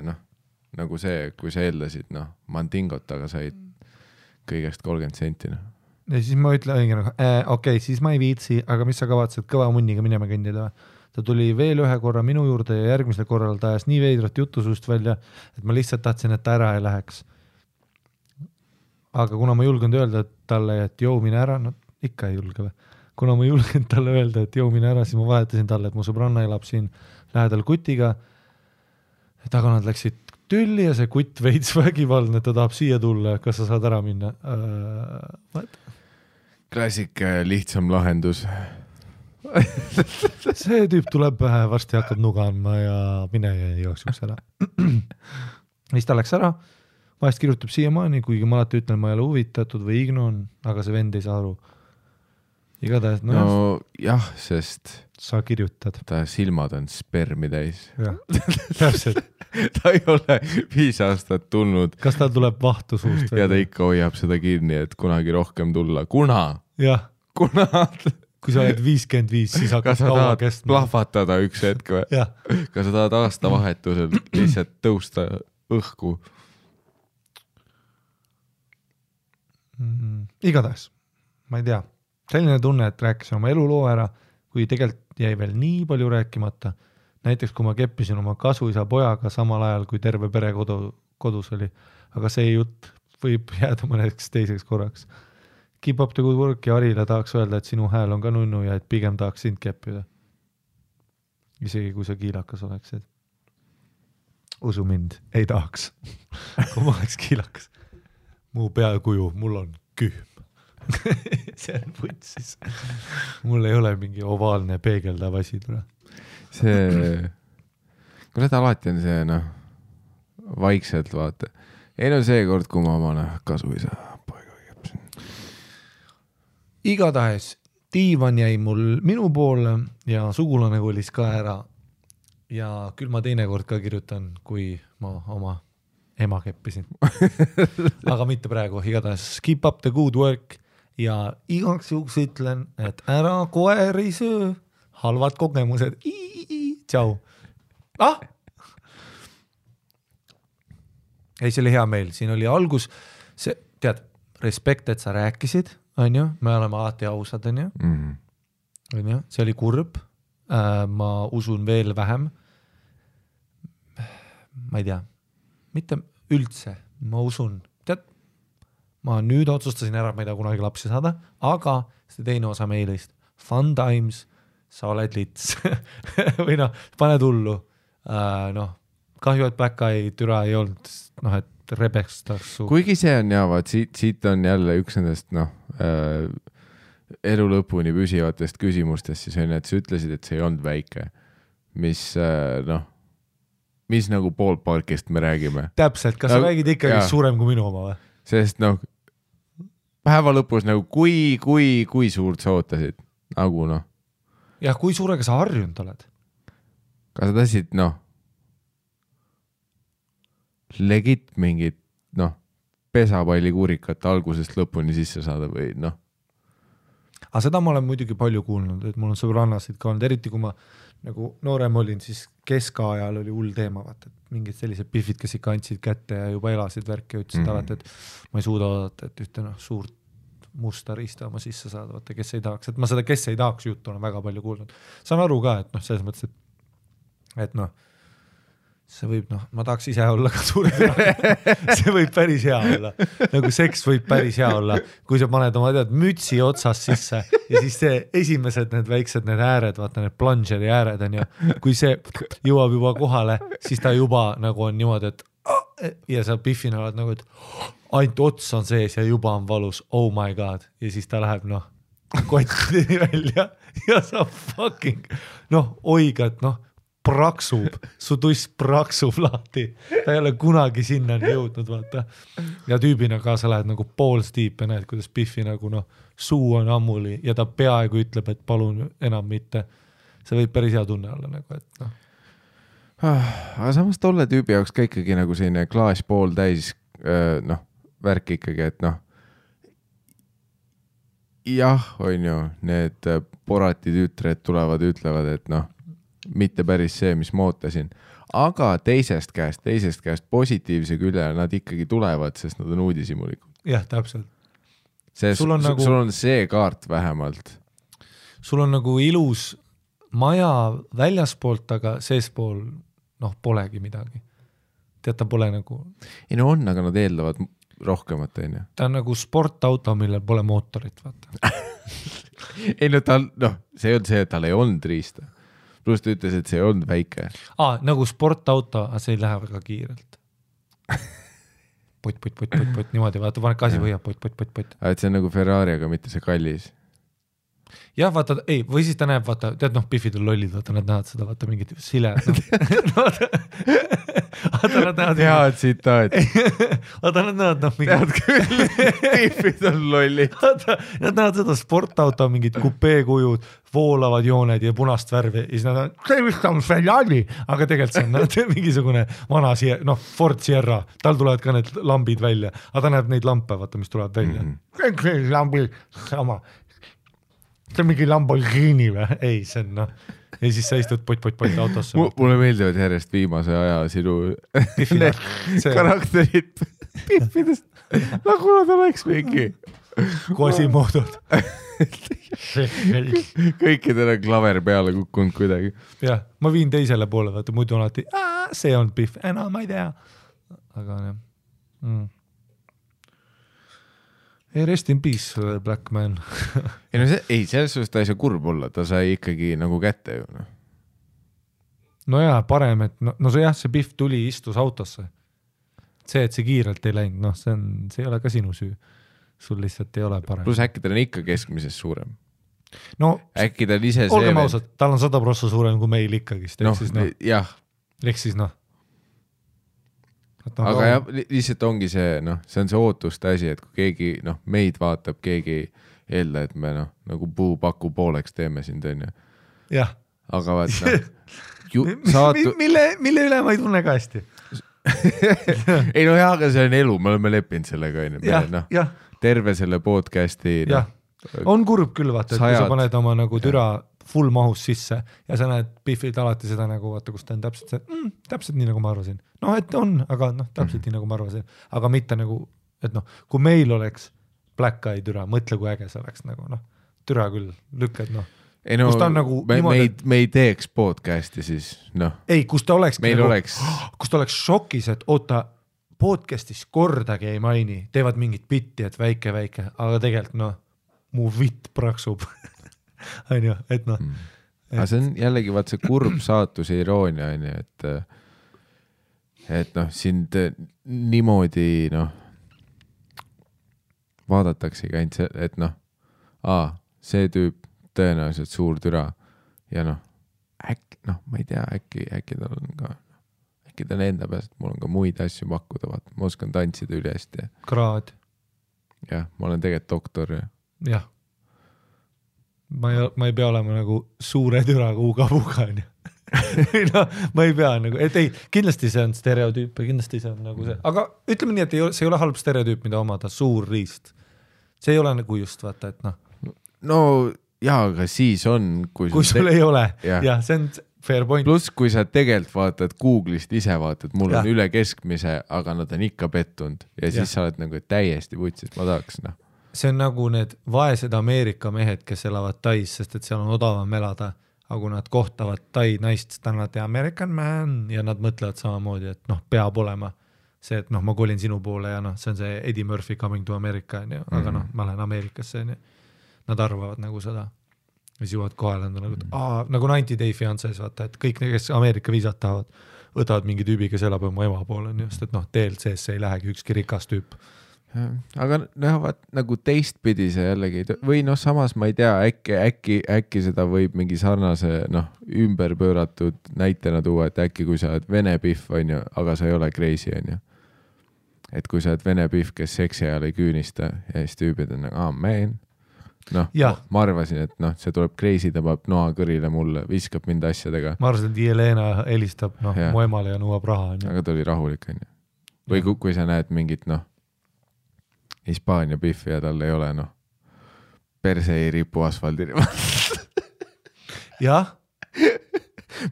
nagu see, kui sa eeldasid, mandingot, aga said kõigest 30 senti. Ja siis ma ütlen, okei, siis ma ei viitsi, aga mis sa kavatsed kõva munniga minema kõndida? Ta tuli veel ühe korra minu juurde ja järgmisel korral ta ajas nii veidrat jutusust välja, et ma lihtsalt tahtsin, et ta ära ei läheks. Aga kuna ma julgen öelda talle, et joo mine ära, ikka ei julge või? Kuna ma julgen talle öelda, et joo mine ära, siis ma vahetasin talle, et mu sõbranna elab siin lähedal kutiga. Aga nad läksid tülli ja see kutt veits vägivaldne, ta tahab siia tulla, kas sa saad ära minna? klassika lihtsam lahendus. see tüüp tuleb varsti hakkab nuga andma ja mine ja jooksuks ära. Siis ta läks ära, vahest kirjutab siiamaani, kuigi ma alati ütlen, ma ei ole huvitatud või ignon, aga see vend ei saa aru. Igatahes, no jah, sest sa kirjutad. Ta silmad on spermi täis. Täpselt. Ta ei ole 5 aastat tulnud. Kas ta tuleb vahtu suust? Ja ta ikka hoiab seda kinni, et kunagi rohkem tulla. Jah. Kui sa oled 55, siis hakkab kaua kestma. Kas sa tahad plahvatada üks hetk või? Kas sa tahad aastavahetusel lihtsalt tõusta õhku? Igatahes, ma ei tea. Selline tunne, et rääkisin oma eluloo ära, kui tegelikult jäi veel nii palju rääkimata. Näiteks, kui ma keppisin oma kasuisa pojaga samal ajal, kui terve pere kodus oli. Aga see jutt võib jääda mõneks teiseks korraks. Keep up the good work ja Arile tahaks öelda, et sinu hääl on ka nunnu ja et pigem tahaks sind keppida. Isegi kui sa kiilakas oleksid. Usu mind, ei tahaks. Kui ma oleks kiilakas. Mu peakuju, mul on kühm. See on võtsis. Mul ei ole mingi ovaalne peegeldav asi tule. See, kui seda alati on see, vaikselt vaata. Ei no see kord, kui ma oma kasuisa poega kepsin. Igatahes diivan jäi mul minu poole ja sugulane kolis ka ära. Ja küll ma teinekord ka kirjutan, kui ma oma ema keppisin. Aga mitte praegu. Igatahes keep up the good work ja igaks juhuks ütlen, et ära koeri söö. Halvad kogemused. Tšau. Ei, see oli hea meil. Siin oli algus. See, tead, respekt, et sa rääkisid, on ju? Me oleme alati ausad, on ju? On ju? See oli kurb. Ma usun veel vähem. Ma ei tea. Mitte üldse. Ma usun. Tead, ma nüüd otsustasin ära, et ma ei taha kunagi lapsi saada, aga see teine osa meilist. Fun times. Sa oled lits. Või pane tullu. Kahju, et Black Eye türa ei olnud, et rebestaks su. Kuigi see on vaat siit on jälle üks nendest, elu lõpuni püsivatest küsimustest, siis on, et sa ütlesid, et see ei olnud väike. Mis nagu ballparkist me räägime. Täpselt, kas sa räägid ikkagi suurem kui minu oma või? Sest päeva lõpus kui suurt sa ootasid? Nagu Jah, kui suurega sa harjunud oled? Kas sa tahtsid, legit mingit, pesapallikuurikat algusest lõpuni sisse saada või Aga seda ma olen muidugi palju kuulnud, et mul on sõbrannasid ka olnud, eriti kui ma nagu noorem olin, siis keskajal oli hull teema, vaata, et mingid sellised pihvid, kes ikka andsid kätte ja juba elasid värki ja ütlesid alati, et ma ei suuda oodata, et ühte suurt musta riista oma sisse saada, vaata, kes ei tahaks, et ma seda, kes ei tahaks juttu olen väga palju kuulnud. Saan aru ka, et selles mõttes, et see võib, ma tahaks ise olla ka suur see võib päris hea olla. Nagu seks võib päris hea olla, kui sa paned oma mütsi otsas sisse ja siis see esimesed need väiksed need ääred, vaata need plungeri ääred on ju, kui see jõuab juba kohale, siis ta juba nagu on niimoodi, et ja sa piffina oled nagu, et ainult ots on sees ja juba on valus, oh my god, ja siis ta läheb kottini välja ja sa fucking oiga, et praksub, su tuss praksub lahti, ta ei ole kunagi sinna jõudnud, vaata. Ja tüübina ka sa lähed nagu balls deep ja näed, kuidas Biffi nagu suu on ammuli ja ta peaaegu ütleb, et palun enam mitte. See võib päris hea tunne olla nagu, et Aga samas tolle tüübi jaoks ka ikkagi nagu selline klaas pool täis värk ikkagi, et jah, on ju, need porati tütred tulevad, ütlevad, et mitte päris see, mis ma ootasin. Aga teisest käest positiivse külje nad ikkagi tulevad, sest nad on uudisimulikud. Jah, täpselt. Sul on see kaart vähemalt. Sul on nagu ilus maja väljaspoolt, aga seespool polegi midagi. Tead, ta pole nagu... Ei no on, aga nad eeldavad rohkemat, on ju. Ta on nagu sportauto, millel pole mootorit, vaata. Ei no see on see, et tal ei olnud riista. Plus ta ütles, et see ei olnud väike. Nagu sportauto, aga see ei lähe väga kiirelt. pott, niimoodi, vaata, paned gaasi põhja, pott. et see on nagu Ferrari, aga mitte see kallis. Jah, vaata, ei, või siis ta näeb, vaata, tead, noh, Biffid on lollid, vaata, nad näevad seda, vaata, mingit sile. Vaata, nad näevad. Head tsitaat. Vaata, nad näevad, noh, tead küll, Biffid on lollid. Vaata, nad näevad seda sportauto, mingid kupeekujud, voolavad jooned ja punast värvi ja siis nad on, see vist on Ferrari, aga tegelikult see on mingisugune vana Ford Sierra, tal tulevad ka need lambid välja, aga ta näeb neid lampe, vaata, mis tuleb välja. See lambi sama. See on mingi Lamborghini või? Ei, see on ja siis sa istud pott autosse. Mulle meeldivad järjest viimase aja sinu karakterid Biffidest, nagu nad oleks mingi Quasimoodod. Kõikidel on klaver peale kukkunud kuidagi. Jah, ma viin teisele poole, vaata, muidu on alati, see on Biff, enam ma ei tea. Aga jah. Rest in peace, Black Man. ei, selles suhtes ta ei saa kurb olla, ta sai ikkagi nagu kätte ju. No jaa, parem, et see Biff tuli, istus autosse. See, et see kiirelt ei läinud, see ei ole ka sinu süü. Sul lihtsalt ei ole parem. Plus äkki tal on ikka keskmisest suurem. No, äkki ta on ise olgem ausad, tal on 100% suurem kui meil ikkagist. Jah. Ehk siis aga jah, lihtsalt ongi see, see on see ootuste asi, et kui keegi, meid vaatab, keegi eelda, et me nagu puupaku pooleks teeme sind, on ju. Jah. Aga vaat, mille üle ma ei tunne ka hästi. ei jah, aga see on elu, me oleme leppinud sellega, on ju. Terve selle podcasti. On kurb küll, vaata, et kui sa paned oma nagu türa full mahus sisse ja sa näed Biffid alati seda nagu, vaata, kus ta on täpselt see, täpselt nii nagu ma arvasin. Et on, aga täpselt nii nagu ma arvasin. Aga mitte nagu, et kui meil oleks Black Eye türa, mõtle kui äge see oleks nagu, türa küll, lükkad, kus ta on nagu me ei teeks podcasti siis, Ei, kus ta oleks meil nagu, oleks kus ta oleks šokis, et oota, podcastis kordagi ei maini, teevad mingit bitti, et väike, aga tegelikult, mu vitt praksub. On ju, et aga see on jällegi vaat see kurb saatuse iroonia, on ju, et sind niimoodi vaadataksegi ainult see, et see tüüp tõenäoliselt suur türa ja äkki, ma ei tea, äkki tal on ka, äkki ta on enda peast, mul on ka muid asju pakkuda, vaata, ma oskan tantsida üle hästi. Kraad. Jah, ma olen tegelikult doktor. Jah. Ma ei pea olema nagu suure türaga uga-puga, on ju. Ma ei pea nagu, et ei, kindlasti see on stereotüüp ja kindlasti see on nagu see, aga ütleme nii, et see ei ole halb stereotüüp, mida omada, suur riist. See ei ole nagu just, vaata, et No jaa, aga siis on, kui sul ei ole, jah, see on fair point. Plus, kui sa tegelikult vaatad Google'ist ise vaatad, mul on üle keskmise, aga nad on ikka pettunud ja siis sa oled nagu täiesti vutsis, ma tahaks, See on nagu need vaesed Ameerika mehed, kes elavad Tais, sest et seal on odavam elada, aga kui nad kohtavad Tai naist, siis ta on American man ja nad mõtlevad samamoodi, et peab olema see, et ma kolin sinu poole ja see on see Eddie Murphy coming to America, aga ma lähen Ameerikasse, nad arvavad nagu seda. Ja siis jõuavad kohale, nagu 90 Day Fiances, vaata, et kõik need, kes Ameerika viisat tahavad, võtavad mingi tüübi, kes elab oma ema poole, sest et DLC-sse ei lähegi ükski rikas tüüp. Aga vaat nagu teistpidi see jällegi või samas ma ei tea, äkki seda võib mingi sarnase ümber pööratud näitena tuua, et äkki kui sa oled vene Biff, on ju, aga sa ei ole crazy, on ju. Et kui sa oled vene Biff, kes seksi ajal ei küünista ja siis tüübid on nagu, man. Ma arvasin, et see tuleb crazy, tõmbab noa kõrile mulle, viskab mind asjadega. Ma arvasin, et Jelena helistab mu emale ja nõuab raha. Aga ta oli rahulik, on ju. Või kui sa näed mingit Hispaania Biffi ja tal ei ole perse ei ripu asfaldil. Jah.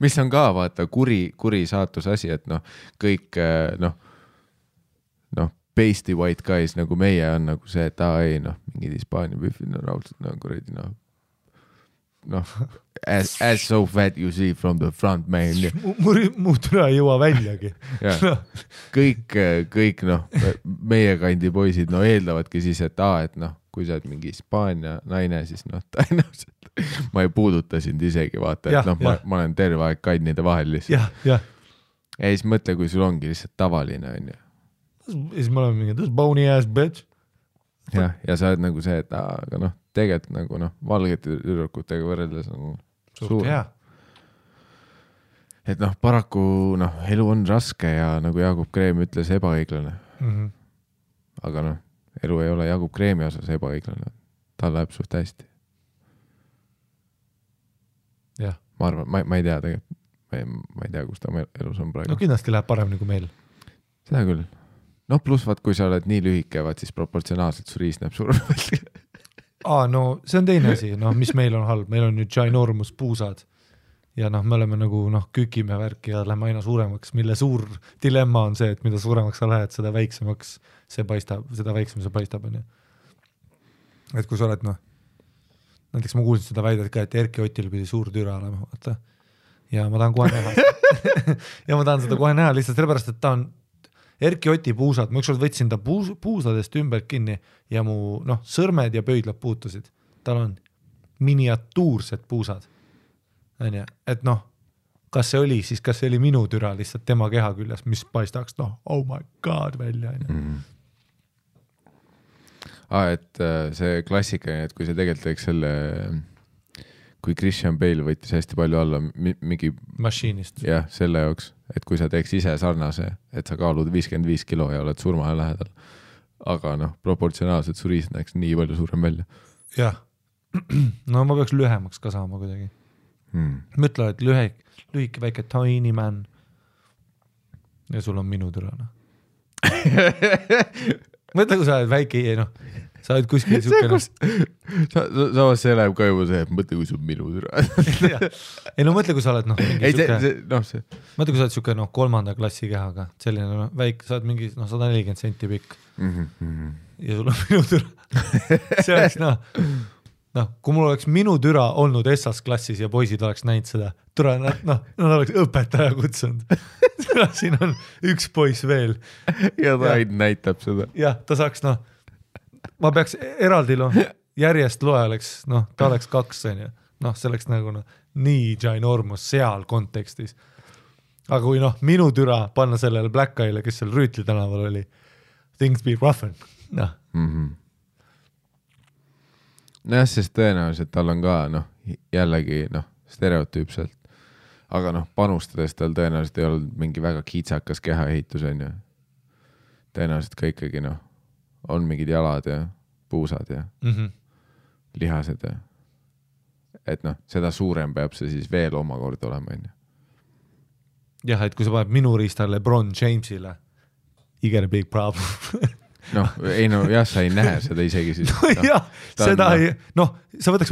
Mis on ka vaata kuri saatuse asi, et kõik pasty white guys nagu meie on nagu see, et ei mingid Hispaania Biffid raudselt kuradi as so fat you see from the front, man. Mu türa ei jõua väljagi. Kõik meie kandi poisid eeldavadki siis, et kui sa oled mingi Hispaania naine, siis tõenäoliselt ma ei puuduta sind isegi, vaata, et ma olen terve aeg kannide vahel lihtsalt. Ja siis mõtle, kui sul ongi lihtsalt tavaline, on ju. siis me oleme mingi, this bony ass bitch. ja sa oled nagu see, et aga noh, tegelikult nagu noh, valgete tüdrukutega võrreldes on suur. Et noh, paraku noh, elu on raske ja nagu Jaagup Kreem ütles, ebaõiglane. Aga noh, elu ei ole Jaagup Kreemi osas ebaõiglane. Tal läheb suht hästi. Jah. Ma arvan, ma ei tea tegelikult. Ma ei tea, kus ta elus on praegu. No kindlasti läheb paremini kui meil. Seda küll. No pluss vaat, kui sa oled nii lühike, vaat siis proportsionaalselt su riis näeb suurem. No see on teine asi, noh, mis meil on halb. Meil on nüüd ginormus puusad ja noh, me oleme nagu noh, kükime värki ja lähme aina suuremaks, mille suur dilemma on see, et mida suuremaks sa lähed, seda väiksemaks see paistab, seda väiksem see paistab. Et kui sa oled noh, näiteks ma kuulsin seda väidet ka, et Erki Otil pidi suur türa olema, vaata. Ja ma tahan kohe näha. Ja ma tahan seda kohe näha lihtsalt sellepärast, et ta on Erki Oti puusad, ma ükskord võtsin ta puusadest ümber kinni ja mu noh, sõrmed ja pöidlad puutusid. Tal on miniatuursed puusad. Et noh, kas see oli minu türa lihtsalt tema keha küljes, mis paistaks, noh, oh my god välja. Et see klassika, et kui see tegelikult teeks selle, kui Christian Bale võttis hästi palju alla mingi mašiinist. Jah, selle jaoks, et kui sa teeks ise sarnase, et sa kaalud 55 kilo ja oled surmaja lähedal. Aga noh, proportsionaalselt su riis näeks nii palju suurem välja. Jah, no ma peaks lühemaks ka saama kuidagi. Mõtle, et lühike väike tiny man ja sul on minu türana. Mõtle, kui sa oled väike, noh, sa oled kuskil sukene. Samas see läheb ka juba see, et mõtle, kui sul minu türa. Ei no mõtle, kui sa oled noh, mõtle, kui sa oled suke noh, 3. klassi kehaga, selline noh, väike, sa oled mingi noh, 140 senti pikk ja sul on minu türa. See oleks noh, kui mul oleks minu türa olnud SS klassis ja poisid oleks näinud seda, türa, noh, nad oleks õpetaja kutsunud. Siin on üks poiss veel. Ja ta näitab seda. Jah, ta saaks noh, ma peaks eraldi järjest loe oleks, noh, ta oleks 2, noh, see oleks nagu noh, nii ginormus seal kontekstis. Aga kui noh, minu türa panna sellele Black Eye'le, kes seal Rüütli tänaval oli, things be roughen, noh. Nojah, sest tõenäoliselt tal on ka, noh, jällegi, noh, stereotüüpselt. Aga noh, panustades tal tõenäoliselt ei olnud mingi väga kiitsakas kehaehitus, on ju. Tõenäoliselt ka ikkagi, noh, on mingid jalad ja puusad ja lihased ja et noh, seda suurem peab see siis veel omakorda olema, on ju. Jah, et kui sa paned minu riistale LeBron Jamesile, you get a big problem. Noh, ei no jah, sa ei näe seda isegi siis. No, jah, seda ei, noh, sa võtaks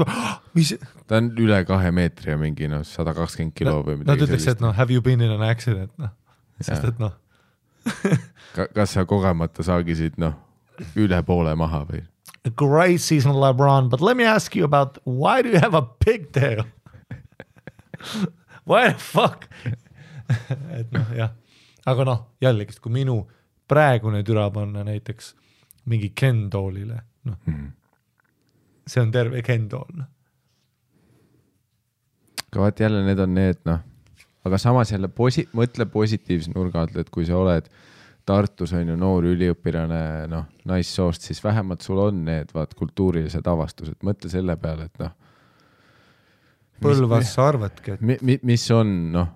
mis... Ta on üle 2 meetri ja mingi 120 kilo või midagi. Nad ütleks, et noh, have you been in an accident, noh. Sest et noh. Kas sa kogemata saagisid, noh, üle poole maha või? A great season, LeBron, but let me ask you about why do you have a pigtail? Why the fuck? Et noh, jah. Aga noh, jällegi, kui minu praegune türa panna näiteks mingi Ken-doolile, noh. See on terve Ken-dool. Aga vaat jälle need on need, noh. Aga samas jälle mõtle positiivse nurga alt, et kui sa oled Tartus on ju noor üliõpirane, noh, naissoost, siis vähemalt sul on need vaat kultuurilised avastused. Mõtle selle peale, et noh. Põlvas sa arvatki, et... Mis on, noh,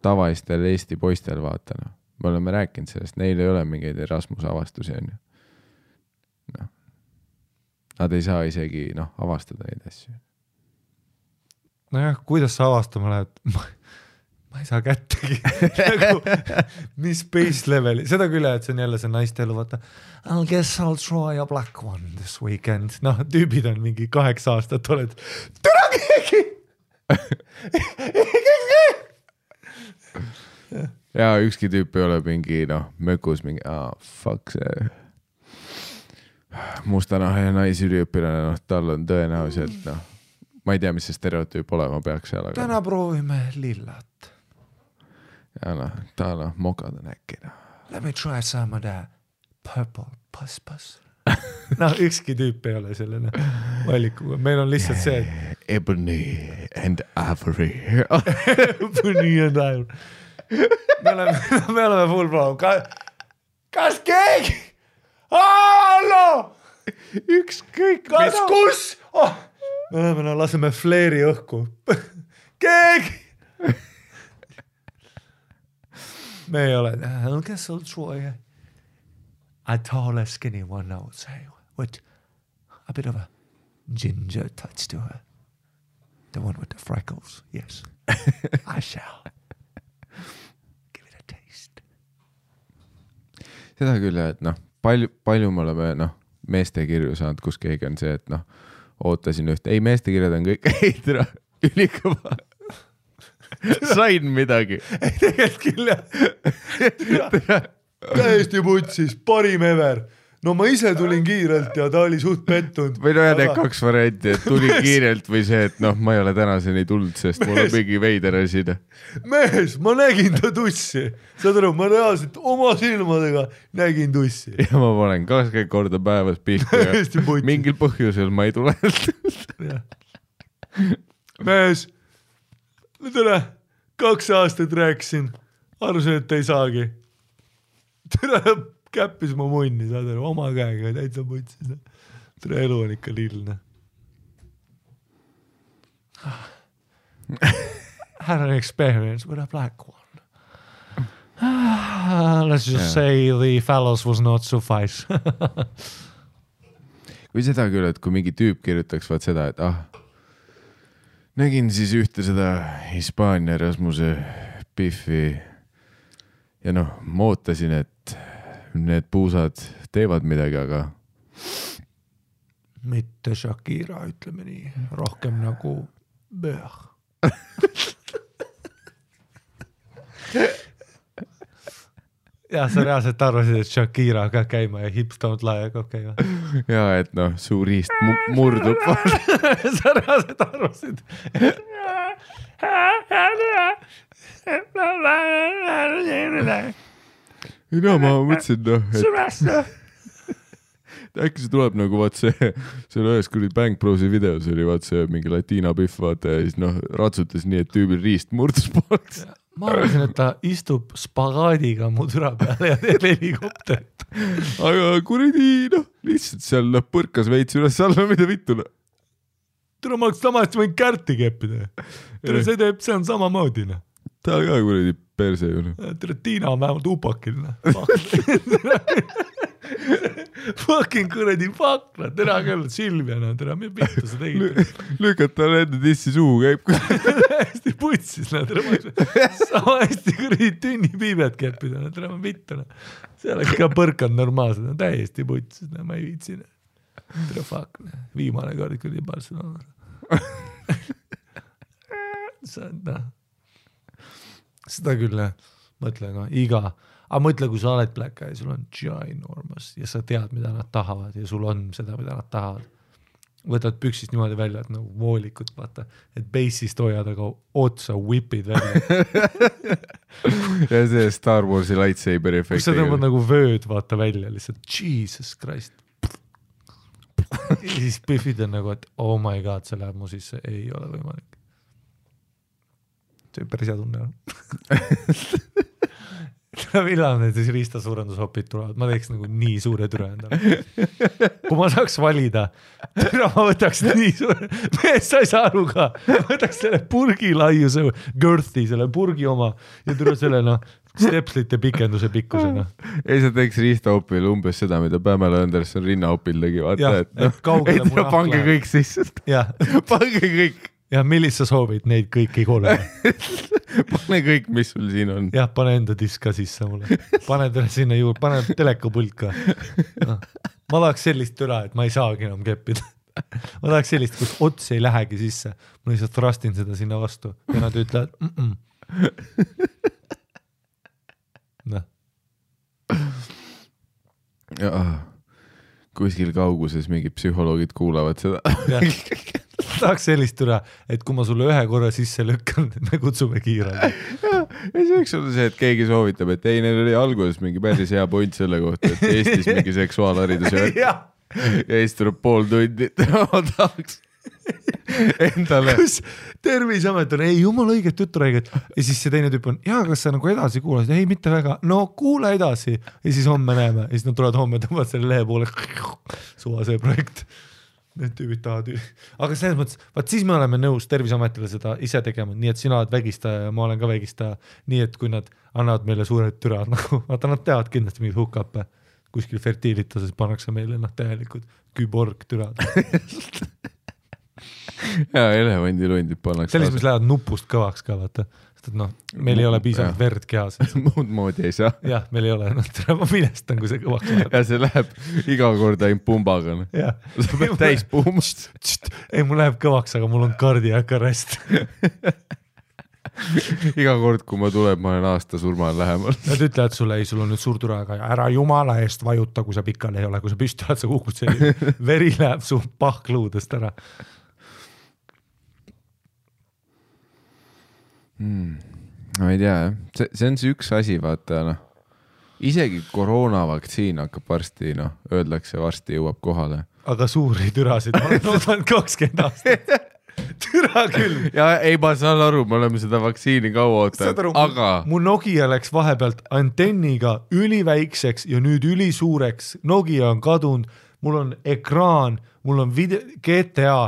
tavalistel Eesti poistel vaata, noh. Me oleme rääkinud sellest, neil ei ole mingeid Erasmus avastusi, on ju. No. Nad ei saa isegi, noh, avastada neid asju. Nojah, kuidas sa avastama lähed? Ma ei saa kättegi. Nagu, mis base leveli? Seda küll, et see on jälle see naiste elu, vaata. I guess I'll try a black one this weekend. Noh, tüübid on mingi 8 aastat, oled türa keegi! Ja ükski tüüp ei ole mingi, noh, mökus mingi, fuck see mustanahe naisüliõpilane, noh, tal on tõenäoliselt, noh, ma ei tea, mis see stereotüüp olema peaks seal. Aga... Täna proovime lillat. Ja noh, ta noh, mokad on äkki, noh. Let me try some of that purple puss. Noh, ükski tüüp ei ole selline valikuga. Meil on lihtsalt see, et... Ebony and Ivory. Ebony and Ivory. Me oleme full problem. kas keegi? Hallo! Ükskõik kas kus? Oh, me oleme, laseme fleeri õhku. Keegi! me ei ole, kes sul Troy? A tall skinny one, I would say, with a bit of a ginger touch to her. The one with the freckles, yes. I shall. Give it a taste. Seda küll, et palju me oleme meeste kirju saanud, kus keegi on see, et ootasin üht. Ei, meeste kirjad on kõik heidra, ülikõva. Sain midagi. Ei, tegelikult küll, jah. Täiesti putsis, parim ever. No ma ise tulin kiirelt ja ta oli suht pettunud. Või need 2 varianti, et tuli kiirelt või see, et ma ei ole tänaseni tulnud, sest mul on mingi veider asi. Mees, ma nägin ta tussi. Saad aru, ma reaalselt oma silmadega nägin tussi. Ja ma panen 20 korda päevas pihtu ja mingil põhjusel ma ei tule. Mees, tere, 2 aastat rääkisin, arvasin, et ei saagi. Tere, käppis mu munni, saad aru, oma käega täitsa putsis. Tere, elu on ikka lillne. Had an experience with a black one. Let's just say the phallus was not suffice. Kui seda küll, et kui mingi tüüp kirjutaks vaat seda, et nägin siis ühte seda Hispaania Rasmuse Biffi ja ma ootasin, et need puusad teevad midagi, aga mitte Shakira, ütleme nii, rohkem nagu Böh. Ja sa reaalselt arvasid, et Shakira ka käima ja hips don't lie, aga okei. Ja, et suur riist murdub. Sa reaalselt arvasid. Ma mõtlesin, et äkki see tuleb nagu vaat see ühes kuradi Bang Brosi videos oli vaat see mingi Latina Biff vaata ja siis ratsutas nii, et tüübil riist murdus pooleks. Ma arvasin, et ta istub spagaadiga mu türa peale ja teeb helikopterit. Aga kuradi, lihtsalt seal põrkas veits üles alla, mida vittu. Türa, ma oleks samast võin kärti keppida. Türa, see on samamoodi. Ta ka kuradi perse ju. Türa, Tiina on vähemalt upakil. Fucking kuradi fakla, tere küll, Silvia, tere, me vittu sa tegid. Lükata enda dissi suhu käib. Hästi putsis, tere, sama hästi kuradi tünnipiibet keppida, tere, ma vittu. See oleks ka põrkanud normaalselt, täiesti putsis, ma ei viitsin. Tere, fuck, viimane kord kuradi Barcelona. Seda küll, mõtle, aga mõtle, kui sa oled Black Eye, sul on ginormous ja sa tead, mida nad tahavad ja sul on seda, mida nad tahavad. Võtad püksist niimoodi välja, et voolikut, vaata, et bassist hoiad, aga otsa whipid välja. Ja see Star Warsi lightsaber efekt. Kus sa tõmbad nagu vööd, vaata välja, lihtsalt Jesus Christ. Ja siis Biffid on nagu, et oh my god, see läheb mu sisse, ei ole võimalik. See päris hea tunne on. Millal need siis riistasuurendushopid tulevad, ma teeks nagu nii suure türa endale. Kui ma saaks valida, türa ma võtaks nii suure, mees sa ei saa aru ka, võtaks selle purgi laiuse, girthi, selle purgi oma ja türa selle stepslite pikenduse pikkusena. Ei, sa teeks riistahopil umbes seda, mida Pamela Anderson rinnahopil tegi, vaata, et pange kõik sisse. Pange kõik. Ja millist sa soovid, neid kõiki kolme? Pane kõik, mis sul siin on. Jah, pane enda disk ka sisse mulle. Pane sinna juurde, pane telekapult ka. Ma tahaks sellist türa, et ma ei saagi enam keppida. Ma tahaks sellist, kus ots ei lähegi sisse. Ma lihtsalt rastin seda sinna vastu ja nad ütlevad Kuskil kauguses mingid psühholoogid kuulavad seda. Tahaks sellist türa, et kui ma sulle ühe korra sisse lükkan, me kutsume kiirelt. Ja see võiks olla see, et keegi soovitab, et ei, neil oli alguses mingi päris hea point selle kohta, et Eestis mingi seksuaalharidus ja siis tuleb pool tundi, ma tahaks. endale . kus Terviseamet on, ei jumala õiget juttu räägid ja siis see teine tüüp on, kas sa nagu edasi kuulasid, ei mitte väga, no kuule edasi ja siis homme näeme ja siis nad tulevad homme, tõmbavad selle lehe poole, suva see projekt, need tüübid tahavad, aga selles mõttes, vaat siis me oleme nõus Terviseametile seda ise tegema, nii et sina oled vägistaja ja ma olen ka vägistaja, nii et kui nad annavad meile suured türad, nagu vaata nad teavad kindlasti mingid hookuppe, kuskil fertiilituses pannakse meile täielikud küborg türad. ja elevandilundid pannakse . selles, mis lähevad nupust kõvaks ka, vaata. Sest et noh, meil ei ole piisavalt verd kehas. muud moodi ei saa . jah, meil ei ole, ma minestan, kui see kõvaks läheb. ja see läheb iga kord ainult pumbaga . sa pead täis puumust . ei, mul läheb kõvaks, aga mul on cardiac arrest. iga kord, kui ma tulen, ma olen aasta surmal lähemal . Nad ütlevad sulle, ei, sul on nüüd suur türa, aga ära jumala eest vajuta, kui sa pikali ei ole, kui sa püsti oled, sa kukud selline, veri läheb su pahkluudest ära. ma ei tea jah , see on see üks asi , vaata noh , isegi koroonavaktsiin hakkab varsti , noh , öeldakse varsti jõuab kohale . aga suuri türasid, ma olen oodanud 20 aastat . türa küll . ja ei , ma saan aru , me oleme seda vaktsiini kaua ootanud , aga mu Nokia läks vahepealt antenniga üliväikseks ja nüüd ülisuureks. Nokia on kadunud, mul on ekraan, mul on GTA ,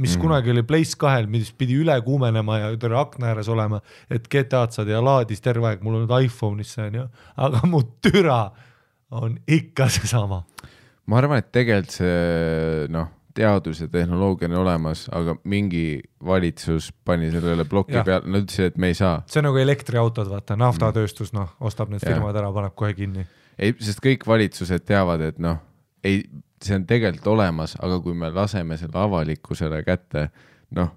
mis kunagi oli Place 2-l, mis pidi üle kuumenema ja terve akna ääres olema, et GTA-d saad ja laadis terve aeg, mul on nüüd iPhone'is see on ju, aga mu türa on ikka see sama. ma arvan , et tegelikult see noh , teadus ja tehnoloogia on olemas , aga mingi valitsus pani sellele ploki peale , nad ütlesid , et me ei saa . see on nagu elektriautod, vaata, naftatööstus, noh, ostab need firmad ära, paneb kohe kinni. ei , sest kõik valitsused teavad , et noh , ei , see on tegelikult olemas , aga kui me laseme selle avalikkusele kätte , noh ,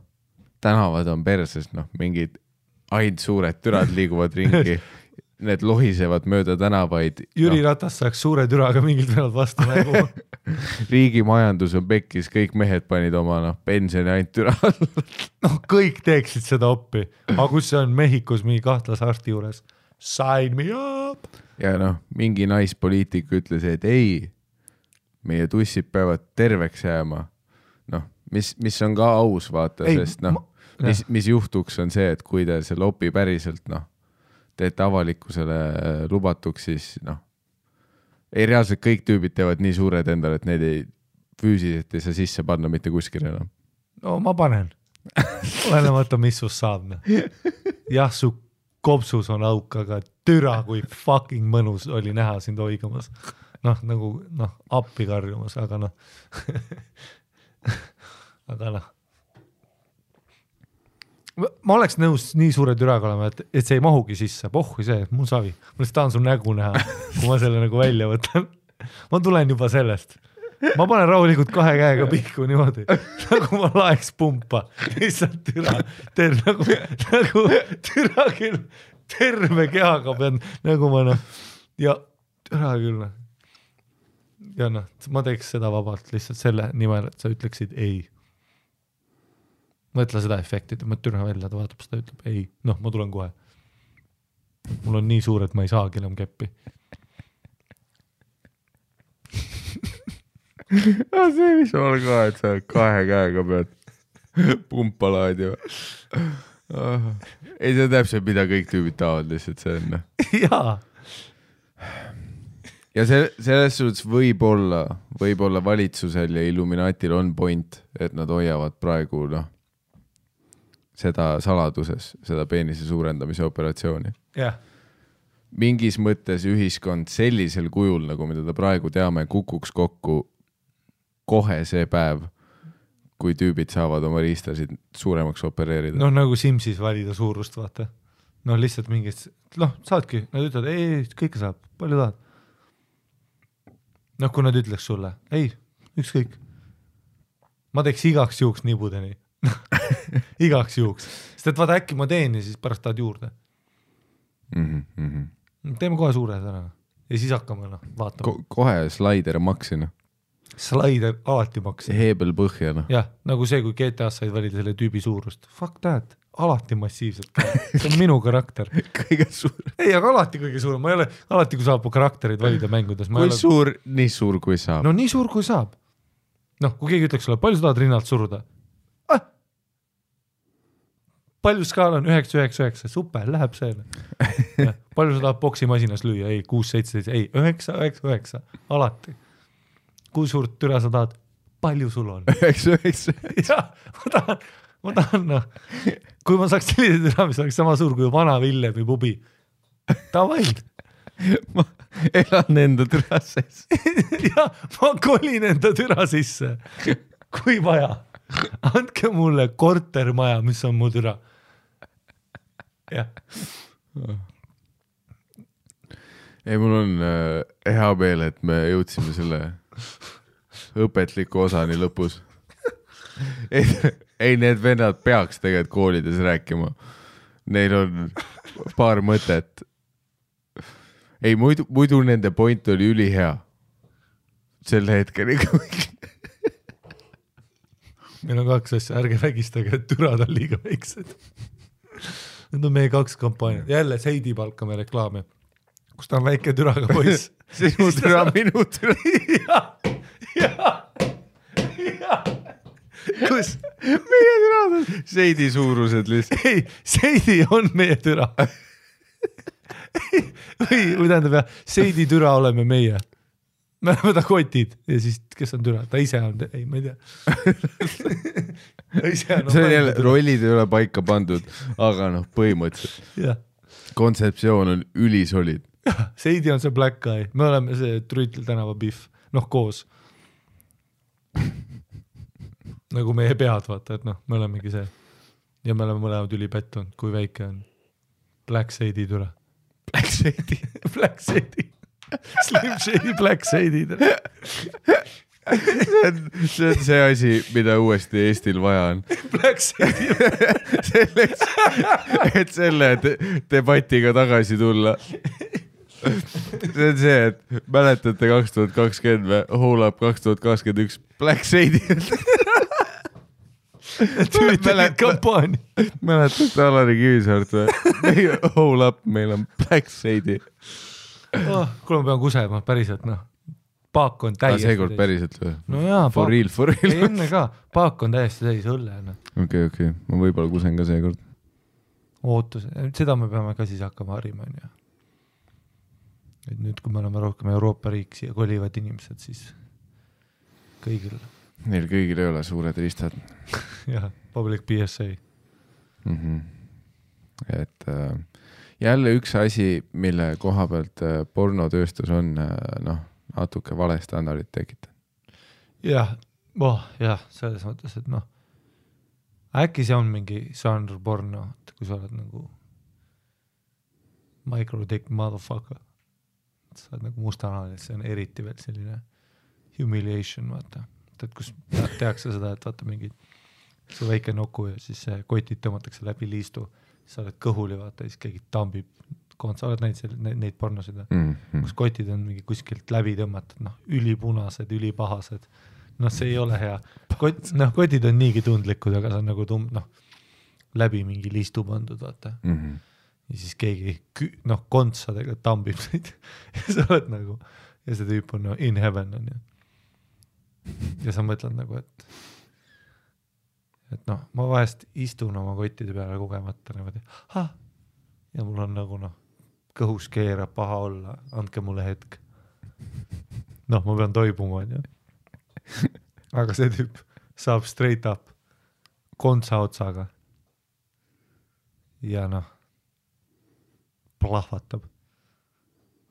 tänavad on perses , noh , mingid ainult suured türad liiguvad ringi , need lohisevad mööda tänavaid . Jüri Ratas saaks suure türaga mingilt pealt vastu nägu. riigi majandus on pekkis , kõik mehed panid oma noh , pensioni ainult türa . noh , kõik teeksid seda oppi , aga kus see on Mehhikos mingi kahtlase arsti juures? Sign me up! ja noh , mingi naispoliitik ütles , et ei , meie tussid peavad terveks jääma . noh , mis on ka aus , vaata , sest noh , mis juhtuks on see , et kui te selle opi päriselt noh , teete avalikkusele lubatuks , siis noh , ei reaalselt kõik tüübid teevad nii suured endale , et need ei füüsiliselt ei saa sisse panna mitte kuskil enam . no ma panen . olenemata , mis sust saab . jah , su kopsus on auk , aga türa kui fucking mõnus oli näha sind oigamas . noh , nagu noh , appi karjumas , aga noh . aga noh . ma oleks nõus nii suure türaga olema , et see ei mahugi sisse , pohhui see , mul savi . ma lihtsalt tahan su nägu näha , kui ma selle nagu välja võtan . ma tulen juba sellest . ma panen rahulikult 2 käega pihku niimoodi , nagu ma laeks pumpa . lihtsalt türa , nagu türa küll , terve kehaga pean , nagu ma noh , ja türa küll . ja noh , ma teeks seda vabalt lihtsalt selle nimel , et sa ütleksid ei . mõtle seda efekti , ma türa välja , ta vaatab seda , ütleb ei , noh , ma tulen kohe . mul on nii suur , et ma ei saagi enam keppi . see , mis on ka , et sa 2 käega pead pumpa laadima . ei , see on täpselt , mida kõik tüübid tahavad , lihtsalt see on . jaa . ja selles suhtes võib-olla valitsusel ja Illuminatil on point , et nad hoiavad praegu noh , seda saladuses , seda peenise suurendamise operatsiooni . jah . mingis mõttes ühiskond sellisel kujul , nagu mida ta praegu teame , kukuks kokku kohe see päev , kui tüübid saavad oma riistasid suuremaks opereerida . noh , nagu Simsis valida suurust , vaata . noh , lihtsalt mingist , noh , saadki , nad ütlevad , ei , kõike saab , palju tahad . noh , kui nad ütleks sulle , ei , ükskõik . ma teeks igaks juhuks nibudeni . igaks juhuks , sest et vaata äkki ma teen ja siis pärast tahad juurde . teeme kohe suured ära ja siis hakkame noh vaatama . kohe slaider maksina . Slaider alati maksin . heebel põhja noh . jah , nagu see , kui GTA-s said valida selle tüübi suurust . Fuck that , alati massiivselt . see on minu karakter . kõige suurem . ei , aga alati kõige suurem , ma ei ole , alati kui saab karakterid valida mängudes . kui suur , nii suur kui saab . no nii suur kui saab . noh , kui keegi ütleks sulle , palju sa tahad rinnalt suruda ? palju skaal on 9-9-9, super, läheb see. Palju sa tahad boksimasinas lüüa? Ei, 6-7, ei, 9-9-9, alati. Kui suurt türa sa tahad? Palju sul on? 9-9. Jah, ma tahan, noh, kui ma saaks sellise türa, mis oleks sama suur kui vana Villem või pubi. Tavai. Ma elan enda türa sees. Ja, ma kolin enda türa sisse. Kui vaja. Andke mulle kortermaja, mis on mu türa. Jah. Ei, mul on hea meel, et me jõudsime selle õpetliku osani lõpus. Ei, need vennad peaks tegelikult koolides rääkima. Neil on paar mõtet. Ei, muidu nende point oli ülihea. Selle hetkeni. Meil on 2 asja, ärge vägistage, et türad on liiga väiksed. Need on meie 2 kampaaniad. Jälle Seidi palkame reklaami, kus ta on väike türaga poiss. Sinu türa, minu türa. Ja. Kus? Meie türad on Seidi suurused lihtsalt. Ei, Seidi on meie türa. Või tähendab jah, Seidi türa oleme meie. Me oleme ta kotid ja siis, kes on türa, ta ise on, ei, ma ei tea. See on jälle, rollid ei ole paika pandud, aga noh, põhimõtteliselt. Ja. Kontseptsioon on ülisolid. Seidi on see black guy, me oleme see Trüütel tänava Biff, noh koos. Nagu meie pead, vaata, et noh, me olemegi see. Ja me oleme mõlemad ülipettunud, kui väike on. Black Seidi türa. Black Seidi. Black Seidi. Slim Shady, Black Shady. See on see asi, mida uuesti Eestil vaja on. Black Shady. Selleks, et selle debatiga tagasi tulla. See on see, et mäletate 2020 või Whole Up 2021 Black Shady. Tüütelid kampaania. Mäletate Alari Kivisaart või? Whole Up, meil on Black Shady. Kuule ma pean kusema, päriselt noh. Paak on täiesti seekord päriselt või? No jaa, for real. Ei, enne ka, paak on täiesti täis õlle. Okei, ma võib-olla kusen ka seekord. Ootus, seda me peame ka siis hakkama harima. Et nüüd, kui me oleme rohkem Euroopa riik siia kolivad inimesed, siis kõigil. Neil kõigil ei ole suured ristad. Jah, public PSA. Et jälle üks asi, mille koha pealt pornotööstus on natuke vale standardit tekitab. Jah, selles mõttes, et noh, äkki see on mingi žanr porno, et kui sa oled nagu micro-dick motherfucker, sa oled nagu mustanal, see on eriti veel selline humiliation, vaata. Et kus tehakse seda, et vaata mingi see väike nuku ja siis kotid tõmmatakse läbi liistu, sa oled kõhuli, vaata, siis keegi tambib, sa oled neid pornosid, kus kotid on mingi kuskilt läbi tõmmatud, noh, ülipunased, ülipahased, noh, see ei ole hea. Kotid on niigi tundlikud, aga see on nagu läbi mingi liistu pandud, vaata. Ja siis keegi, noh, kontsadega tambib neid ja sa oled nagu, ja see tüüp on in heaven on ju. Ja sa mõtled nagu, et noh, ma vahest istun oma kottide peale kogemata niimoodi, ja mul on nagu noh, kõhus keerab paha olla, andke mulle hetk. Noh, ma pean toibuma, on ju. Aga see tüüp saab straight up kontsa otsaga ja noh, plahvatab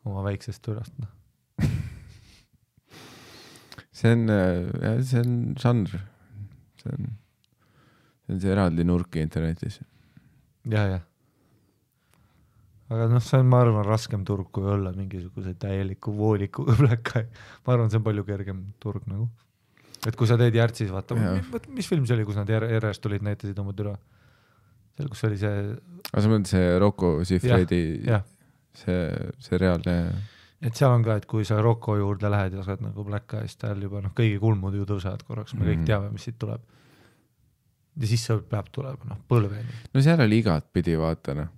oma väiksest türast, noh. See on žanr. See on see eraldi nurk internetis. Ja. Aga noh, see on, ma arvan, raskem turg kui olla mingisuguse täieliku voolikuga pläkka. Ma arvan, see on palju kergem turg nagu. Et kui sa teed Järtsis, vaata, mis film see oli, kus nad järjest tulid, näitasid oma türa? Seal, kus oli see... Aga sa mõtled see Rocco Siffredi, see reaalne... Et seal on ka, et kui sa Rocco juurde lähed ja sa oled nagu pläkka ja siis tal juba noh, kõigi kulmud ju tõusevad korraks, me kõik teame, mis siit tuleb. Ja siis see peab tulema, noh, põlveni. No seal oli igat pidi, vaata, noh.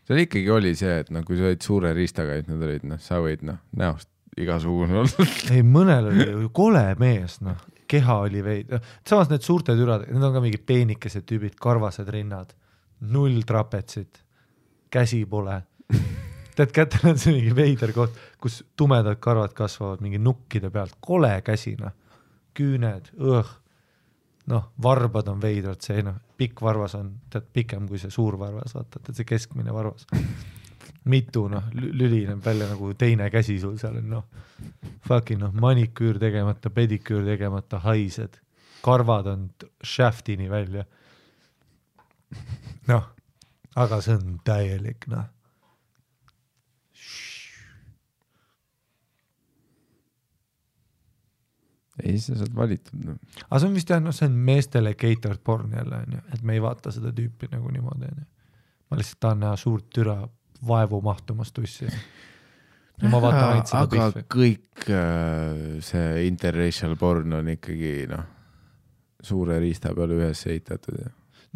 Seal ikkagi oli see, et noh, kui sa olid suure riistaga, et nad olid, noh, sa võid, noh, näost igasugune olla. Ei, mõnel oli ju kole mees, noh, keha oli veid. Samas need suurte türad, need on ka mingi peenikesed tüübid, karvased rinnad. 0 trapetsit, käsi pole. Tead, kätel on see mingi veider koht, kus tumedad karvad kasvavad mingi nukkide pealt, kole käsina, küüned, noh, varbad on veidrad, see pikk varvas on tead pikem kui see suur varvas, vaata, see keskmine varvas. Mitu, lülineb välja nagu teine käsi sul seal on, fucking maniküür tegemata, pediküür tegemata, haised, karvad on shaftini välja. Aga see on täielik, Ei, sa saad valitud. Aga see on vist see on meestele catered porn jälle, et me ei vaata seda tüüpi nagu niimoodi. Ma lihtsalt tahan näha suurt türa vaevu mahtumas tussi. Ja ma vaatan ainult seda aga pihvi. Kõik see interracial porn on ikkagi suure riista peale ühes ehitatud.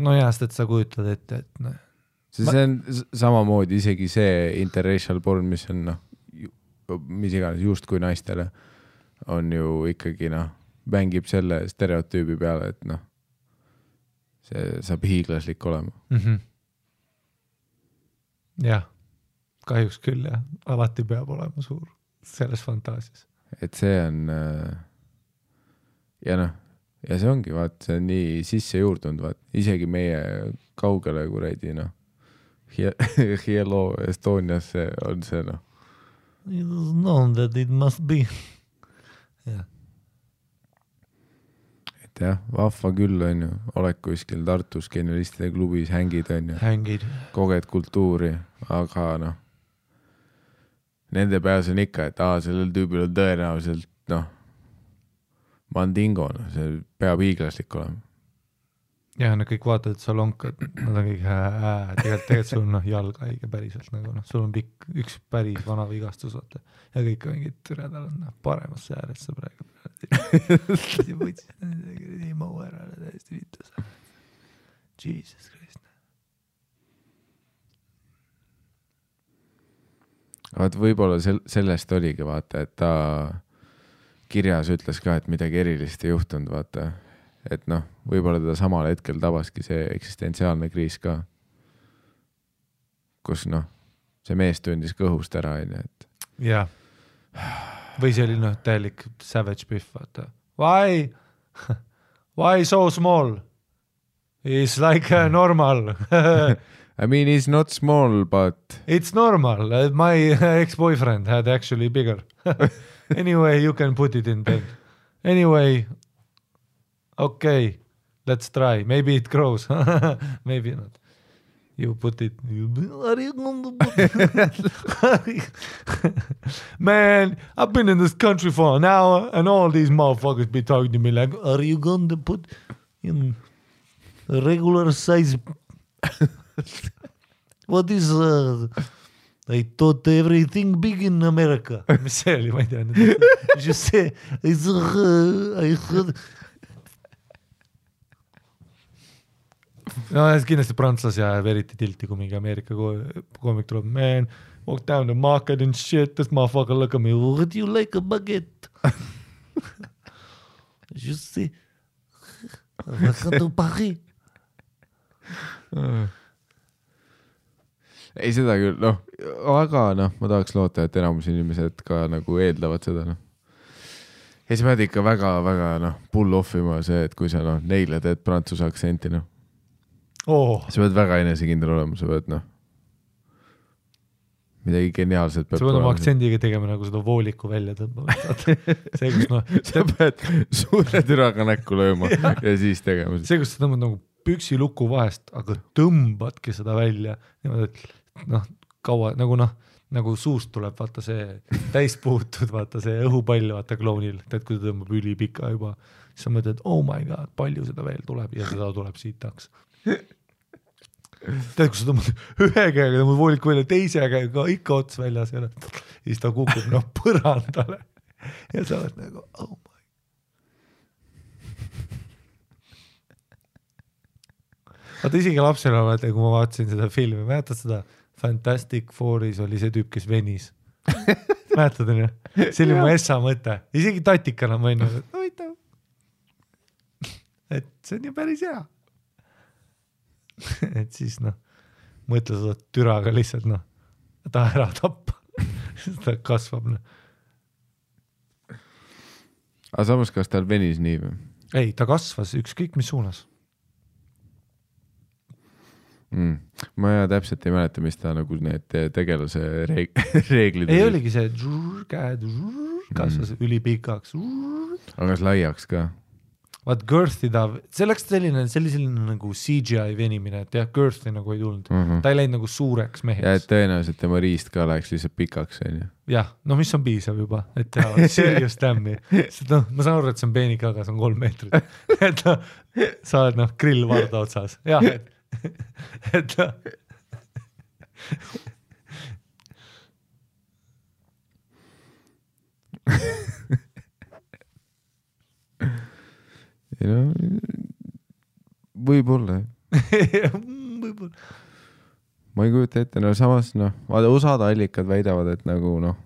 No jääst, et sa kujutad ette, et see on samamoodi isegi see interracial porn, mis on mis iganes just kui naistele on ju ikkagi mängib selle stereotüübi peale, et see saab hiiglaslik olema. Jah, kahjuks küll jah, alati peab olema suur selles fantaasias. Et see on ja see ongi, vaat, see on nii sisse juurdunud, vaat, isegi meie kaugele kuradi Hello Estonias on see It is known that it must be. Jah. Et jah, vahva küll on ju, oled kuskil Tartus genialistide klubis, hängid on ju, Hängid. koged kultuuri, aga nende peas on ikka, et sellel tüübil on tõenäoliselt mandingo, see peab hiiglaslik olema. Ja nad kõik vaatavad, et sa lonkad, nad on kõik tegelikult sul on jalg haige päriselt, sul on pikk, üks päris vana vigastus, vaata. Ja kõik mingid türedal on paremas sääres sa praegu. Ei mau ära täiesti vitus. Jesus Christ. Vaat võib-olla sellest oligi, vaata, et ta kirjas ütles ka, et midagi erilist ei juhtunud, vaata. Et võib-olla teda samal hetkel tabaski see eksistentsiaalne kriis ka, kus see mees tundis kõhust ära, et jah. Või see oli täielik savage biff, vaata. Why? Why so small? It's like normal. I mean, it's not small, but It's normal. My ex-boyfriend had actually bigger. Anyway, you can put it in bed. Anyway, okay, let's try. Maybe it grows. Maybe not. You put it. Are you going to put it? Man, I've been in this country for an hour and all these motherfuckers be talking to me like, Are you going to put in a regular size? What is I thought everything big in America. mis see oli, ma ei tea. Just say, I heard. No kindlasti prantslasi ajab eriti tilti, kui mingi Ameerika koomik tuleb. Man, walk down the market and shit, this motherfucker look at me. Would you like a baguette? Just say, welcome to Paris. ei seda küll, aga ma tahaks loota, et enamus inimesed ka nagu eeldavad seda, Ja sa pead ikka väga pull offima see, et kui sa neile teed prantsuse aktsenti, sa pead väga enesekindel olema, sa pead midagi geniaalset peab sa pead oma aktsendiga tegema nagu seda vooliku välja tõmbama. See, kus sa pead suure türaga näkku lööma ja siis tegema. See, kus sa tõmbad nagu püksiluku vahest, aga tõmbadki seda välja. Kaua, nagu suust tuleb, vaata see täis puutud, vaata see õhupall, vaata kloonil, tead, kui ta tõmbab ülipika juba, siis sa mõtled, oh my god, palju seda veel tuleb ja seda tuleb siitaks. Tead, kui sa tõmbad ühe käega, tõmbad vooliku välja, teise käega ikka ots väljas ja siis ta kukub põrandale ja sa oled nagu, oh my. Vaata isegi lapsena, kui ma vaatasin seda filmi, mäletad seda Fantastic Fouris oli see tüüp, kes venis. Mäletad on ju? See oli mu essa mõte. Isegi tatikana ma enne, et see on ju päris hea. et siis noh, mõtle seda türaga lihtsalt noh, ta ära tappa. ta kasvab noh. aga samas, kas tal venis nii või? Ei, ta kasvas ükskõik mis suunas. Ma täpselt ei mäleta, mis ta nagu need tegelase reeglid ei oligi see käed kasvas ülipikaks. aga kas laiaks ka? Vaat girth'i see läks selline nagu CGI venimine, et jah, girth'i nagu ei tulnud. Ta ei läinud nagu suureks meheks. ja et tõenäoliselt tema riist ka läheks lihtsalt pikaks, on ju. jah, no mis on piisav juba, et teha serious dam'i. No, ma saan aru, et see on peenik, aga see on 3 meetrit. et no, sa oled noh, grill varda otsas. jah, et no. ei no, võib-olla. võib-olla. ma ei kujuta ette, no samas noh, osad allikad väidavad, et nagu noh,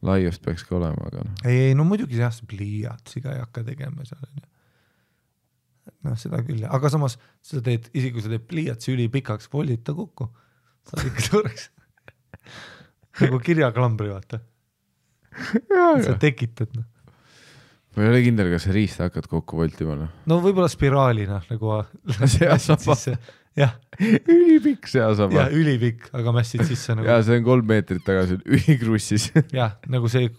laiust peaks ka olema, aga noh. ei, no muidugi jah, see pliiatsiga ei hakka tegema seal. noh, seda küll, aga samas sa teed, isegi kui sa teed pliiatsi ülipikaks, voldid ta kokku. Saad ikka suureks. nagu kirjaklambri, vaata. sa tekitad, noh. ma ei ole kindel, kas see riist hakkad kokku voltima, noh. no võib-olla spiraalina nagu seasaba. jah. ülipikk seasaba. jah, ülipikk, aga mässid sisse nagu. ja see on 3 meetrit tagasi ülikrussis. jah, nagu see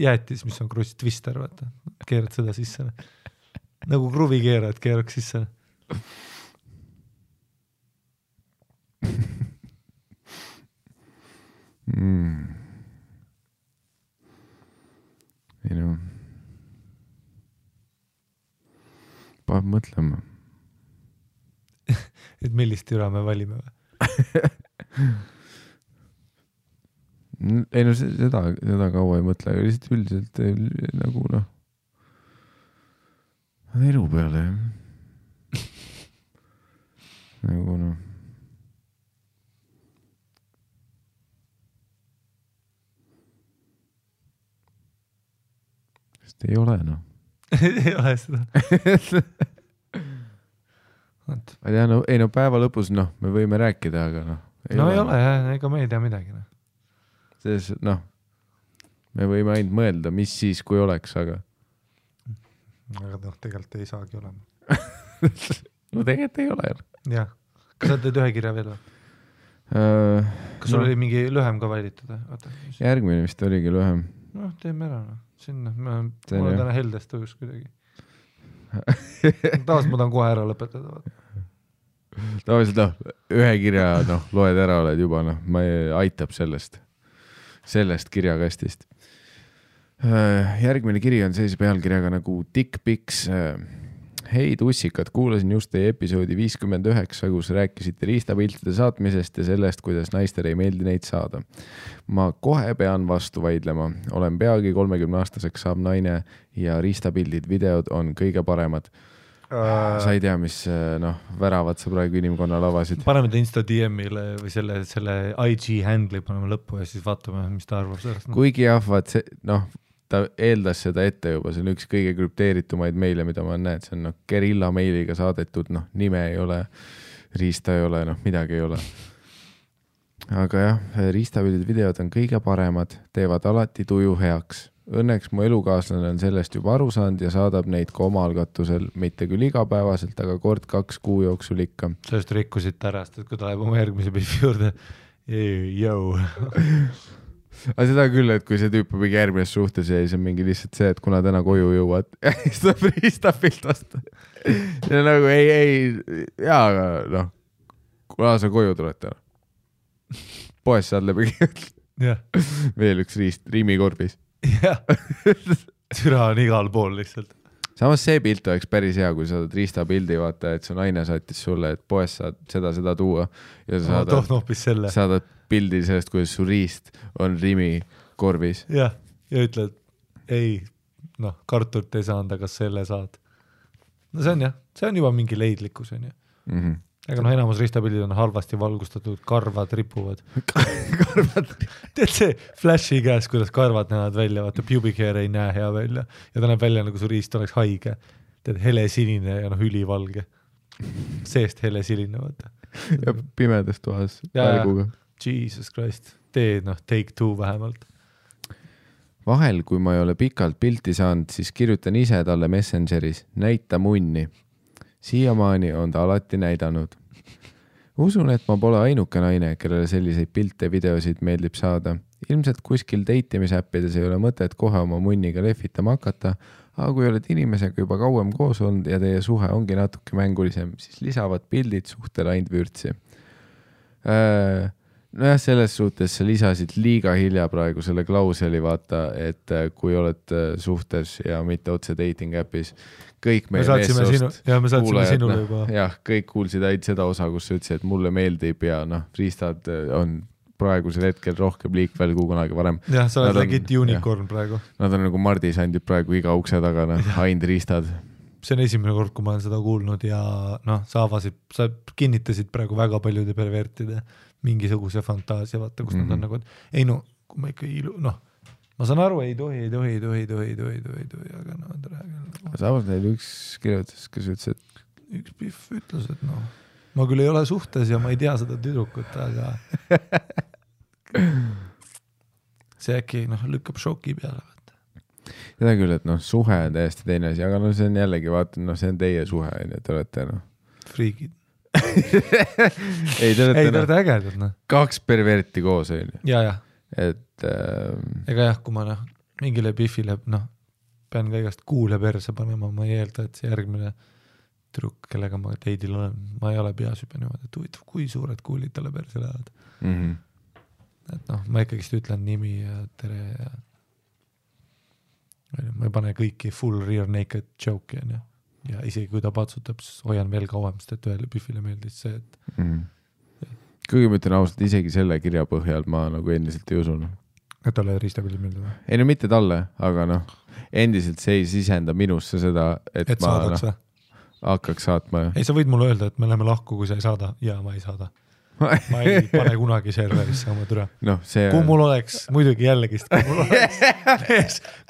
jäätis, mis on kruss twister, vaata. Keerad seda sisse. nagu kruvi keerad, keeraks sisse. ei no. Paneb mõtlema. et millist türa me valime või? ei no seda kaua ei mõtle, aga lihtsalt üldiselt nagu noh, elu peale jah. nagu noh. sest ei ole noh. ei ole seda. ma ei tea, no ei no päeva lõpus noh, me võime rääkida, aga noh. ei ole jah, ega me ei tea midagi noh. selles noh, me võime ainult mõelda, mis siis, kui oleks, aga noh, tegelikult ei saagi olema. no tegelikult ei ole. jah, kas sa teed ühe kirja veel või? kas sul oli mingi lühem ka valitud? järgmine vist oligi lühem. noh, teeme ära noh. sinna, ma olen täna heldest tõus kuidagi. taas ma tahan kohe ära lõpetada. tavaliselt noh, ühe kirja noh, loed ära, oled juba noh, ma aitab sellest kirjakastist. Järgmine kiri on sellise pealkirjaga nagu Dick Pics. Hei tussikad, kuulasin just teie episoodi 59, kus rääkisite riistapiltide saatmisest ja sellest, kuidas naistele ei meeldi neid saada. Ma kohe pean vastu vaidlema. Olen peagi 30-aastaseks saab naine ja riistapildid, videod on kõige paremad. Sa ei tea, mis noh, väravad sa praegu inimkonnal avasid. Paneme ta Insta DM-ile või selle IG handle'i paneme lõppu ja siis vaatame, mis ta arvab sellest. Kuigi jah, vaat see, noh, ta eeldas seda ette juba, see on üks kõige krüpteeritumaid meile, mida ma näen, see on noh, gerilla meiliga saadetud, noh, nime ei ole, riista ei ole, noh, midagi ei ole. Aga jah, riistapildid videod on kõige paremad, teevad alati tuju heaks. Õnneks mu elukaaslane on sellest juba aru saanud ja saadab neid ka oma algatusel, mitte küll igapäevaselt, aga kord 2 kuu jooksul ikka. Sellest rikkusid tärast, et kui ta läheb oma järgmise pildi juurde, jõu. aga seda küll, et kui see tüüp on mingi järgmises suhtes ja siis on mingi lihtsalt see, et kuna täna koju jõuad ja siis tuleb riistapilt vastu. ja nagu ei, jaa, aga noh, kuna sa koju tuled täna. Poes saad läbi veel üks riist riimikorbis. jah, türa on igal pool lihtsalt. samas see pilt oleks päris hea, kui saad riistapildi, vaata, et su naine saatis sulle, et poes saad seda tuua ja sa saadad pildi sellest, kuidas su riist on Rimi korbis. jah, ja ütled, ei, noh, kartult ei saanud, aga selle saad. no see on jah, see on juba mingi leidlikkus, on ju. Aga noh, enamus ristapildid on halvasti valgustatud, karvad ripuvad. Teed see flashi käes, kuidas karvad näevad välja, vaata pubic hair ei näe hea välja ja ta näeb välja, nagu su riist oleks haige. Teed hele sinine ja noh, ülivalge. seest hele siline, vaata. ja pimedas toas Ja. välguga. Jesus Christ, tee take two vähemalt. Vahel, kui ma ei ole pikalt pilti saanud, siis kirjutan ise talle Messengeris, näita munni. Siiamaani on ta alati näidanud. Usun, et ma pole ainuke naine, kellele selliseid pilte, videosid meeldib saada. Ilmselt kuskil datimisäppides ei ole mõtet kohe oma munniga lehvitama hakata, aga kui oled inimesega juba kauem koos olnud ja teie suhe ongi natuke mängulisem, siis lisavad pildid suhtele ainult vürtsi. Nojah, selles suhtes sa lisasid liiga hilja praegu selle klauseli, vaata, et kui oled suhtes ja mitte otse dating appis, kõik meie meessoost sinule juba. Jah, kõik kuulsid ainult seda osa, kus sa ütlesid, et mulle meeldib ja riistad on praegusel hetkel rohkem liikvel kui kunagi varem. Jah, sa oled legit unicorn praegu. Nad on nagu mardisandid praegu iga ukse tagana, ainult riistad. See on esimene kord, kui ma olen seda kuulnud ja sa kinnitasid praegu väga paljude pervertide mingisuguse fantaasia, vaata, kus nad on nagu, et ei kui ma ikka ma saan aru, ei tohi, aga samas neil üks kirjutas, kes ütles, et üks pihv ütles, et ma küll ei ole suhtes ja ma ei tea seda tüdrukut, aga see äkki lükkab šoki peale, vaata. Seda küll, et suhe on täiesti teine asi, aga see on jällegi, vaata, see on teie suhe, te olete friigid. ei, te olete ägedad, kaks perverti koos, on ju. Ja. Et ega jah, kui ma mingile pihvile, pean ka igast kuule perse panema, ma ei eelda, et see järgmine tüdruk, kellega ma teidil olen, ma ei ole peas juba niimoodi, et huvitav, kui suured kuulid talle perse lähevad. Et ma ikkagist ütlen nimi ja tere ja ma ei pane kõiki full rear naked joke'i, on ju. Ja isegi kui ta patsutab, siis hoian veel kauem, sest et ühele pihvile meeldis see, et kuigi ma ütlen ausalt, isegi selle kirja põhjal ma nagu endiselt ei usun. Et talle riistapildid meeldib? Ei mitte talle, aga endiselt see ei sisenda minusse seda, et ma hakkaks saatma. Ei, sa võid mulle öelda, et me läheme lahku, kui sa ei saada. Ja ma ei saada. Ma ei pane kunagi serverisse oma türa. Kui mul oleks, muidugi jällegist,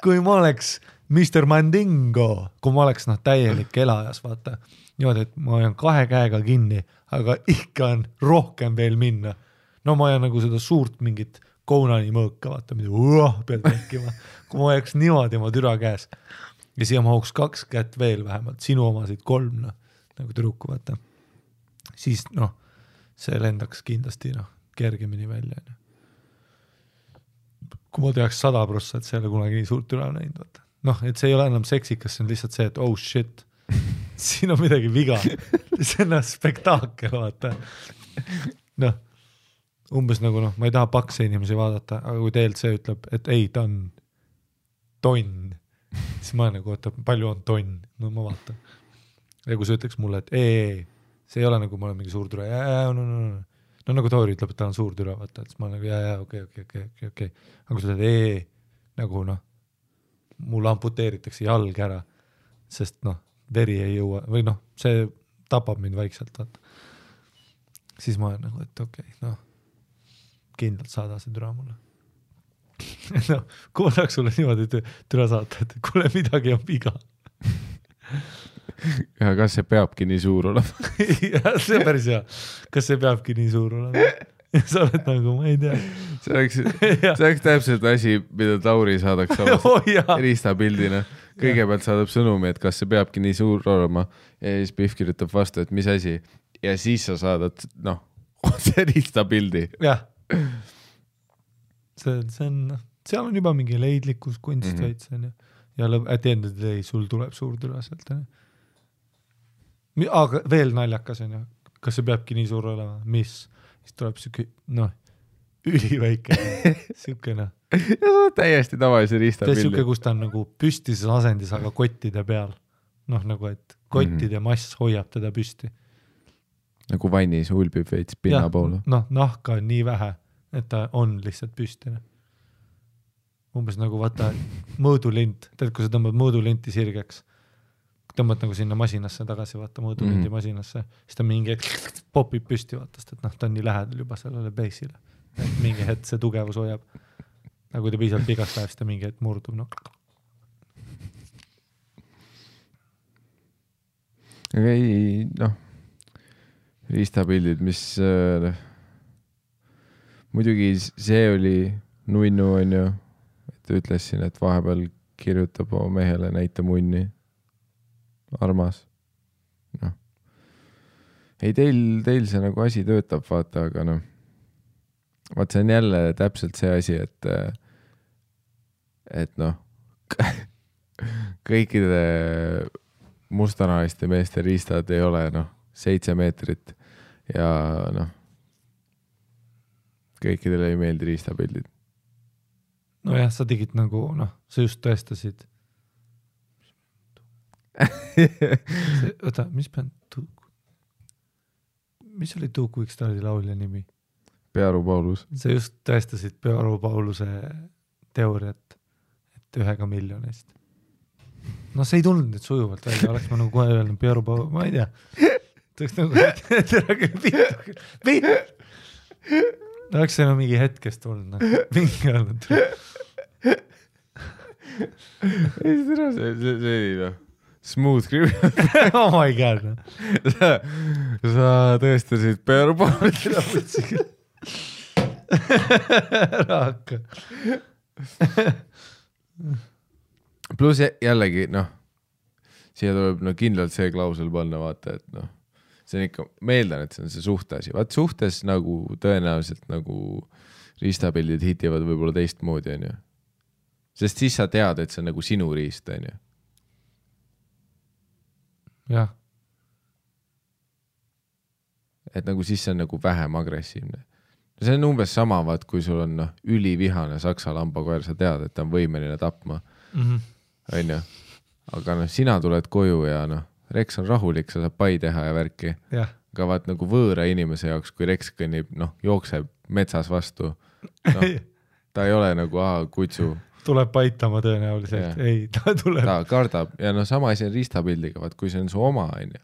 kui ma oleks Mr. Mandingo, kui ma oleks täielik elajas, vaata. Niimoodi, et ma olen 2 käega kinni, aga ikka on rohkem veel minna. Ma olen nagu seda suurt mingit Konani mõõka, vaata, mida pead tekkima. Kui ma oleks niimoodi oma türa käes ja siia mahuks 2 kätt veel vähemalt, sinu omasid 3, nagu tüdruku, vaata. Siis see lendaks kindlasti kergemini välja. Kui ma teaks 100%, et see ei ole kunagi nii suurt türa näinud, vaata. Et see ei ole enam seksikas, see on lihtsalt see, et oh shit, siin on midagi viga. See on spektaakel, vaata. Umbes nagu ma ei taha pakse inimesi vaadata, aga kui teilt see ütleb, et ei, ta on tonn, siis ma nagu, oota, palju on tonn? Ma vaatan. Ja kui see ütleks mulle, et ei, see ei ole nagu ma olen mingi suur türa, nagu Toori ütleb, et ta on suur türa, vaata, et siis ma nagu okei. Aga kui sa teed nagu mul amputeeritakse jalg ära, sest veri ei jõua, või see tapab mind vaikselt, vaata. Siis ma olen nagu, et okei, kindlalt saada see türa mulle. Kui ma tahaks sulle niimoodi türa saata, et kuule midagi on viga. Ja kas see peabki nii suur olema? Ja, see on päris hea. Kas see peabki nii suur olema? Ja sa oled nagu, ma ei tea. See oleks täpselt asi, mida Tauri saadaks riistapildina. Kõigepealt saadab sõnumi, et kas see peabki nii suur olema ja siis Pihv kirjutab vastu, et mis asi. Ja siis sa saadad, see riistapildi. Jah. Seal on juba mingi leidlikkus, kunst veits. Ja at the end of the day sul tuleb suur türa sealt. Aga veel naljakas on ju. Kas see peabki nii suur olema? Mis? Siis tuleb siuke, üliväike. Siukene. Ja see on täiesti tavalise riistapildi. Siuke, kus ta on nagu püstises asendis, aga kottide peal. Nagu, et kottide mass hoiab teda püsti. Nagu vannis ulbib veits pinna poole. Nahka on nii vähe, et ta on lihtsalt püstine. Umbes nagu vaata mõõdulint. Tead, kui sa tõmbad mõõdulinti sirgeks, tõmbad nagu sinna masinasse tagasi, vaata mõõdulinti masinasse, siis ta mingi popib püsti, vaatast, et ta on nii lähedal juba sellele base'ile. Et mingi hetk see tugevus hoiab. Aga kui ta piisavalt vigast läheb, siis ta mingi hetk murdub. Aga ei, riistapildid, mis muidugi see oli nunnu on ju, et ütles siin, et vahepeal kirjutab oma mehele näita munni. Armas. No. Ei, teil see nagu asi töötab, vaata, aga noh, vaat see on jälle täpselt see asi, et noh, kõikide mustanahaliste meeste riistad ei ole 7 meetrit ja noh, kõikidele ei meeldi riistapildid. Nojah, sa tegid nagu, sa just tõestasid. Oota, mis oli Two Quick Stardi laulja nimi? Pearu Paulus. Sa just tõestasid Pearu Pauluse teooriat, et 1 miljonist. No see ei tulnud nüüd sujuvalt välja, oleks ma nagu kohe öelnud Pearu Paulus, ma ei tea. Tõeks nagu, oleks see mingi hetkest tulnud, mingi öelnud. Ei, see oli smooth criminal. Oh my god. Sa tõestasid Pearu Paulus. Raaka. Plus jällegi, siia tuleb kindlalt see klausel panna, vaata, et see on ikka, meeldan, et see on see suhteasi. Vaat suhtes nagu tõenäoliselt nagu riistapildid hitivad võib-olla teistmoodi, on ju. Sest siis sa tead, et see on nagu sinu riist, on ju. Jah. Et nagu siis see on nagu vähem agressiivne. See on umbes sama, vaat, kui sul on ülivihane saksa lambakoer, sa tead, et ta on võimeline tapma. On ju. Aga sina tuled koju ja Rex on rahulik, sa saab pai teha ja värki. Ja. Aga vaat nagu võõra inimese jaoks, kui Rex kõnnib, jookseb metsas vastu, ta ei ole nagu kutsu. Tuleb paitama tõenäoliselt. Ja. Ei, ta tuleb. Ta kardab ja sama asi on riistapildiga, vaat kui see on su oma, on ju.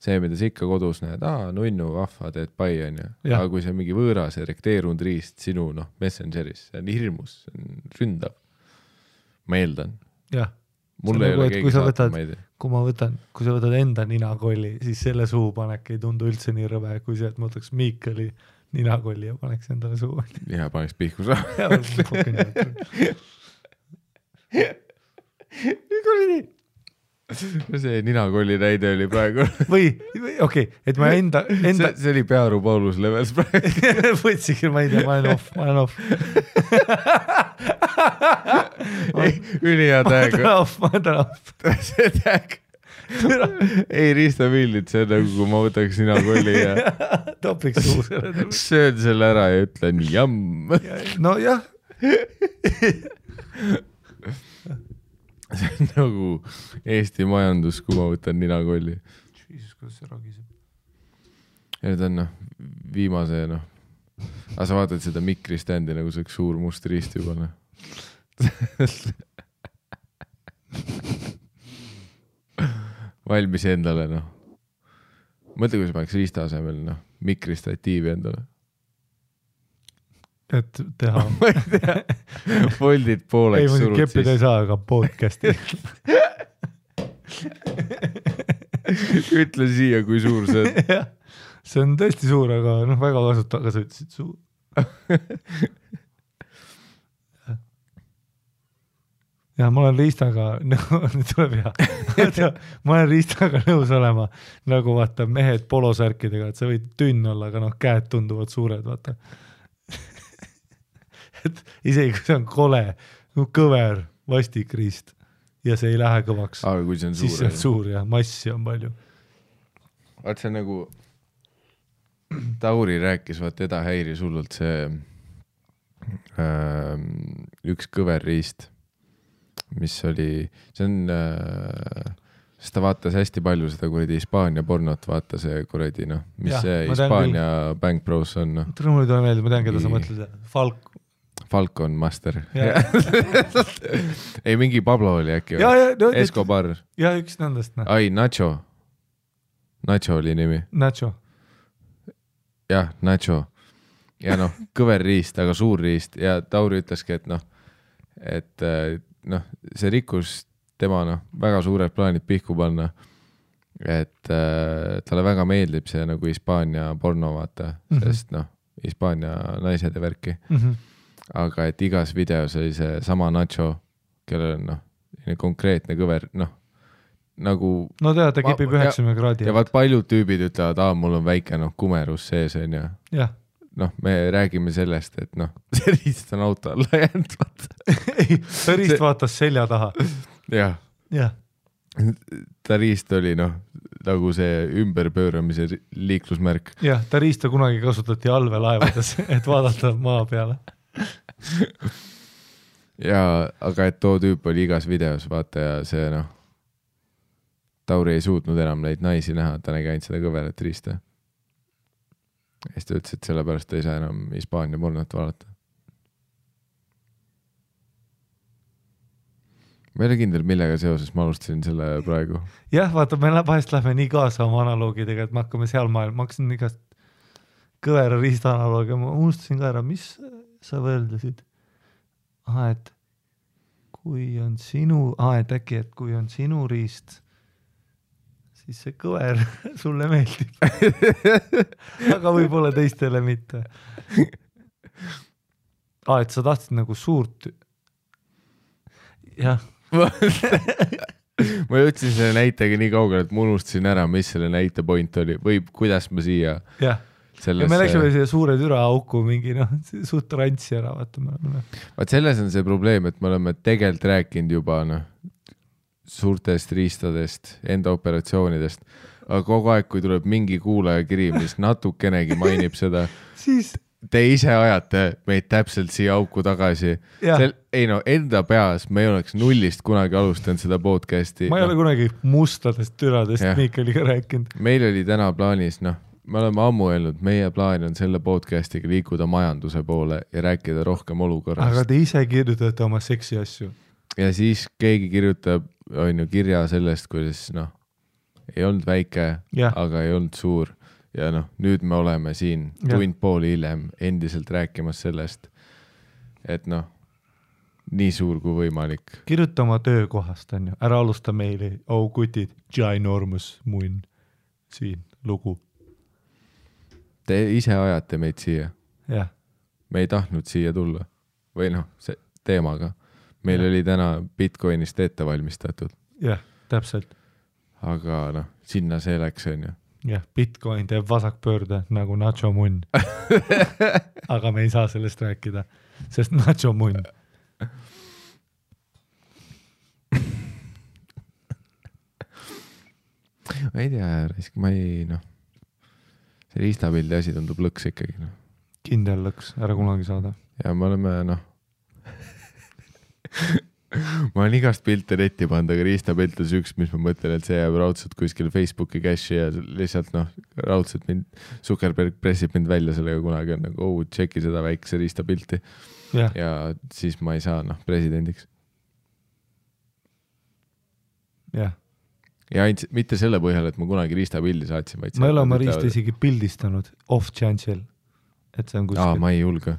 See, mida sa ikka kodus näed, nunnu, vahva, teed pai, on ju. Aga kui see on mingi võõras erekteerunud riist sinu messengeris, see on hirmus, see on ründav. Ma eeldan. Jah. Mulle ei ole keegi saata, ma ei tea. Kui sa võtad enda ninakolli, siis selle suupanek ei tundu üldse nii rõve, kui see, et ma võtaks Miikali ninakolli ja paneks endale suu. Ja paneks pihku saa. See ninakolli näide oli praegu. Või okei, et ma enda... See oli Pearu Paulus levels praegu. Võtsikil, ma ei tea, ma olen off. Ülihea tag. Ma olen off. See tag. Ei riistapildid, see on nagu, kui ma võtaks ninakolli ja topiks suu selle. Söön selle ära ja ütlen jamm. No jah. See on nagu Eesti majandus, kui ma võtan ninakolli. Jesus, kuidas see ragiseb. Ja nüüd on viimase, aga sa vaatad seda mikriständi, nagu see üks suur must riist juba. Valmis endale, Mõtle, kui sa paneks riista asemel, mikristatiivi endale. Et teha. Ma ei tea. Foldid pooleks surud siis. Ei, keppida ei saa, aga podcasti. Ütle siia, kui suur see on. See on tõesti suur, aga väga kasuta, aga sa ütlesid suur. Ja ma olen riistaga, nüüd tuleb hea. Ma olen riistaga nõus olema, nagu vaata mehed polosärkidega, et sa võid tünn olla, aga käed tunduvad suured, vaata. Et isegi kui see on kole, kõver, vastik riist ja see ei lähe kõvaks, aga kui see on siis see on suur ja massi on palju. Vaat see nagu Tauri rääkis, vaat teda häiris hullult see üks kõver riist, mis oli, see on, sest ta vaatas hästi palju seda kuradi Hispaania pornot, vaata see kuradi, mis ja, see Hispaania Bank Bros on. Mulle tuleb meelde, ma tean, keda sa mõtled, Falcon Master. Ei, mingi Pablo oli äkki. Escobar. Ja üks nendest. Ai, Nacho. Nacho oli nimi. Nacho. Jah, Nacho. Ja kõver riist, aga suur riist. Ja Tauri ütleski, et see rikkus tema väga suured plaanid pihku panna. et talle väga meeldib see nagu Hispaania porno vaata, sest noh, Hispaania naised ja värki. Aga et igas videos oli see sama Nacho, kellel on noh, konkreetne kõver, noh, nagu no tead, ta kipib 90 kraadi. Ja vaat paljud tüübid ütlevad, mul on väike kumerus sees on ju. Jah. Noh, me räägime sellest, et noh, see riist on auto alla jäänud, vaata. Ei, ta riist vaatas selja taha. Jah. Jah. Ta riist oli noh, nagu see ümberpööramise liiklusmärk. Jah, ta riista kunagi kasutati allveelaevades, et vaadata maa peale. Ja, aga et too tüüp oli igas videos, vaata, ja see noh, Tauri ei suutnud enam neid naisi näha, ta nägi ainult seda kõverat riista. Ja siis ta ütles, et sellepärast ta ei saa enam Hispaania pornot vaadata. Ma ei ole kindel, millega seoses ma alustasin selle praegu. Jah, vaata, me vahest lähme nii kaasa oma analoogidega, et me hakkame seal maailma. Ma hakkasin igast kõvera riista analoogia, ma unustasin ka ära, mis sa võrdlesid? Et kui on sinu, et äkki, et kui on sinu riist, siis see kõver sulle meeldib. Aga võib-olla teistele mitte. Et sa tahtsid nagu suurt. Jah. Ma jõudsin selle näitega nii kaugele, et ma unustasin ära, mis selle näite point oli või kuidas ma siia. Jah. Sellesse... Ja me läksime siia suure türa auku mingi suht rantsi ära. Vaat selles on see probleem, et me oleme tegelikult rääkinud juba suurtest riistadest, enda operatsioonidest, aga kogu aeg, kui tuleb mingi kuulaja kiri, mis natukenegi mainib seda, siis te ise ajate meid täpselt siia auku tagasi. Enda peas me ei oleks nullist kunagi alustanud seda podcasti. Ma ei ole kunagi mustadest türadest Miikeliga rääkinud. Meil oli täna plaanis, me oleme ammu öelnud, meie plaan on selle podcastiga liikuda majanduse poole ja rääkida rohkem olukorrast. Aga te ise kirjutate oma seksi asju. Ja siis keegi kirjutab kirja sellest, kuidas ei olnud väike, aga ei olnud suur. Ja nüüd me oleme siin tund pool hiljem endiselt rääkimas sellest, et nii suur kui võimalik. Kirjuta oma töökohast, on ju. Ära alusta meili. Kutid, ginormous munn. Siin lugu. Te ise ajate meid siia. Jah. Me ei tahtnud siia tulla. Või see teemaga. Meil oli täna Bitcoinist ette valmistatud. Jah, täpselt. Aga sinna see läks, on ju. Jah, Bitcoin teeb vasakpöörde nagu Nacho munn. Aga me ei saa sellest rääkida, sest Nacho munn. Ma ei tea, ma ei, see riistapildi asi tundub lõks ikkagi. Kindel lõks, ära kunagi saada. Ja me oleme, ma olen igast pilte netti pannud, aga riistapilt on üks, mis ma mõtlen, et see jääb raudselt kuskil Facebooki cache'i ja lihtsalt raudselt mind, Zuckerberg pressib mind välja sellega kunagi on tšeki seda väikse riistapilti ja siis ma ei saa presidendiks. Jah. Ja mitte selle põhjal, et ma kunagi riistapildi saatsin, vaid ma ei ole oma riista isegi pildistanud off chance'il, et see on kuskil. Ma ei julge.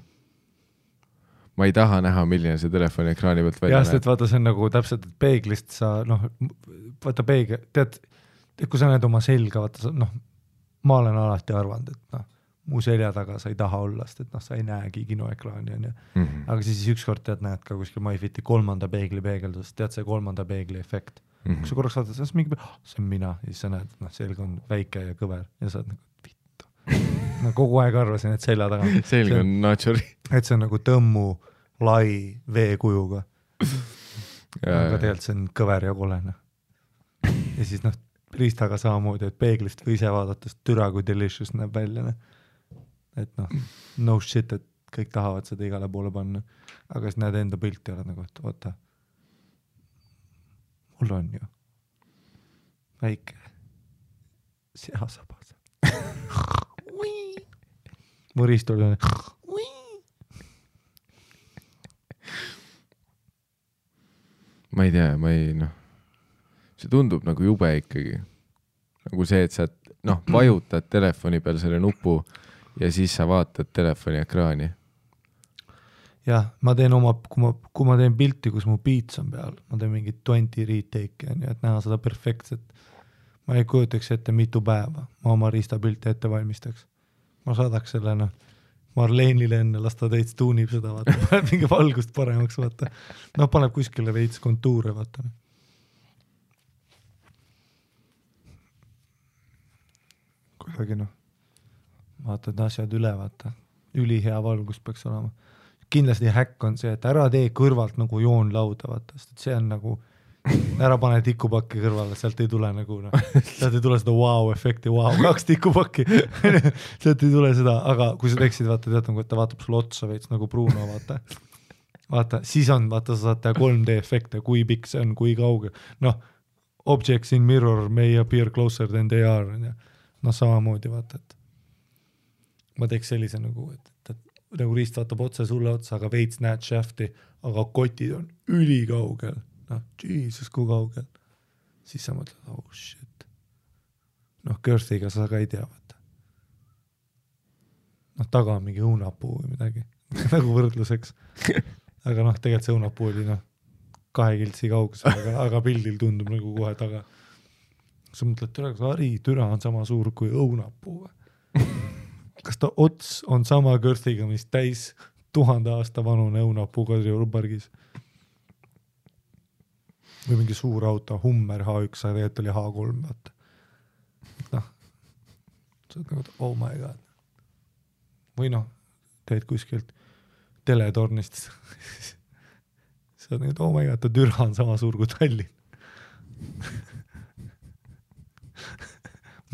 Ma ei taha näha, milline see telefoni ekraani pealt välja näeb. Et vaata, see on nagu täpselt, et peeglist sa, vaata peegel, tead, kui sa näed oma selga, vaata, ma olen alati arvanud, et mu selja taga sa ei taha olla, sest et sa ei näegi kinoekraani, on ju. Aga siis ükskord tead, näed ka kuskil MyFiti 3. peegli peegeldust, tead see 3. peegli efekt. Kui sa korraks vaatad, see on mina, ja siis sa näed, et selg on väike ja kõver ja sa oled vittu. Kogu aeg arvasin, et selja taga. Selg on naturi. Et see on nagu tõmmu lai veekujuga. Aga tegelikult see on kõver ja kolene. Ja siis riistaga samamoodi, et peeglist või ise vaadates türa kui delicious näeb välja. Et no shit, et kõik tahavad seda igale poole panna. Aga siis näed enda pilti ja oled nagu, et oota, mul on ju väike seasabas. Mu riist oli ma ei tea, see tundub nagu jube ikkagi. Nagu see, et sa vajutad telefoni peal selle nupu ja siis sa vaatad telefoni ekraani. Jah, ma teen kui ma teen pilti, kus mu beats on peal, ma teen mingit 20 retake, et näha seda perfektset. ma ei kujutaks ette mitu päeva, ma oma riistapilte ette valmistaks. Ma saadaks selle Marleenile enne, las ta täitsa tuunib seda, vaata, paneb mingi valgust paremaks, vaata. No paneb kuskile veits kontuure, vaata. Kuidagi vaatad asjad üle, vaata. Ülihea valgus peaks olema. Kindlasti häkk on see, et ära tee kõrvalt nagu joonlauda, vaata, sest see on nagu ära pane tikupakki kõrvale, sealt ei tule nagu sealt ei tule seda wow-efekti, 2 tikupakki sealt ei tule seda, aga kui sa teeksid, vaata, tead, nagu, et ta vaatab sulle otsa veits nagu Bruno, vaata, siis on, vaata, sa saad teha 3D efekte, kui pikk see on, kui kauge, objects in mirror may appear closer than they are, samamoodi, vaata, et ma teeks sellise nagu, et nagu riist vaatab otse sulle otsa, aga veits näed shafti, aga kotid on ülikaugel. Jesus, kui kaugel. Siis sa mõtled, oh shit. Girthiga sa ka ei tea, vaata. Taga on mingi õunapuu või midagi. Nagu võrdluseks. Aga tegelikult see õunapuu oli 2 kiltsi kaugusel, aga pildil tundub nagu kohe taga. Sa mõtled, türa on sama suur kui õunapuu. Kas ta ots on sama Girthiga, mis täis 1000 aasta vanune õunapuu Kadriorpargis? Või mingi suur auto, Hummer H1, aga tegelikult oli H3, vaata. Sa oled nagu, oh my god. Või teed kuskilt teletornist. Sa oled nagu, oh my god, ta türa on sama suur kui Tallinn.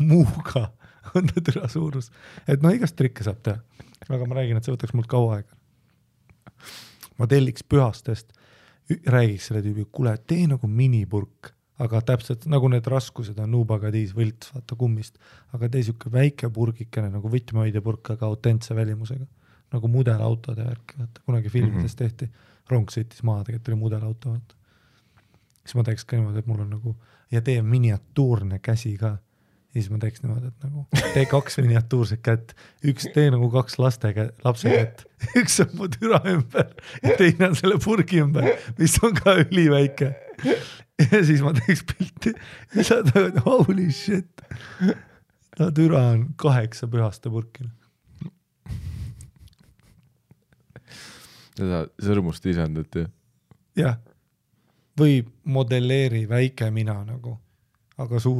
Muuga on ta türa suurus. Et igast trikke saab teha. Aga ma räägin, et see võtaks mult kaua aega. Ma telliks Pühastest räägiks selle tüübi, kuule, tee nagu minipurk, aga täpselt nagu need raskused on Nubagadiis võlts, vaata kummist, aga tee siuke väike purgikene nagu võtmehoidjapurk, aga autentse välimusega, nagu mudelautode värk, vaata, kunagi filmides tehti, rong sõitis maha, tegelikult oli mudelauto, vaata. Siis ma teeks ka niimoodi, et mul on nagu, ja tee miniatuurne käsi ka, ja siis ma teeks niimoodi, et nagu tee 2 miniatuurset kätt, üks tee nagu 2 lapse kätt, üks on mu türa ümber ja teine on selle purgi ümber, mis on ka üliväike. Ja siis ma teeks pilti ja sa tagad, holy shit. Türa on 8 Pühaste purki. Seda sõrmust lisandati. Jah. Või modelleeri väike mina nagu. Aga sama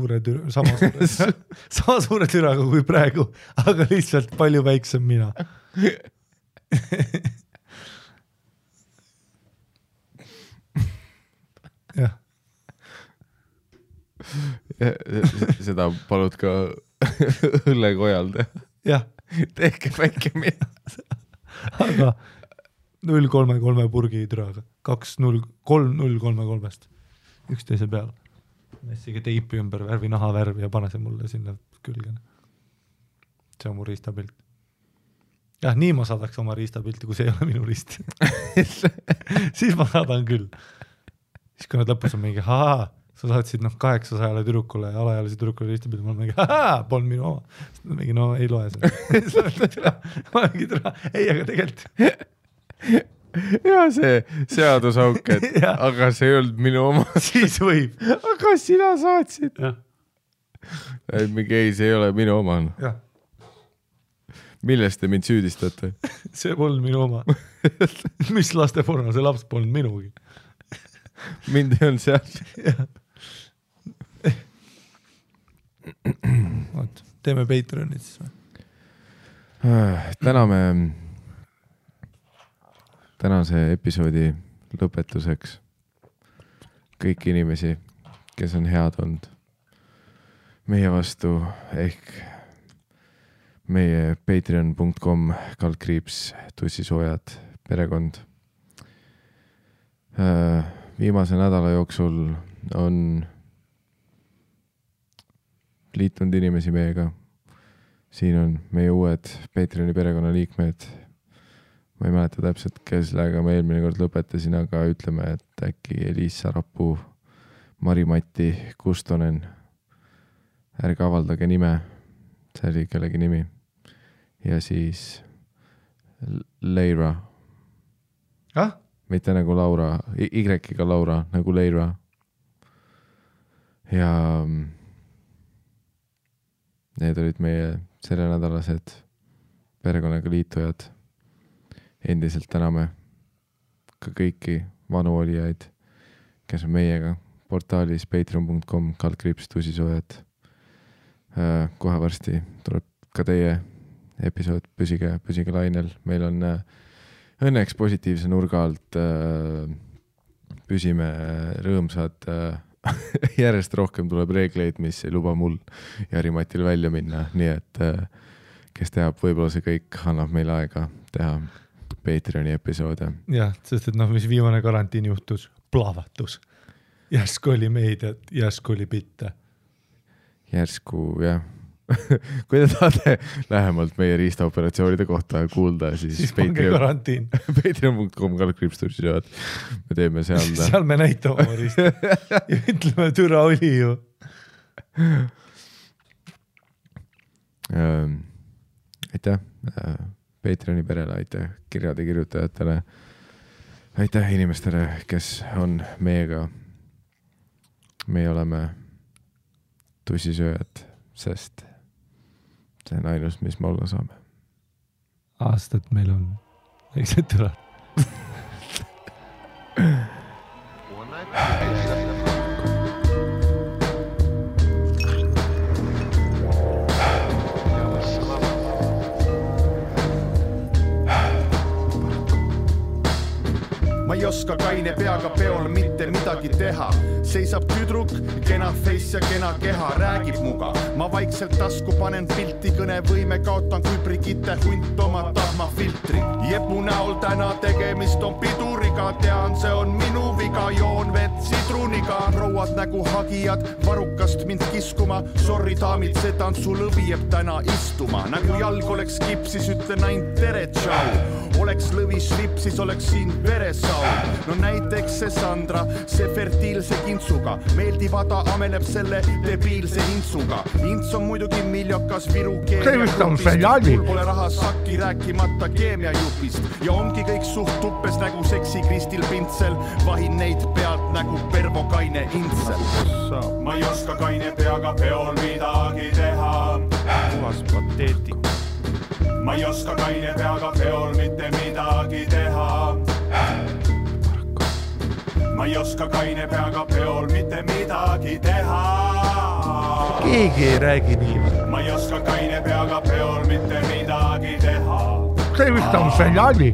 suure türaga kui praegu, aga lihtsalt palju väiksem mina. Jah. Seda palud ka õllekojal teha. Jah. Tehke väike mina. Aga 0,33 purgi türaga. 2,0,3,0,3-st. Üksteise peal. Messige teipi ümber värvi, naha värvi ja pane see mulle sinna külgene. See on mu riistapilt. Jah, nii ma saadaks oma riistapilti, kui see ei ole minu riist. Siis ma saadan küll. Siis kui nad lõpus on mingi, sa saatsid 800 tüdrukule ja alaealise tüdrukule riistapilti, ma olen mingi, polnud minu oma. Mingi, ei loe seda. Ma mingi türa, ei, aga tegelikult. Ja see seadusauk, et aga see ei olnud minu oma. Siis võib. Aga sina saatsid. Mingi ei, see ei ole minu oma. Jah. Millest te mind süüdistate? See polnud minu oma. Mis lasteporno, see laps polnud minugi. Mind ei olnud seal. Teeme Patreonit siis või? Tänase episoodi lõpetuseks kõiki inimesi, kes on head olnud meie vastu, ehk meie patreon.com/tussisoojad perekond. Viimase nädala jooksul on liitunud inimesi meiega. Siin on meie uued Patreoni perekonna liikmed. Ma ei mäleta täpselt, kellega ma eelmine kord lõpetasin, aga ütleme, et äkki Eliis Sarapuu, Mari-Matti Kustonen. Ärge avaldage nime, see oli kellegi nimi. Ja siis Leira. Mitte nagu Laura, Y-iga Laura, nagu Leira. Ja need olid meie sellenädalased perekonnaga liitujad. Endiselt täname ka kõiki vanu olijaid, kes on meiega portaalis patreon.com/tusisoojad. Kohe varsti tuleb ka teie episood, püsige lainel. Meil on õnneks positiivse nurga alt, püsime rõõmsad, järjest rohkem tuleb reegleid, mis ei luba mul ja Harimatil välja minna, nii et kes teab, võib-olla see kõik annab meile aega teha Patreoni episoode. Jah, sest et mis viimane karantiin juhtus, plahvatus. Järsku oli meediat, järsku oli bitte. Järsku, jah. Kui te tahate lähemalt meie riistaoperatsioonide kohta kuulda, siis pange karantiin. Patreon.com/tusisoojad. Me teeme seal me näitame oma riista ja ütleme, türa oli ju. Aitäh Patreoni perele, aitäh kirjade kirjutajatele, aitäh inimestele, kes on meiega. Meie oleme tussisööjad, sest see on ainus, mis me olla saame. Aastat meil on väiksed türad. Ma ei oska kaine peaga peol mitte midagi teha. Seisab tüdruk, kena face ja kena keha, räägib muga. Ma vaikselt tasku panen pilti, kõnevõime kaotan kui Brigitte hunt oma tahmafiltri. Jepu näol täna tegemist on piduriga, tean, see on minu viga, joon vett sidruniga. Prouad nägu hagijad, varukast mind kiskuma, sorry daamid, see tantsulõvi jääb täna istuma. Nagu jalg oleks kipsis, ütlen ainult tere, tšau. Oleks lõvis lipsis, oleks siin veresau. No näiteks see Sandra, see fertiilse kintsuga, meeldivada ameleb selle debiilse intsuga. Ints on muidugi miljokas Viru keemiajupist, mul pole raha sakki rääkimata keemiajupist. Ja ongi kõik suht tuppes nagu seksi Kristil Pintsel, vahin neid pealt nagu Pervo Kaine Intsel. Ma ei oska kaine peaga peol midagi teha. Puhas pateetik. Ma ei oska kaine peaga peol mitte midagi teha. Ma ei oska kaine peaga peol mitte midagi teha. Keegi ei räägi nii. Ma ei oska kaine peaga peol mitte midagi teha. See vist on seljali.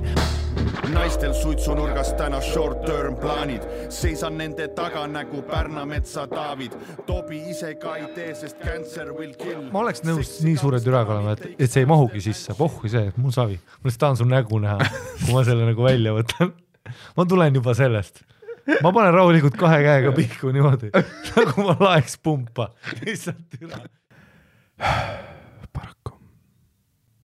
Naistel suitsunurgas täna short-term plaanid. Seisan nende taga nagu Pärnametsa David. Tobi ise ka ei tee, sest cancer will kill. Ma oleks nõus nii suure türaga olema, et see ei mahugi sisse. Pohhui see, mul savi. Ma tahan su nägu näha, kui ma selle nagu välja võtan. Ma tulen juba sellest. Ma panen rahulikult 2 käega pihku niimoodi, nagu ma laeks pumpa. Lihtsalt türa.